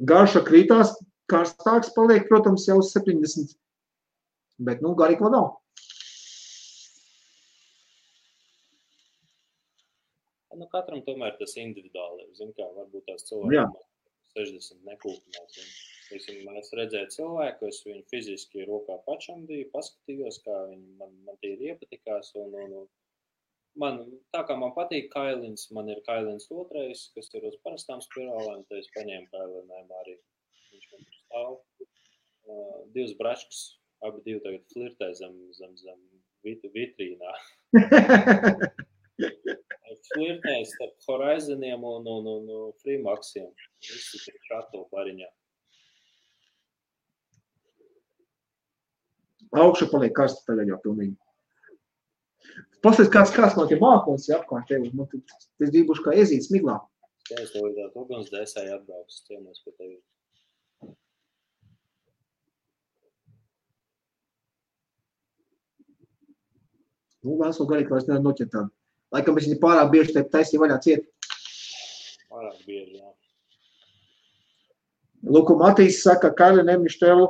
Garša krītās, karstāks paliek, protams, jau uz 70. Bet, nu, garīgi vēl nav. Nu, katram tomēr tas individuāli. Zin kā, varbūt tās cilvēki 60 nekūpinās. Es redzēju cilvēku, es viņu fiziski rokā pačamdīju, paskatījos, kā viņi man tie iepatikās. Man, tā kā man patīk kailins, man ir kailins otrais, kas ir uz parastām spirālēm, tad es paņēmu kailinēm arī. Viņš man tur stāv. Divas bračkas, abi divi tagad flirtē zem vitrīnā. Flirtēs starp Horizoniem un Freemaxiem. Visi ir šato bariņā. Augšu paliek karsta tagad jau pilnīgi. Pastāst, kāds man tie mākons ir apkārt tevi. Es gribuši kā iezīt smiglā. Es tev lidāt uguns dēsēji atbrauks, ciemos pie tevi. Nu, vēl esmu garīgi, vairs nevar noķert tādu. Laikam es viņu pārāk bieži te taisīju vaļā ciet. Pārāk bieži, jā. Luku Matīs saka, Kaili nemištelu,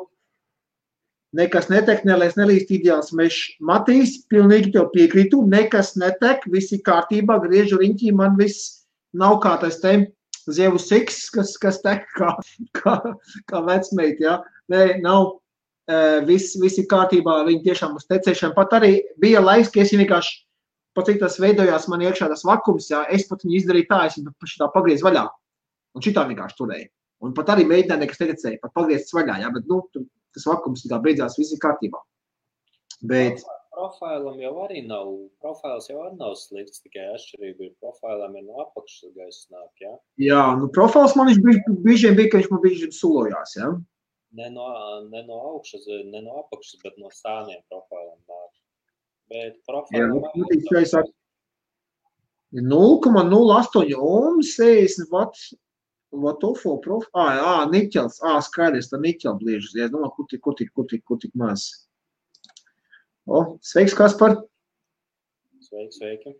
nekas netek, nelēs nelīst ideāls mešs. Matīs, pilnīgi tev piekrītu, nekas netek, visi kārtībā, griežu riņķī, man viss nav kā tas te zievu siks, kas tek kā vecmeit, jā. Nē, nav, visi kārtībā, viņi tiešām uz tecēšanu. Pat arī bija laiks, ka es vienkārši pat cik tas veidojās man iekšā tas vakums, jā, es pat viņu izdarīju tā, es viņu šitā pagriez vaļā. Un šitā vienkārši turēju. Un pat arī mēģināju nekas netecēju, pat pagriezts vaļā, jā, bet, nu, tas vakums tā beidzās visi kārtībā. Bet... Profilam jau arī nav, profils jau arī nav slikts, tikai atšķirība ir profilam ir no apakšas gaisa nāk, jā? Jā, nu profils man viņš bija, ka viņš man bija sulojās, jā? Ne no augšas, ne no apakšas, bet no stāniem profilam nāk. Bet profilam arī ir 0,08 ohms, 60 vatofo profils. Niķels, skaidrs, tā niķela bliežas. Es domāju, kur tik maz. Sveiks, Kaspar. Sveiki.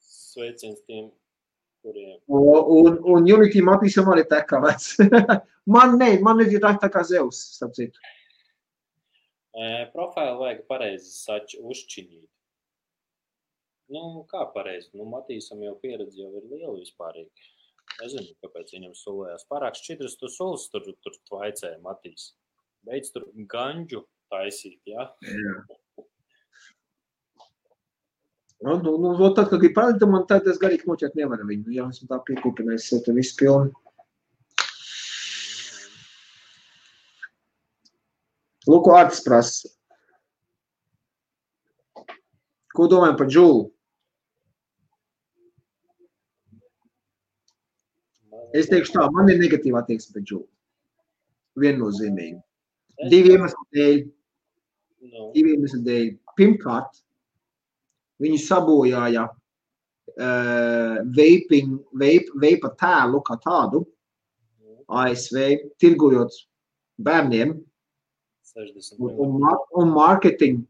Sveiciens tiem, kuriem. Un Unity Matīsam arī tā kā vec. man ir tā kā Zeus, starp citu. Profilu vajag pareizi uzšķiņīt. Nu, kā pareizi? Nu, Matīsam jau pieredze jau ir liela vispārīgi. Nezinu, kāpēc viņam sulējās. Pārāk šķidras tu sulas tur tvaicēja Matīs. Beidz tur ganģu taisīt, jā? Jā. Nu, tad, kad ir parādīta, man tad es garīgi noķert nevaru viņu. Jā, esmu tā piekūpinājis, te viss pilni. Lūk, Ārtis prasa. Ko domājam par džūlu? Es teikšu tā, man ir negatīvā attieksme pret džūlu. Viennozīmīgi. Divi iemesli dēļ. Pirmkārt, viņi sabojāja veipa tēlu kā tādu ASV, tirgojot bērniem un marketingu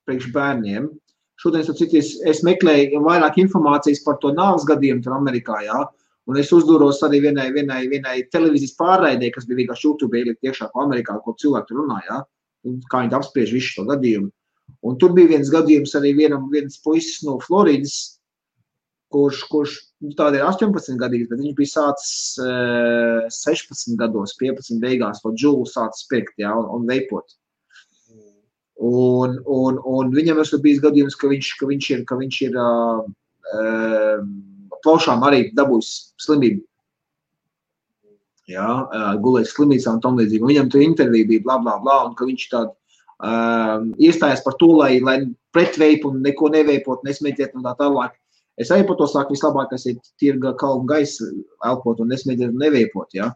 priekš bērniem. Šodien, es meklēju vairāk informācijas par to nāves gadījumu tur Amerikā, jā, un es uzdūros arī vienai televīzijas pārraidē, kas bija vienkārši YouTube ielikt iekšā pa Amerikā, ko cilvēki runā, jā, un kā viņi apspriež visu šo gadījumu. Un tur bija viens gadījums arī viens puisis no Floridas, kurš tāda ir 18 gadīgs, bet viņš bija sācis 16 gados, 15 beigās, to džūlu sācis pirkt, jā, un veipot. Un viņam esmu bijis gadījums, ka viņš ir plaušām arī dabūjis slimību. Jā, gulējis slimnīcā un tam līdzīgi. Viņam tur intervija bija bla, bla, bla, un ka viņš tādu iestājas par to, lai pret veipu un neko neveipot, nesmēķēt un tā tālāk. Es arī par to saku, vislabākais ir tirga kalnu gaisa elpot un nesmēķēt un neveipot, jā.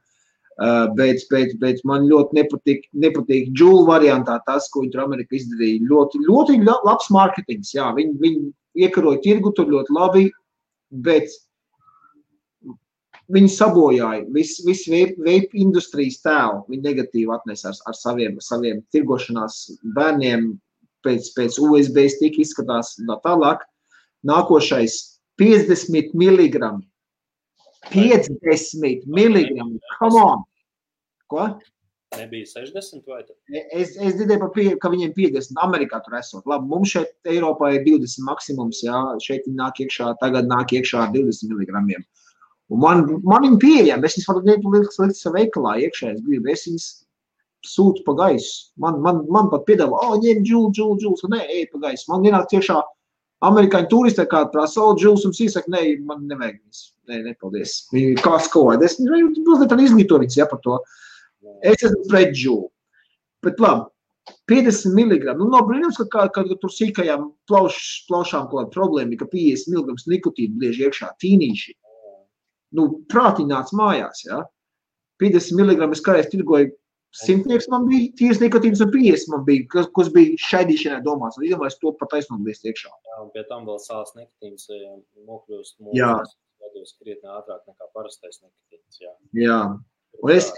Bet man ļoti nepatīk džūlu variantā tas, ko viņi tur Amerika izdarīja. Ļoti labs marketings, jā. Viņi iekaroja tirgu tur ļoti labi, bet viņi sabojāja visu veipu industrijas tēlu. Viņi negatīvi atnesa ar saviem tirgošanās bērniem pēc USB stika izskatās tālāk. Nākošais 50 milligrami. 50 milligrami. Come on! Ko? Nebija 60 vai tad? Es dzirdēju, ka viņiem 50 Amerikā tur esot. Labi, mums šeit Eiropā ir 20 maksimums, jā. Šeit tagad nāk iekšā 20 milligramiem. Un man viņi pieejam, es viņas varu likt savu veikalā iekšā, es viņas sūtu pa gaisu. Man pat piedāvā, ņem džūlu, nē, ej pa gaisu. Man vienāk tiešā amerikāņu turisti kāda prasa, džūls un sīsaka, nē, man nevajag viņas. Nē, paldies. Viņi kā skola. Es izglīto viņas, jā, par to. Es esmu pret džūlu. Bet labi, 50 mg. Nu, nav brīnums, ka tur sīkajām plaušām kaut kāda problēma, ka 50 mg nikotīnu bliež iekšā tīnīši. Nu, prātiņ nāc mājās, jā. 50 mg es kādreiz tirgoju, 100 man bija tīrs nikotīns un 50 man bija, kas bija šaidīšanai domāts. Un iedomājas to pat aiznobliest iekšā. Jā, un pie tam vēl sāls nikotīns nokļūst mūsu krietni ātrāk nekā parastais nikotīns, jā. Jā. Un es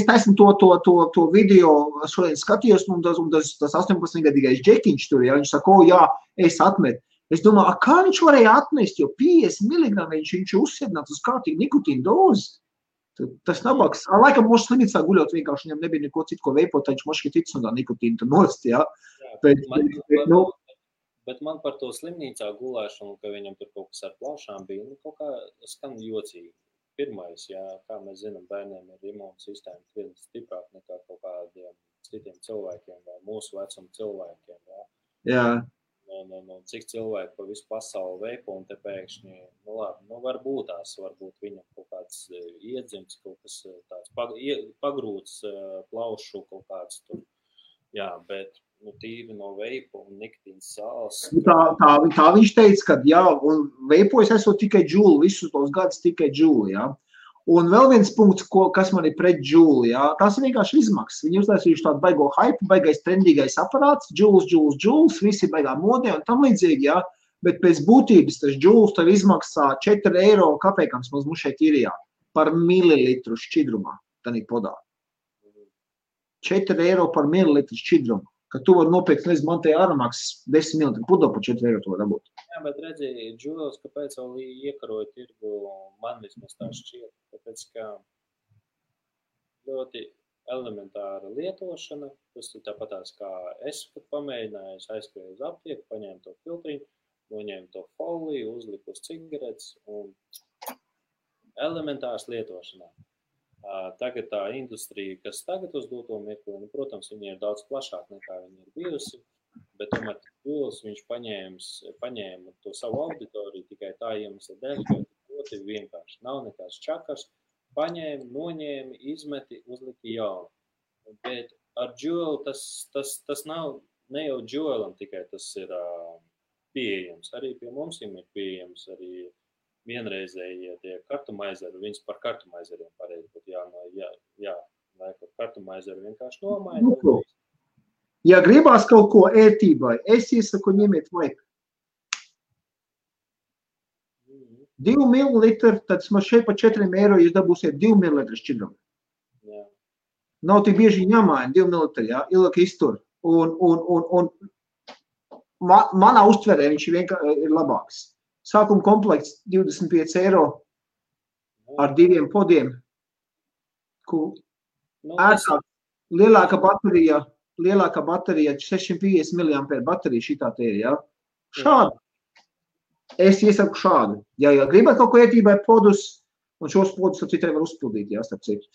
taisnu to video šodien skatījos, un tas 18-gadīgais džekiņš tur, ja viņš saka, jā, es atmetu. Es domāju, kā viņš varēja atmest, jo 50 mg viņš uzsēdināts uz kārtīgu nikotīnu dozi. Tas nabaks. Laikam mūsu slimnīcā guļot vienkārši viņam nebija neko citu, ko veipot, viņš moški tic un tā nikotīnu tur nost, jā. Bet man par to slimnīcā gulēšanu, ka viņam tur kaut kas ar plaušām bija, kaut kā skan jocīgi. Pirmais, jā, kā mēs zinām, bērniem ir imūnsistēma krietni stiprāk nekā kaut kādiem citiem cilvēkiem vai mūsu vecuma cilvēkiem, jā. Jā. Cik cilvēki pa visu pasauli veipo un te pēkšņi, nu labi, varbūt viņam kaut kāds iedzimts, kaut kas tāds pagrūts plaušu kaut kāds tur, jā, bet tīri no veipa un nikotīnas sāls. Tā viņš teica, ka jā, un veipojas esot tikai džūli, visus tos gadus tikai džūli, jā. Un vēl viens punkts, kas man ir pret džūli, jā, tās ir vienkārši izmaksas. Viņi uztaisījuši tādu baigo hype, baigais trendīgais aparāts, džūls, visi baigā modē un tam līdzīgi, jā. Bet pēc būtības tas džūls tev izmaksā 4 eiro kapēkams mums šeit īrijā par mililitru šķidrumā, tanī podā. 4 eiro par mililitru šķidrumu, ka tu vari nopirkt, nezinu, man te āramaksas 10 mililitru pudo par 4 eiro to dabūt. Jā, bet redzi, džūls, kāpēc vēl iekaroja tirgu, man vismaz tā šķiet, tāpēc, ka ļoti elementāra lietošana, tas ir tāpatās, kā es, kad pamēģināju, aizskrēju uz aptieku, paņēmu to filtriņu, noņēmu to foliju, uzliku uz cigaretes un elementārs lietošanā. Tagad tā industrija, kas tagad uz doto mirkli, protams, viņa ir daudz plašāka nekā viņa ir bijusi, bet tomēr Džūls viņš paņēma to savu auditoriju tikai tā iemesla dēļ, ka ļoti vienkārši. Nav nekāds čakars, paņēma, noņēma, izmeti, uzlika jaunu. Bet ar Džūlu tas nav, ne jau Džūlam tikai tas ir pieejams, arī pie mums ir pieejams, arī vienreizēji tie kartumaizeri, viņas par kartumaizeriem pareizi, bet jā, kartumaizeru vienkārši nomaina. Ja gribās kaut ko ētībai, es iesaku ņemiet vaipu. 2 mililitri, tad man šeit pa 4 eiro jūs dabūsiet 2 mililitri šķidrumu. Jā. Nav tik bieži jāmaina 2 mililitri, jā, ilgi iztur. Un manā uztverē viņš vienkārši ir labāks. Sākuma komplekts 25 eiro ar 2 podiem. Ērtāk, lielāka baterija 650 mAh baterija šitā te ir, jā. Šādu. Es iesaku šādu. Ja gribat kaut ko ētībai podus, un šos podus ar citai var uzpildīt, jā, starp citu.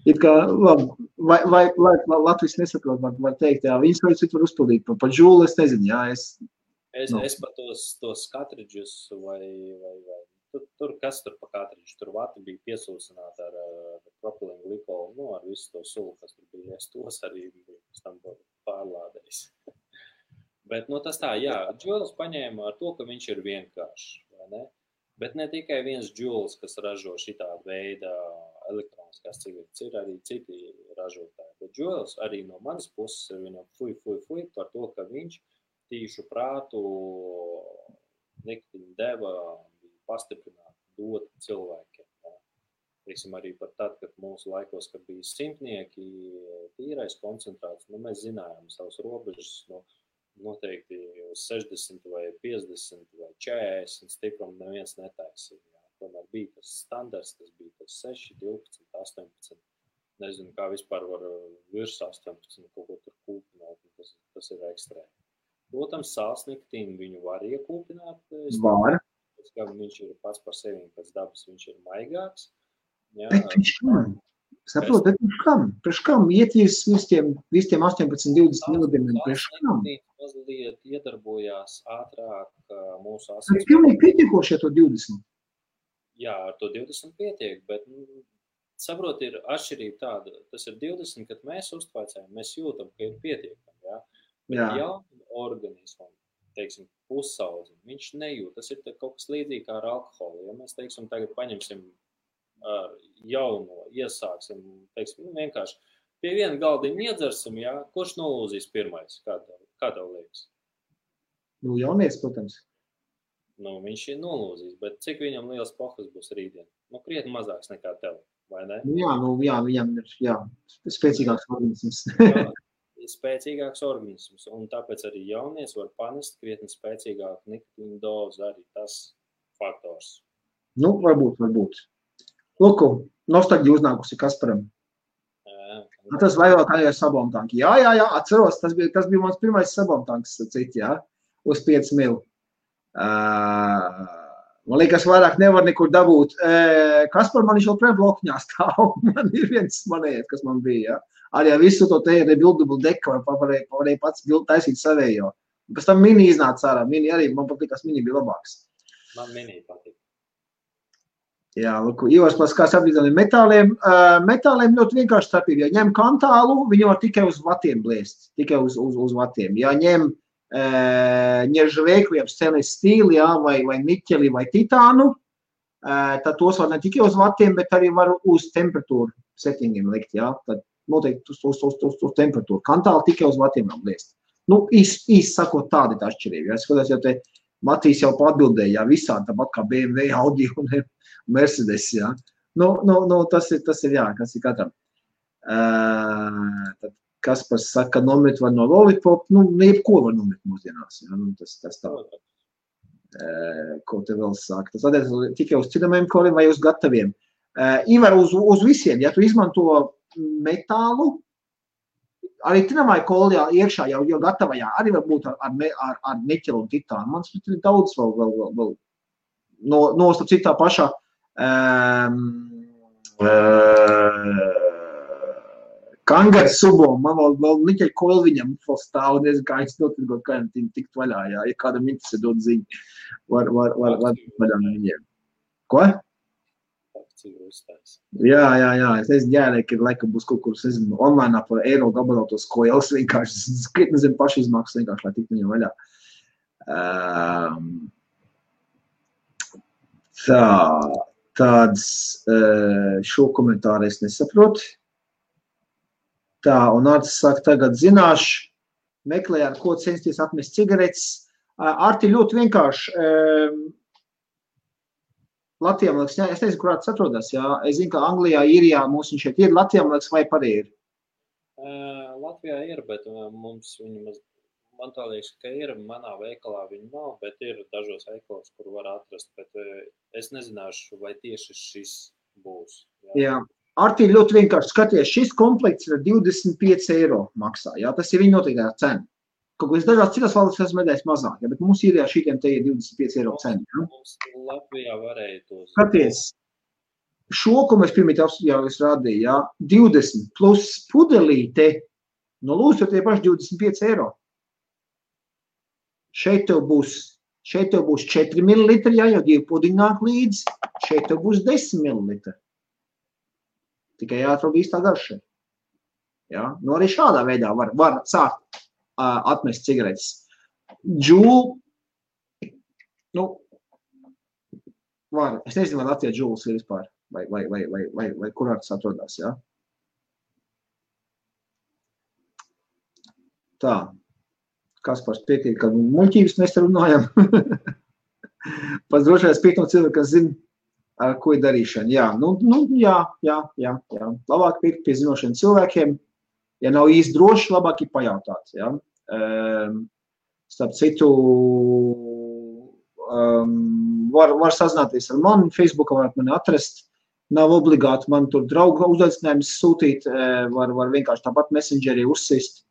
It kā, labi, vai Latvijas nesaprot, var teikt, jā, viņas var citu var uzpildīt. Pa džūlu es nezinu, jā, Es pa tos katridžus vai tur kas tur pa katridžu, tur vati bija piesūsināta ar propilīnu glikolu, ar visu to sulu, kas tur bija, es tos arī pēc tam pārlādējis. Bet, tas tā, jā, džūls paņēma ar to, ka viņš ir vienkāršs, vai ne? Bet ne tikai viens džūls, kas ražo šitā veida elektroniskās cigaretes, ir arī citi ražotāji. Bet džūls arī no manas puses ir viņam fuj par to, ka viņš tīšu prātu nikotīnu deva pastiprināt, dot cilvēkiem. Teiksim, arī par tad, kad mūsu laikos, kad bija simtnieki, tīrais koncentrāts, mēs zinājām savus robežas, noteikti 60 vai 50 vai 40 stiprumu neviens netaisīja. Tomēr bija tas standarts, tas bija tas 6, 12, 18. Nezinu, kā vispār var virs 18 kaut ko tur kūpināt, tas ir ekstrēmi. Protams, sāls nikotīnu viņu var iekūpināt. Var. Kā viņš ir pats par sevi, pēc dabas viņš ir maigāks. Jā. Bet viņš kam? Saprot, bet viņš kam? Priekš kam? Ietīs visiem 18-20 milligramiem, priekš kam? Mazliet iedarbojās ātrāk mūsu asins. Bet pilnīgi pietiekoši ar to 20? Jā, ar to 20 pietiek, bet saprot, ir atšķirība tāda. Tas ir 20, kad mēs uztvaicējam, mēs jūtam, ka ir pietiekami, jā. Bet jaunam organismam, teiksim, pusaudzim, viņš nejūt. Tas ir kaut kas līdzīgi kā ar alkoholu. Ja mēs, teiksim, tagad paņemsim ar jauno, iesāksim, teiksim, vienkārši pie viena galdiņa iedzersim, jā, kurš nolūzīs pirmais? Kā tev liekas? Jaunieks, protams. Viņš ir nolūzīs, bet cik viņam liels pohas būs rītdien? Krietni mazāks nekā tev, vai ne? Jā, viņam ir, spēcīgāks organisms. Spēcīgāks organisms, un tāpēc arī jaunies var panest krietni spēcīgāku nikotīnu dozu, arī tas faktors. Varbūt. Lūku, nostalģija uznākusi Kasparam. Tas vajadzēja ar sabomtanki. Jā, atceros, tas bija mans pirmais sabomtanks, uz 5 mil. Man liekas, vairāk nevar nekur dabūt. Kaspar man viņš vēl blokņā stāv. Man ir viens manējais, kas man bija, jā. Arī visu to te rebuildable deku varēja pats taisīt savējo. Pēc tam mini iznāca ārā. Mini arī, man patīk, kas mini bija labāks. Man mini patīk. Jā, Ivars paskās apvienot metāliem. Metāliem ļoti vienkārši starpība. Ja ņem kantālu, viņu var tikai uz vatiem blēst. Tikai uz vatiem. Ja ņem ņeržaveiku, jeb stainless steel, jā, vai niķeli, vai titānu, tad tos var ne tikai uz vatiem, bet arī var uz temperatūru settingiem likt, jā. Tad noteikti uz temperatūru. Kantālu tikai uz vatiem var blēst. Nu, īsti sakot, tāda ir tā atšķirība. Ja? Es skatās, jau te Matīs jau atbildēja, jā, visādi tāpat kā BMW, Audi un Mercedes, jā. Nu, tas ir, jā, kas ir katram. Tad Kaspars saka, nomet var no Lollipop, nu, jebko var nomet mūsdienās, jā, nu, tas tā. Ko te vēl saka. Tas attiec tikai uz citamajiem koriem vai uz gataviem. Ivar, uz visiem, ja tu izmanto metālu, arī tinamai kolijā iekšā jau gatavajā, arī var būt ar niķelu un titānu. Man ir daudz vēl nostap citā pašā Kangars subom, man vēl niķeļ koili viņam vēl stāv, nezinu, kā es notirgot, kā viņam tikt vaļā, jā, ja kādam interesē dot ziņu, var vaļā no viņiem. Ko? Jā, es nezinu, jārēk, ir laikam būs kaut kur, es nezinu, online par eiro gabalautos koilas vienkārši, skrietni zem paši izmaksas vienkārši, lai tikt viņam vaļā. Tāds šo komentāru es nesaprotu. Tā, un Artis saka, tagad zināšu, meklē, ar ko censties atmest cigaretes. Arti ļoti vienkārši. Latvijā, man liekas, es nezinu, kurā tas atrodas, jā. Es zinu, ka Anglijā, Īrijā mums viņš šeit ir. Latvijā, man liekas, vai arī ir? Latvijā ir, bet mums viņa, man tā liekas, ka ir, manā veikalā viņa nav, bet ir dažos veikalos, kur var atrast, bet es nezināšu, vai tieši šis būs. Jā. Arti ļoti vienkārši skaties, šis komplekts ir 25 eiro maksā, jā, tas ir viņa noteiktā cena. Kaut ko es dažās citās valstīs esmu medējis mazāk, ja, bet mums ir šitiem te ir 25 eiro cena. Ja? Mums Latvijā varēja tos. Skaties, šo, ko mēs pirmīt jau es rādīju, ja, 20 plus pudelīte, no lūdzu tie paši 25 eiro. Šeit tev būs 4 ml, ja, jau 2 pudiņi nāk līdzi, šeit tev būs 10 ml. Tikai jāatrod īstā garša. Ja? Nu, arī šādā veidā var sākt atmest cigaretes. Džūl, nu, var, es nezinu, vai Latvijā džūls ir vispār, vai kurā tas atrodās, jā. Tā, Kaspars piekrīt, ka muļķības mēs te runājam. Pats drošais piekrīt no cilvēka, kas zina, ar ko ir darīšana. Jā, jā. Labāk piekrīt pie zinošiem cilvēkiem. Ja nav īsti droši, labāk ir pajautāt. Ja? Starp citu, var sazināties ar mani, Facebookā varat mani atrast. Nav obligāti man tur draugu uzaicinājums sūtīt, var vienkārši tāpat messengerī uzsist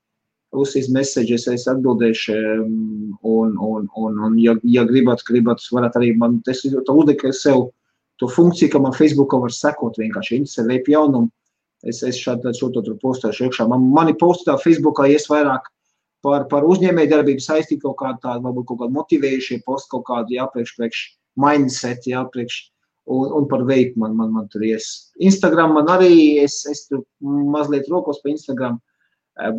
messages, es atbildēšu, un ja gribat, varat arī man, es uzdeku sev to funkciju, ka man Facebookā var sekot vienkārši, interesē veip jaunumu. Es šo tur postēšu iekšā. Mani postā Facebookā ies vairāk par uzņēmēju darbību saistīt kaut kādu tādu, varbūt kaut kādu motivējušie post, kaut kādu, jā, priekš mindset, jā, un par veipu man tur ies. Instagram man arī, es tur mazliet rokos pa Instagram,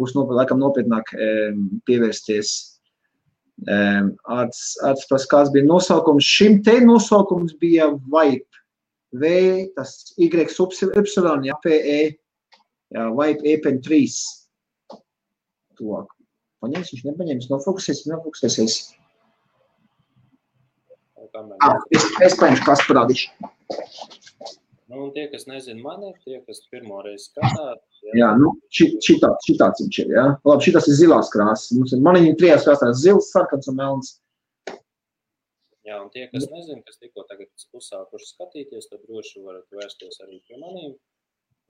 būs laikam nopietnāk pievērsties. Arts kāds bija nosaukums. Šim te nosaukums bija Vipe. Tas Y, ja, PE, jā, Vipe EPN3. Tuvāk. Paņems, viņš nepaņems, nofokusēsies. Es paņemšu, kas parādīšu. Nu, un tie, kas nezin mani, tie, kas pirmo reizi skatās. Jā, nu, šitāds viņš ir, jā. Labi, šitas ir zilās krāsas. Man viņam 3 krāsās zils, sarkans un melns. Jā, un tie, kas nezin, kas tikko tagad uzsākuši skatīties, tad droši varat vērsties arī pie manīm.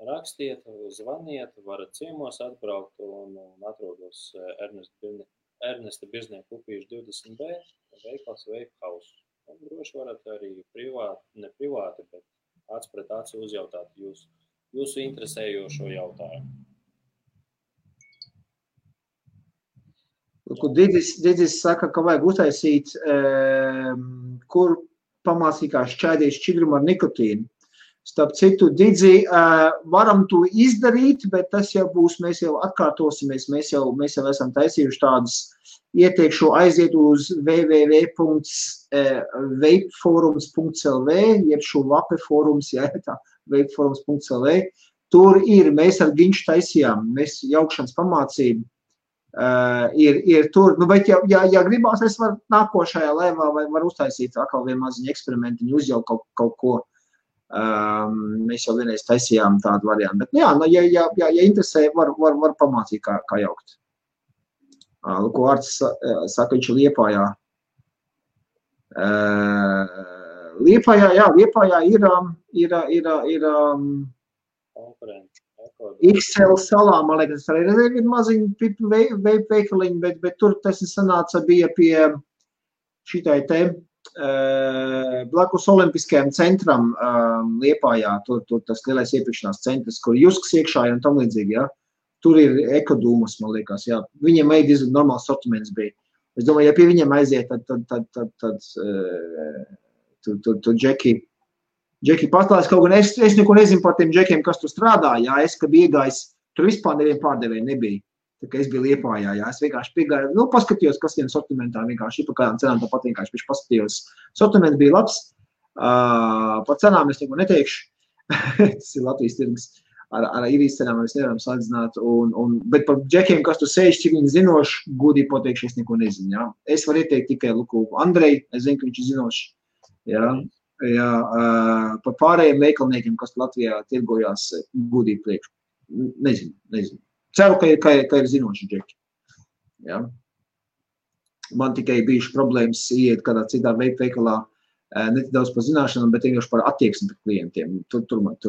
Rakstiet, zvaniet, varat ciemos atbraukt un atrodos Ernesta Birznieka upīšu 20B, veikals Vape House. Un droši varat arī ne privāti, bet acs pret aci uzjautāt jūsu interesējošo jautājumu. Didis saka, ka vajag uztaisīt, kur pamācīja, kā šķaidīt šķidrumu ar nikotīnu. Starp citu, Didzi, varam to izdarīt, bet tas jau būs, mēs jau atkārtosimies, mēs jau esam taisījuši tādus ieteikšu aiziet uz www.vapeforums.lv, jeb šo vape forums, jā, tā, vapeforums.lv. Tur ir, mēs ar Ginču taisījām, mēs jaukšanas pamācību, ir tur, nu, bet ja gribās, es varu nākošajā lēvā vai var uztaisīt atkal vienu maziņu eksperimentiņu, uzjaukt kaut ko. Mēs jau vienreiz taisījām tādu variantu, bet jā, ja interesē, var pamācīt, kā jaukt. Ko Arts saka, viņš ir Liepājā. Liepājā ir XL salā, man liekas, arī ir maziņi veikaliņi, bet tur tas sanāca bija pie šitai te blakus Olimpiskajam centram Liepājā, tur tas lielais iepirkšanās centrs, kur Jusks iekšā ir un tam līdzīgi, ja? Tur ir ekodūmas, man liekas, jā. Viņiem diezgan normāls sortiments bija. Es domāju, ja pie viņiem aiziet, tad tur Džeki pastāst kaut gan, es neko nezinu par tiem Džekiem, kas tur strādā, jā, es, kad biju iegājis, tur vispār nevienu pārdevēju nebija. Tā kā es biju Liepājā, jā, es vienkārši piegāju, nu, paskatījos, kas tiem sortimentā vienkārši ir par kādām cenām, tāpat vienkārši paskatījos. Sortiments bija labs, par cenām es neko neteikšu, tas ir Latvijas tirgus. Ar īrijas cenām mēs nevaram salīdzināt, bet par Džekiem, kas tur sēž, cik viņi zinoši, godīgi pateikšu, es neko nezinu, jā. Es varu ieteikt tikai Luku Andrei, es zinu, ka viņš ir zinoši, jā, par pārējiem veikalniekiem, kas Latvijā tirgojās, godīgi priekšu, nezinu. Ceru, ka ir zinoši Džeki, jā. Man tikai bijuši problēmas iet kādā citā veikalā, ne tik daudz par zināšanām, bet vienkārši par attieksmi pret klientiem, tur man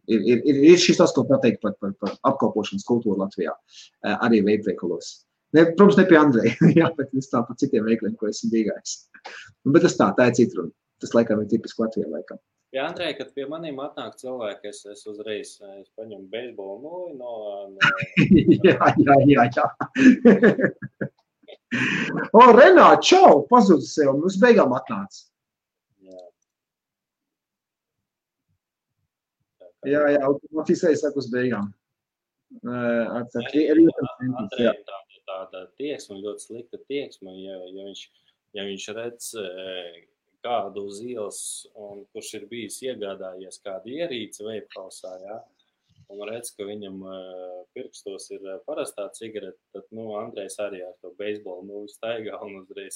Ir šis tas, ko pateikt par apkalpošanas kultūru Latvijā, arī veikalos. Protams, ne pie Andreja, jā, bet es tā par citiem veikaliem, ko esmu dīgājis. Bet tas tā ir cita runa. Tas laikam ir tipiski Latvijā laikam. Jā, Andrej, kad pie maniem atnāk cilvēki, es uzreiz paņemu beisbolu noju no... Jā. O, Renāt, čau, pazudis sev, mums beigām atnāca. Jā, automatizēji saku uz beigām. Andrejam tāda tieksme, ļoti slikta tieksme, ja viņš redz kādu uz ielas, un kurš ir bijis iegādājies kādu ierīci veiphausā, jā, un redz, ka viņam pirkstos ir parastā cigarete, tad, nu, Andrejs arī ar to beisbolu, nu, staigā un uzreiz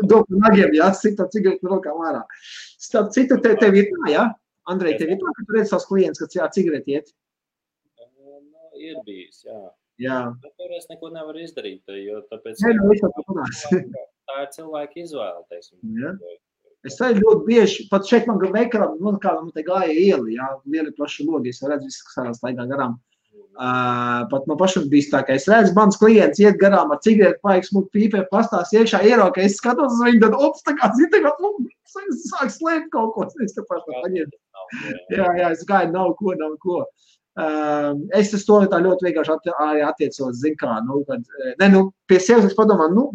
Dopu nagiem, jā, sita cigareti rokām ārā. Starp citu, tev ir tā, jā? Andrej, tev ir tā, ka tu redz savus klientus, kad jā, cigareti iet? Ir bijis, jā. Jā. Bet tur es neko nevaru izdarīt, jo tāpēc... Tā ir cilvēka izvēle, teiksim. Jā. Es arī ļoti bieži, pat šeit man veikalā, man te gāja ieli, jā, lieli plaši logi, es redzu visu, kas ārā staigā garām. Pat man pašam bijis tā, ka es redzu, mans klients iet garām ar cigareti, paiks mūk pīpē, pastās iekšā ierauka, es skatos uz viņu, tad ops, tā kā zita, ka sāk slēpt kaut ko, es te paši tā paņem. Jā, es gāju, nav ko. Es to tā ļoti vienkārši attiecos, zin kā, pie sevis es padomāju,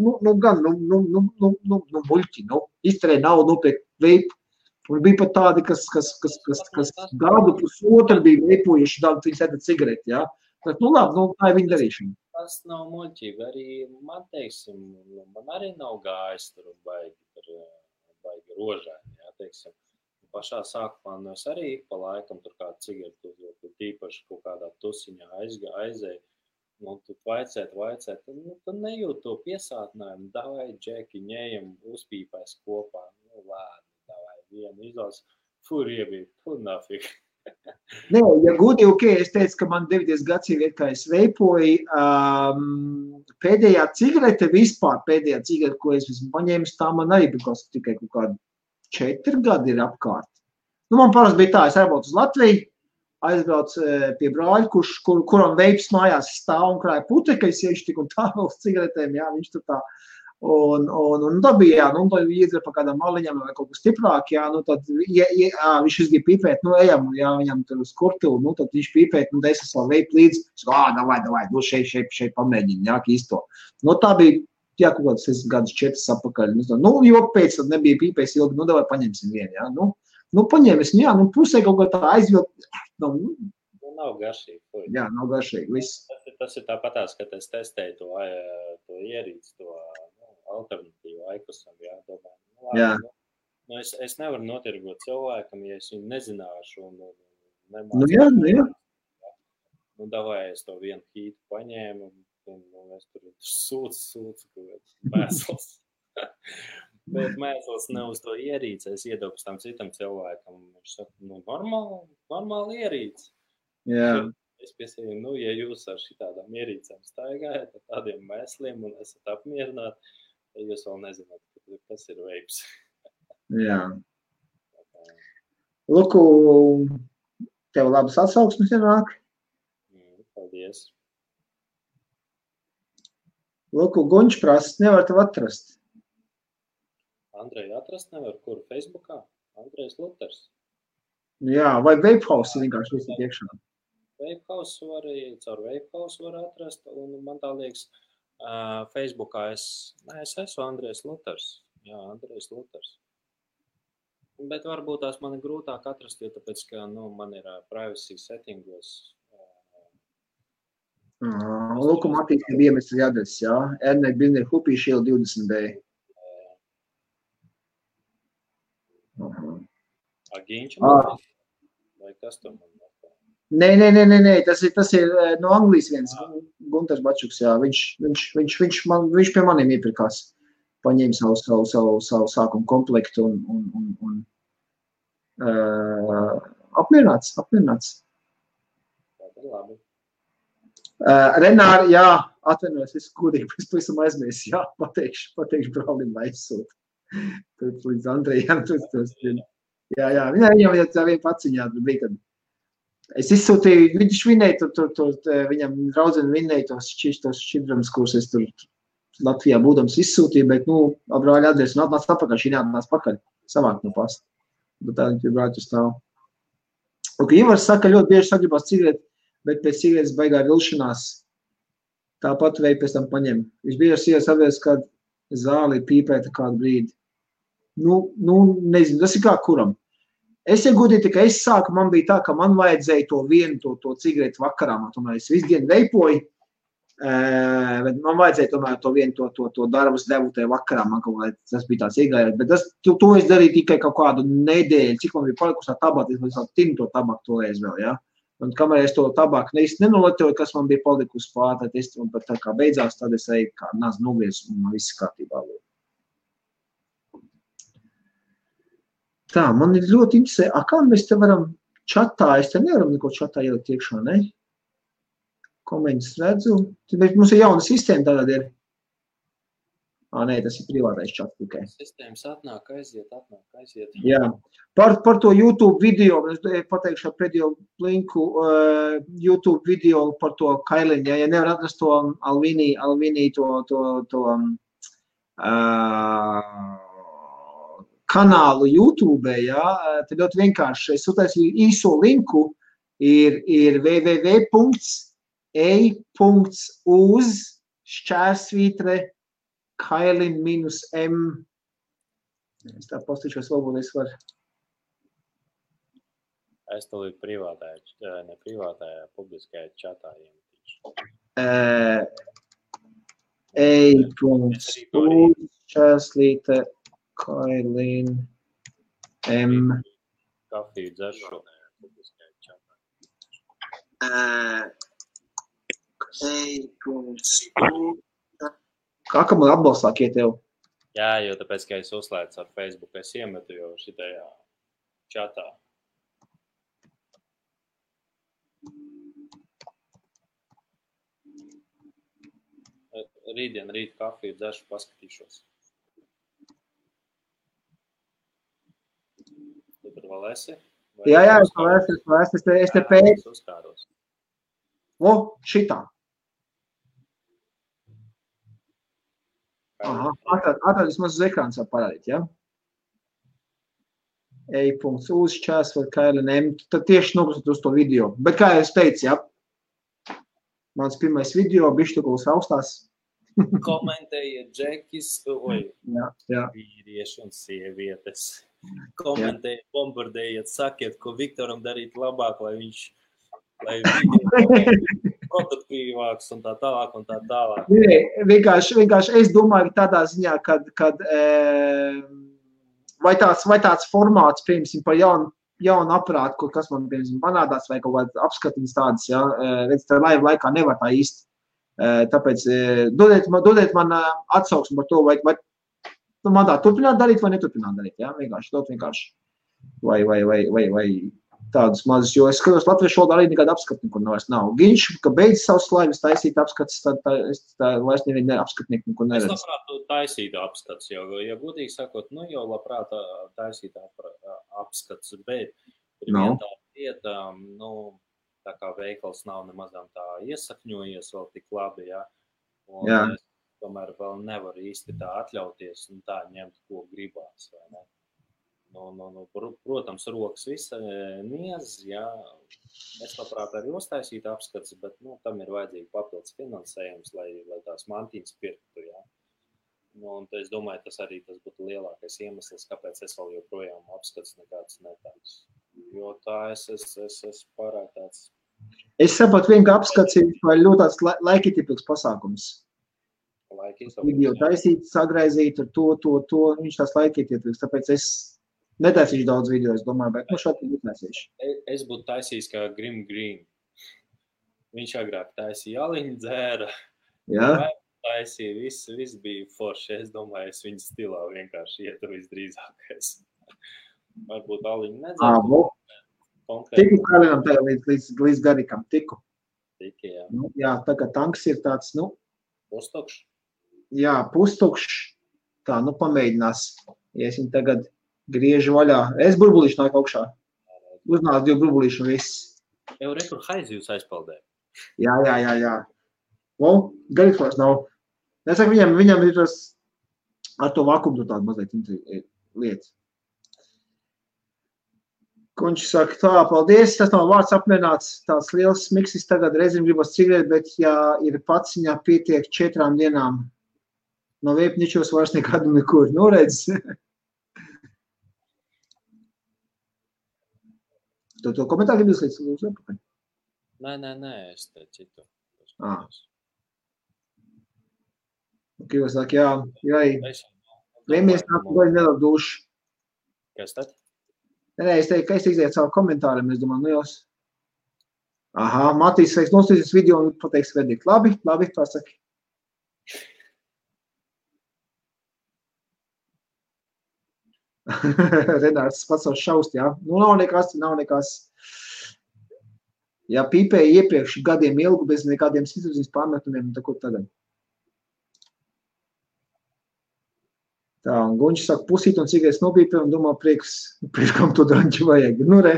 muļķi, izterē naudu, nopirkt veipu. Un bija pat tādi, kas gadu pusotru bija veipojuši, viņi sēda cigareti, jā. Tad, labi, tā ir viņa darīšana. Tas nav muļķība, arī man, teiksim, man arī nav gājis tur baigi rožēni, jā, teiksim. Pašā sākumā, es arī pa laikam tur kādu cigaretu uzvilku, tīpaši kaut kādā tusiņā aizēju. Tu vaicēt, tu nejūt to piesātinājumu, davai, Džeki, ņējam, uzpīpēs kopā, lēni, davai, vienu izlās, riebīt, nafik. Nē, ja godīgi, ok, es teicu, ka man 9 gads ir, kā es veipoju, pēdējā cigarete vispār, ko es esmu paņēmis, tā man arī bija tikai kaut kādu 4 gadi ir apkārt. Man parasti bija tā, es aizbraucu uz Latviju, aizbraucu pie brāļa, kuram veips mājās stāv un krāja putekļi, es iešu tik un tā vēl uz cigaretēm, jā, viņš tur tā. Un tā bija, jā, tad iedzer pa kādām maliņām vai kaut kas stiprāk, jā, tad viņš izgīja pīpēt, ejam, jā, viņam tur uz kurtilu, tad viņš pīpēt, tad es savu veipu līdzi, davai, šeit pamēģini, jā, īsto. Tā bija jā, kaut kāds 4 apakaļ. Nu, jo pēc tam nebija pīpējis ilgi, nu, davai paņemsim vienu, jā. Nu, paņēmis, jā, nu, pusē kaut kā tā aizvilkt. Nu, nav garšīgi. Jā, nav garšīgi, viss. Tas ir tāpatās, kad es testēju to ierīci, to alternatīvu aikusam, jā, domāju. Jā. Nu, es nevaru notirgot cilvēkam, ja es viņu nezināšu un nemācu. Nu, jā. Nu, davai es to vienu hītu paņēmu un es tur sūcu, mēsls. Bet mēsls ne uz to ierīci, es iedobu tam citam cilvēkam. Viņš saka, nu, normāli ierīci. Jā. Es piesēju, nu, ja jūs ar šitādām ierīcēm staigājat, ar tādiem mēsliem un esat apmierināti, tad jūs vēl nezināt, kas ir veips. Jā. Luku, tev labas atsauksmes ienāk? Paldies. Luku, Guņš prasa, nevar tev atrast. Andreju atrast nevar, kur? Facebookā? Andrejs Luters. Jā, vai Vapehouse vienkārši visu iekšā? Vapehouse caur Vapehouse var atrast, un man tā liekas, Facebookā es esmu Andrejs Luters. Jā, Andrejs Luters. Bet varbūt tās man ir grūtāk atrast, jo tāpēc, ka, nu, man ir privacy settingos. Luku Matīs ir iemestas adreses, jā. Ernei Bilner Hupīši iela 20B. Agiņš man? Vai kas tur man? Nē, tas ir no Anglijas viens, Gunters Bačuks, jā, viņš pie maniem iepirkās, paņēma savu sākumu komplektu un apmierināts. Tā ir labi. Renāri, jā, atvainojos, es kūdīgi, es pavisam aizmies, jā, pateikšu brālim, lai izsūt. Tad līdz Andrejam, jā, viņam jau tā viena paciņā bija, kad es izsūtīju, viņš vinēja, viņam draudzeni vinēja tos šķidrams, kurus es tur Latvijā būdams izsūtīju, bet, nu, brāļa adresi, un atnāc apakaļ, šī neatnāc pakaļ, savāk no pasta. Bet tā viņi brāļu stāv. Un, ka Ivars saka, ļoti bieži sagribās cigareti, bet pēc cigaretes baigā vilšanās tāpat veidu pēc tam paņem. Viņš bieži sievas apvies, kad zāli pīpēta kādu brīdi. Nu, nezinu, tas ir kā kuram. Es iegūdīju, ka es sāku, man bija tā, ka man vajadzēja to vienu, to cigaretu vakarā, man tomēr es visu dienu veipoju, bet man vajadzēja tomēr to vienu, to darbus devu tajā vakarā, man kaut kā tas bija tāds iegājās, bet to es darīju tikai kaut kādu nedēļu, cik man bija palikusi tā tabaka, es tinu to tabaku toreiz vēl, jā. Un kamēr es to tabaku nenoletoju, kas man bija palikusi pār, tad es, un pat tā kā beidzās, tad es eju kā nāc novies, un man viss kārtībā. Tā, man ir ļoti interesē, kā mēs te varam čatā, es te nevaram neko čatā ielikt iekšā, ne? Komentus redzu, mums ir jauna sistēma tagad ir. Nē, tas ir privātais čats tikai. Sistēmas atnāk, aiziet. Jā, par to YouTube video, es pateikšu ar pēdējo linku, YouTube video par to Kailinu, ja nevar atrast to Alvini kanālu YouTube, jā, tad ļoti vienkārši, es uztaisīju īso linku, ir www.ei.uz/Kailin-M. Es tā postīšos, varbūt es varu. Es to līdz privātajā, publiskajā čatā iemetīšu. Ei.uz/Kailin-M. Kafiju dzeršu publiskajā čatā. Ei.uz. Kā man atbalstāk iet tev? Jā, jo tāpēc, ka es uzslēdzu ar Facebook, es iemetu jau šitajā čatā. Rīt kafiju dzeršu, paskatīšos. Tu tur vēl esi? Jā, es te pēc. O, šitā. Aha, atradis maz uz ekrāns var parādīt, ja? Ei.uz/Kailin-M. Tad tieši nokustot uz to video. Bet kā es teicu, ja? Mans pirmais video, bišķi tu kaut austās. Komentējiet Džekis, vīrieši un sievietes. Komentējiet, bombardējiet, sakiet, ko Viktoram darīt labāk, lai video produktīvāks un tā tālāk un tā tālāk. Vienkārši es domāju tādā ziņā, kad vai tāds formāts, piemēram, par jaunu aprātu, kas man, piemēram, panādās, vai kaut kāds apskatiņas tādas, ja, redz, tā laiva laikā nevar tā īsti. Tāpēc dodiet man atsauksmi par to, vai man tā turpināt darīt vai neturpināt darīt, ja, vienkārši. Vai tādus mazus, jo es skatos latviešu valodā arī nekāda apskata nekur nav. Giņš, ka beidz savus laivas taisīt apskats, tad vairs nevienu apskatnieku nekur neredz. Es labprāt taisītu apskats, jo, ja godīgi sakot, jau labprāt taisītu apskats, bet ir viena tā lieta, tā kā veikals nav nemazām tā iesakņojies vēl tik labi, ja, un es tomēr vēl nevaru īsti tā atļauties un tā ņemt, ko gribās, vai ne? Protams, rokas visa niez, jā, es labprāt arī uztaisītu apskats, bet, tam ir vajadzīgi papildus finansējums, lai tās mantīnas pirktu, jā. Un es domāju, tas būtu lielākais iemesls, kāpēc es vēl joprojām apskats nekāds netāds. Jo tā es pārāk tāds. Es saprotu vien, ka apskats ir ļoti tāds laikietilpīgs pasākums. Video taisīt, sagraizīt ar to, viņš tās laikietilpīgs, tāpēc es netaisīšu daudz video, es domāju, bet šādi būtu taisīšu. Es būtu taisījis kā Grim Green. Viņš agrāk taisīja aliņu dzēra. Jā. Taisīja, viss bija forši. Es domāju, es viņa stilā vienkārši ietu visdrīzākais. Varbūt aliņu nedzēru. Tiku Kalinam tagad līdz garikam, tiku. Tiki, jā. Jā, tagad tanks ir tāds, Pustukšs. Jā, pustukšs. Tā, pamēģinās. Ja es viņu tagad griežu vaļā. Es burbulīšu nāk augšā. Uznās 2 burbulīšu un viss. Jau rekur haizi jūs aizpaldē. Jā. Garīgs nav. Es saku, viņam ir tas ar to vakumu tāda mazliet lietas. Kunč saka, tā, paldies, tas nav vārds apmierināts, tāds liels miksis tagad reizēm gribas cigareti, bet ja ir paciņā pietiek 4 dienām, no veipničos vairs nekādu nekur, redz. To komentāru gribas līdz apakaļ? Nē, es te citu. Jūs saka, jā. Vēmies nāk, vai nedod dušu. Kas tad? Nē, es teiktu, ka es izēju savu komentāriem, es domāju, jūs. Aha, Matīs, es nostīsies video un pateiks verdikt. Labi, pasaki. Renārs pats savu šaust, jā. Nav nekas. Ja pīpēja iepriekš gadiem ilgu bez nekādiem situācijas pārmetumiem, tad ko tagad? Tā, un Guņš saka, pusīt un cigaretes nopīpē un domā, priekam to draņķi vajag. Nu re.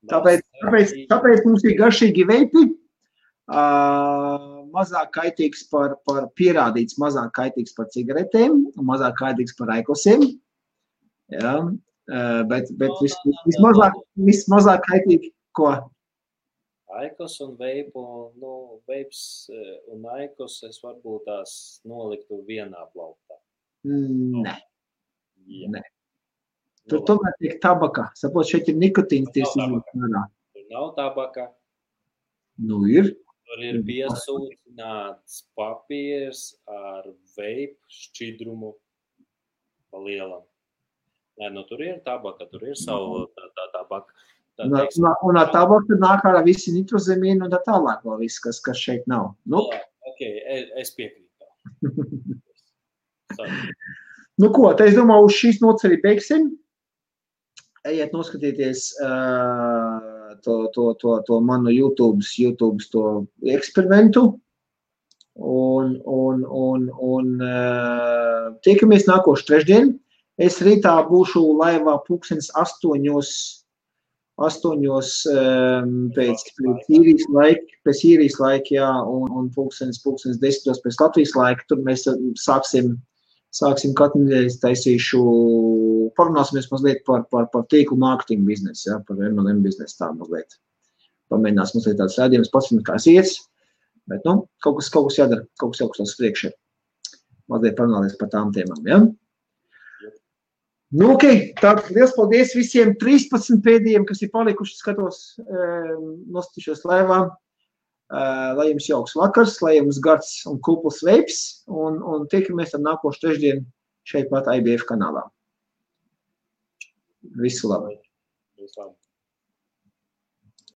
Tāpēc mums ir garšīgi veipi, mazāk kaitīgs par pierādīts, mazāk kaitīgs par cigaretēm, mazāk kaitīgs par aikosiem. Jā, bet vismazāk kaitīgi, ko? Aikos un veipu, veips un aikos es varbūt tās noliktu vienā plauktā. Nē. Tur tomēr tiek tabaka. Sapot, šeit ir nikotīns tieši izlūknārā. Tur nav tabaka. Ir. Tur ir piesūtināts papīrs ar veipu šķidrumu pa lielam. Nē, tur ir tabaka, tur ir savu tā tabaka. Un ar tabaka nāk ārā visi nitrozemīni un tā tālāk vēl viss, kas šeit nav. Ok, es piekrītu. Ko, tā es domāju, uz šīs nots arī beigsim. Ejiet noskatīties to manu YouTube to eksperimentu. Un tiekamies nākošu trešdien. Es rītā būšu laivā pulkstenis 8 pēc īrijas laika, jā, un pulkstenis 10 pēc Latvijas laika. Tur mēs sāksim katru nedēļu taisīšu, parunāsimies mazliet par tīklu mārketingu biznesu, jā, par MLM biznesu tā mazliet. Pamēģinās mazliet tāds rādījums, pats, kā es iet. Bet, nu, kaut kas jādara, kaut kas uz priekšu. Mazliet parunāties par tām tēmām, ja? Nu, ok, tad liels paldies visiem 13 pēdējiem, kas ir palikuši, skatos, nostatīšos laivā. Lai jums jauks vakars, lai jums gards un kupls veips, un tiekamies ar nākošu trešdienu šeit pat IBF kanālā. Visu labu! Visu labu!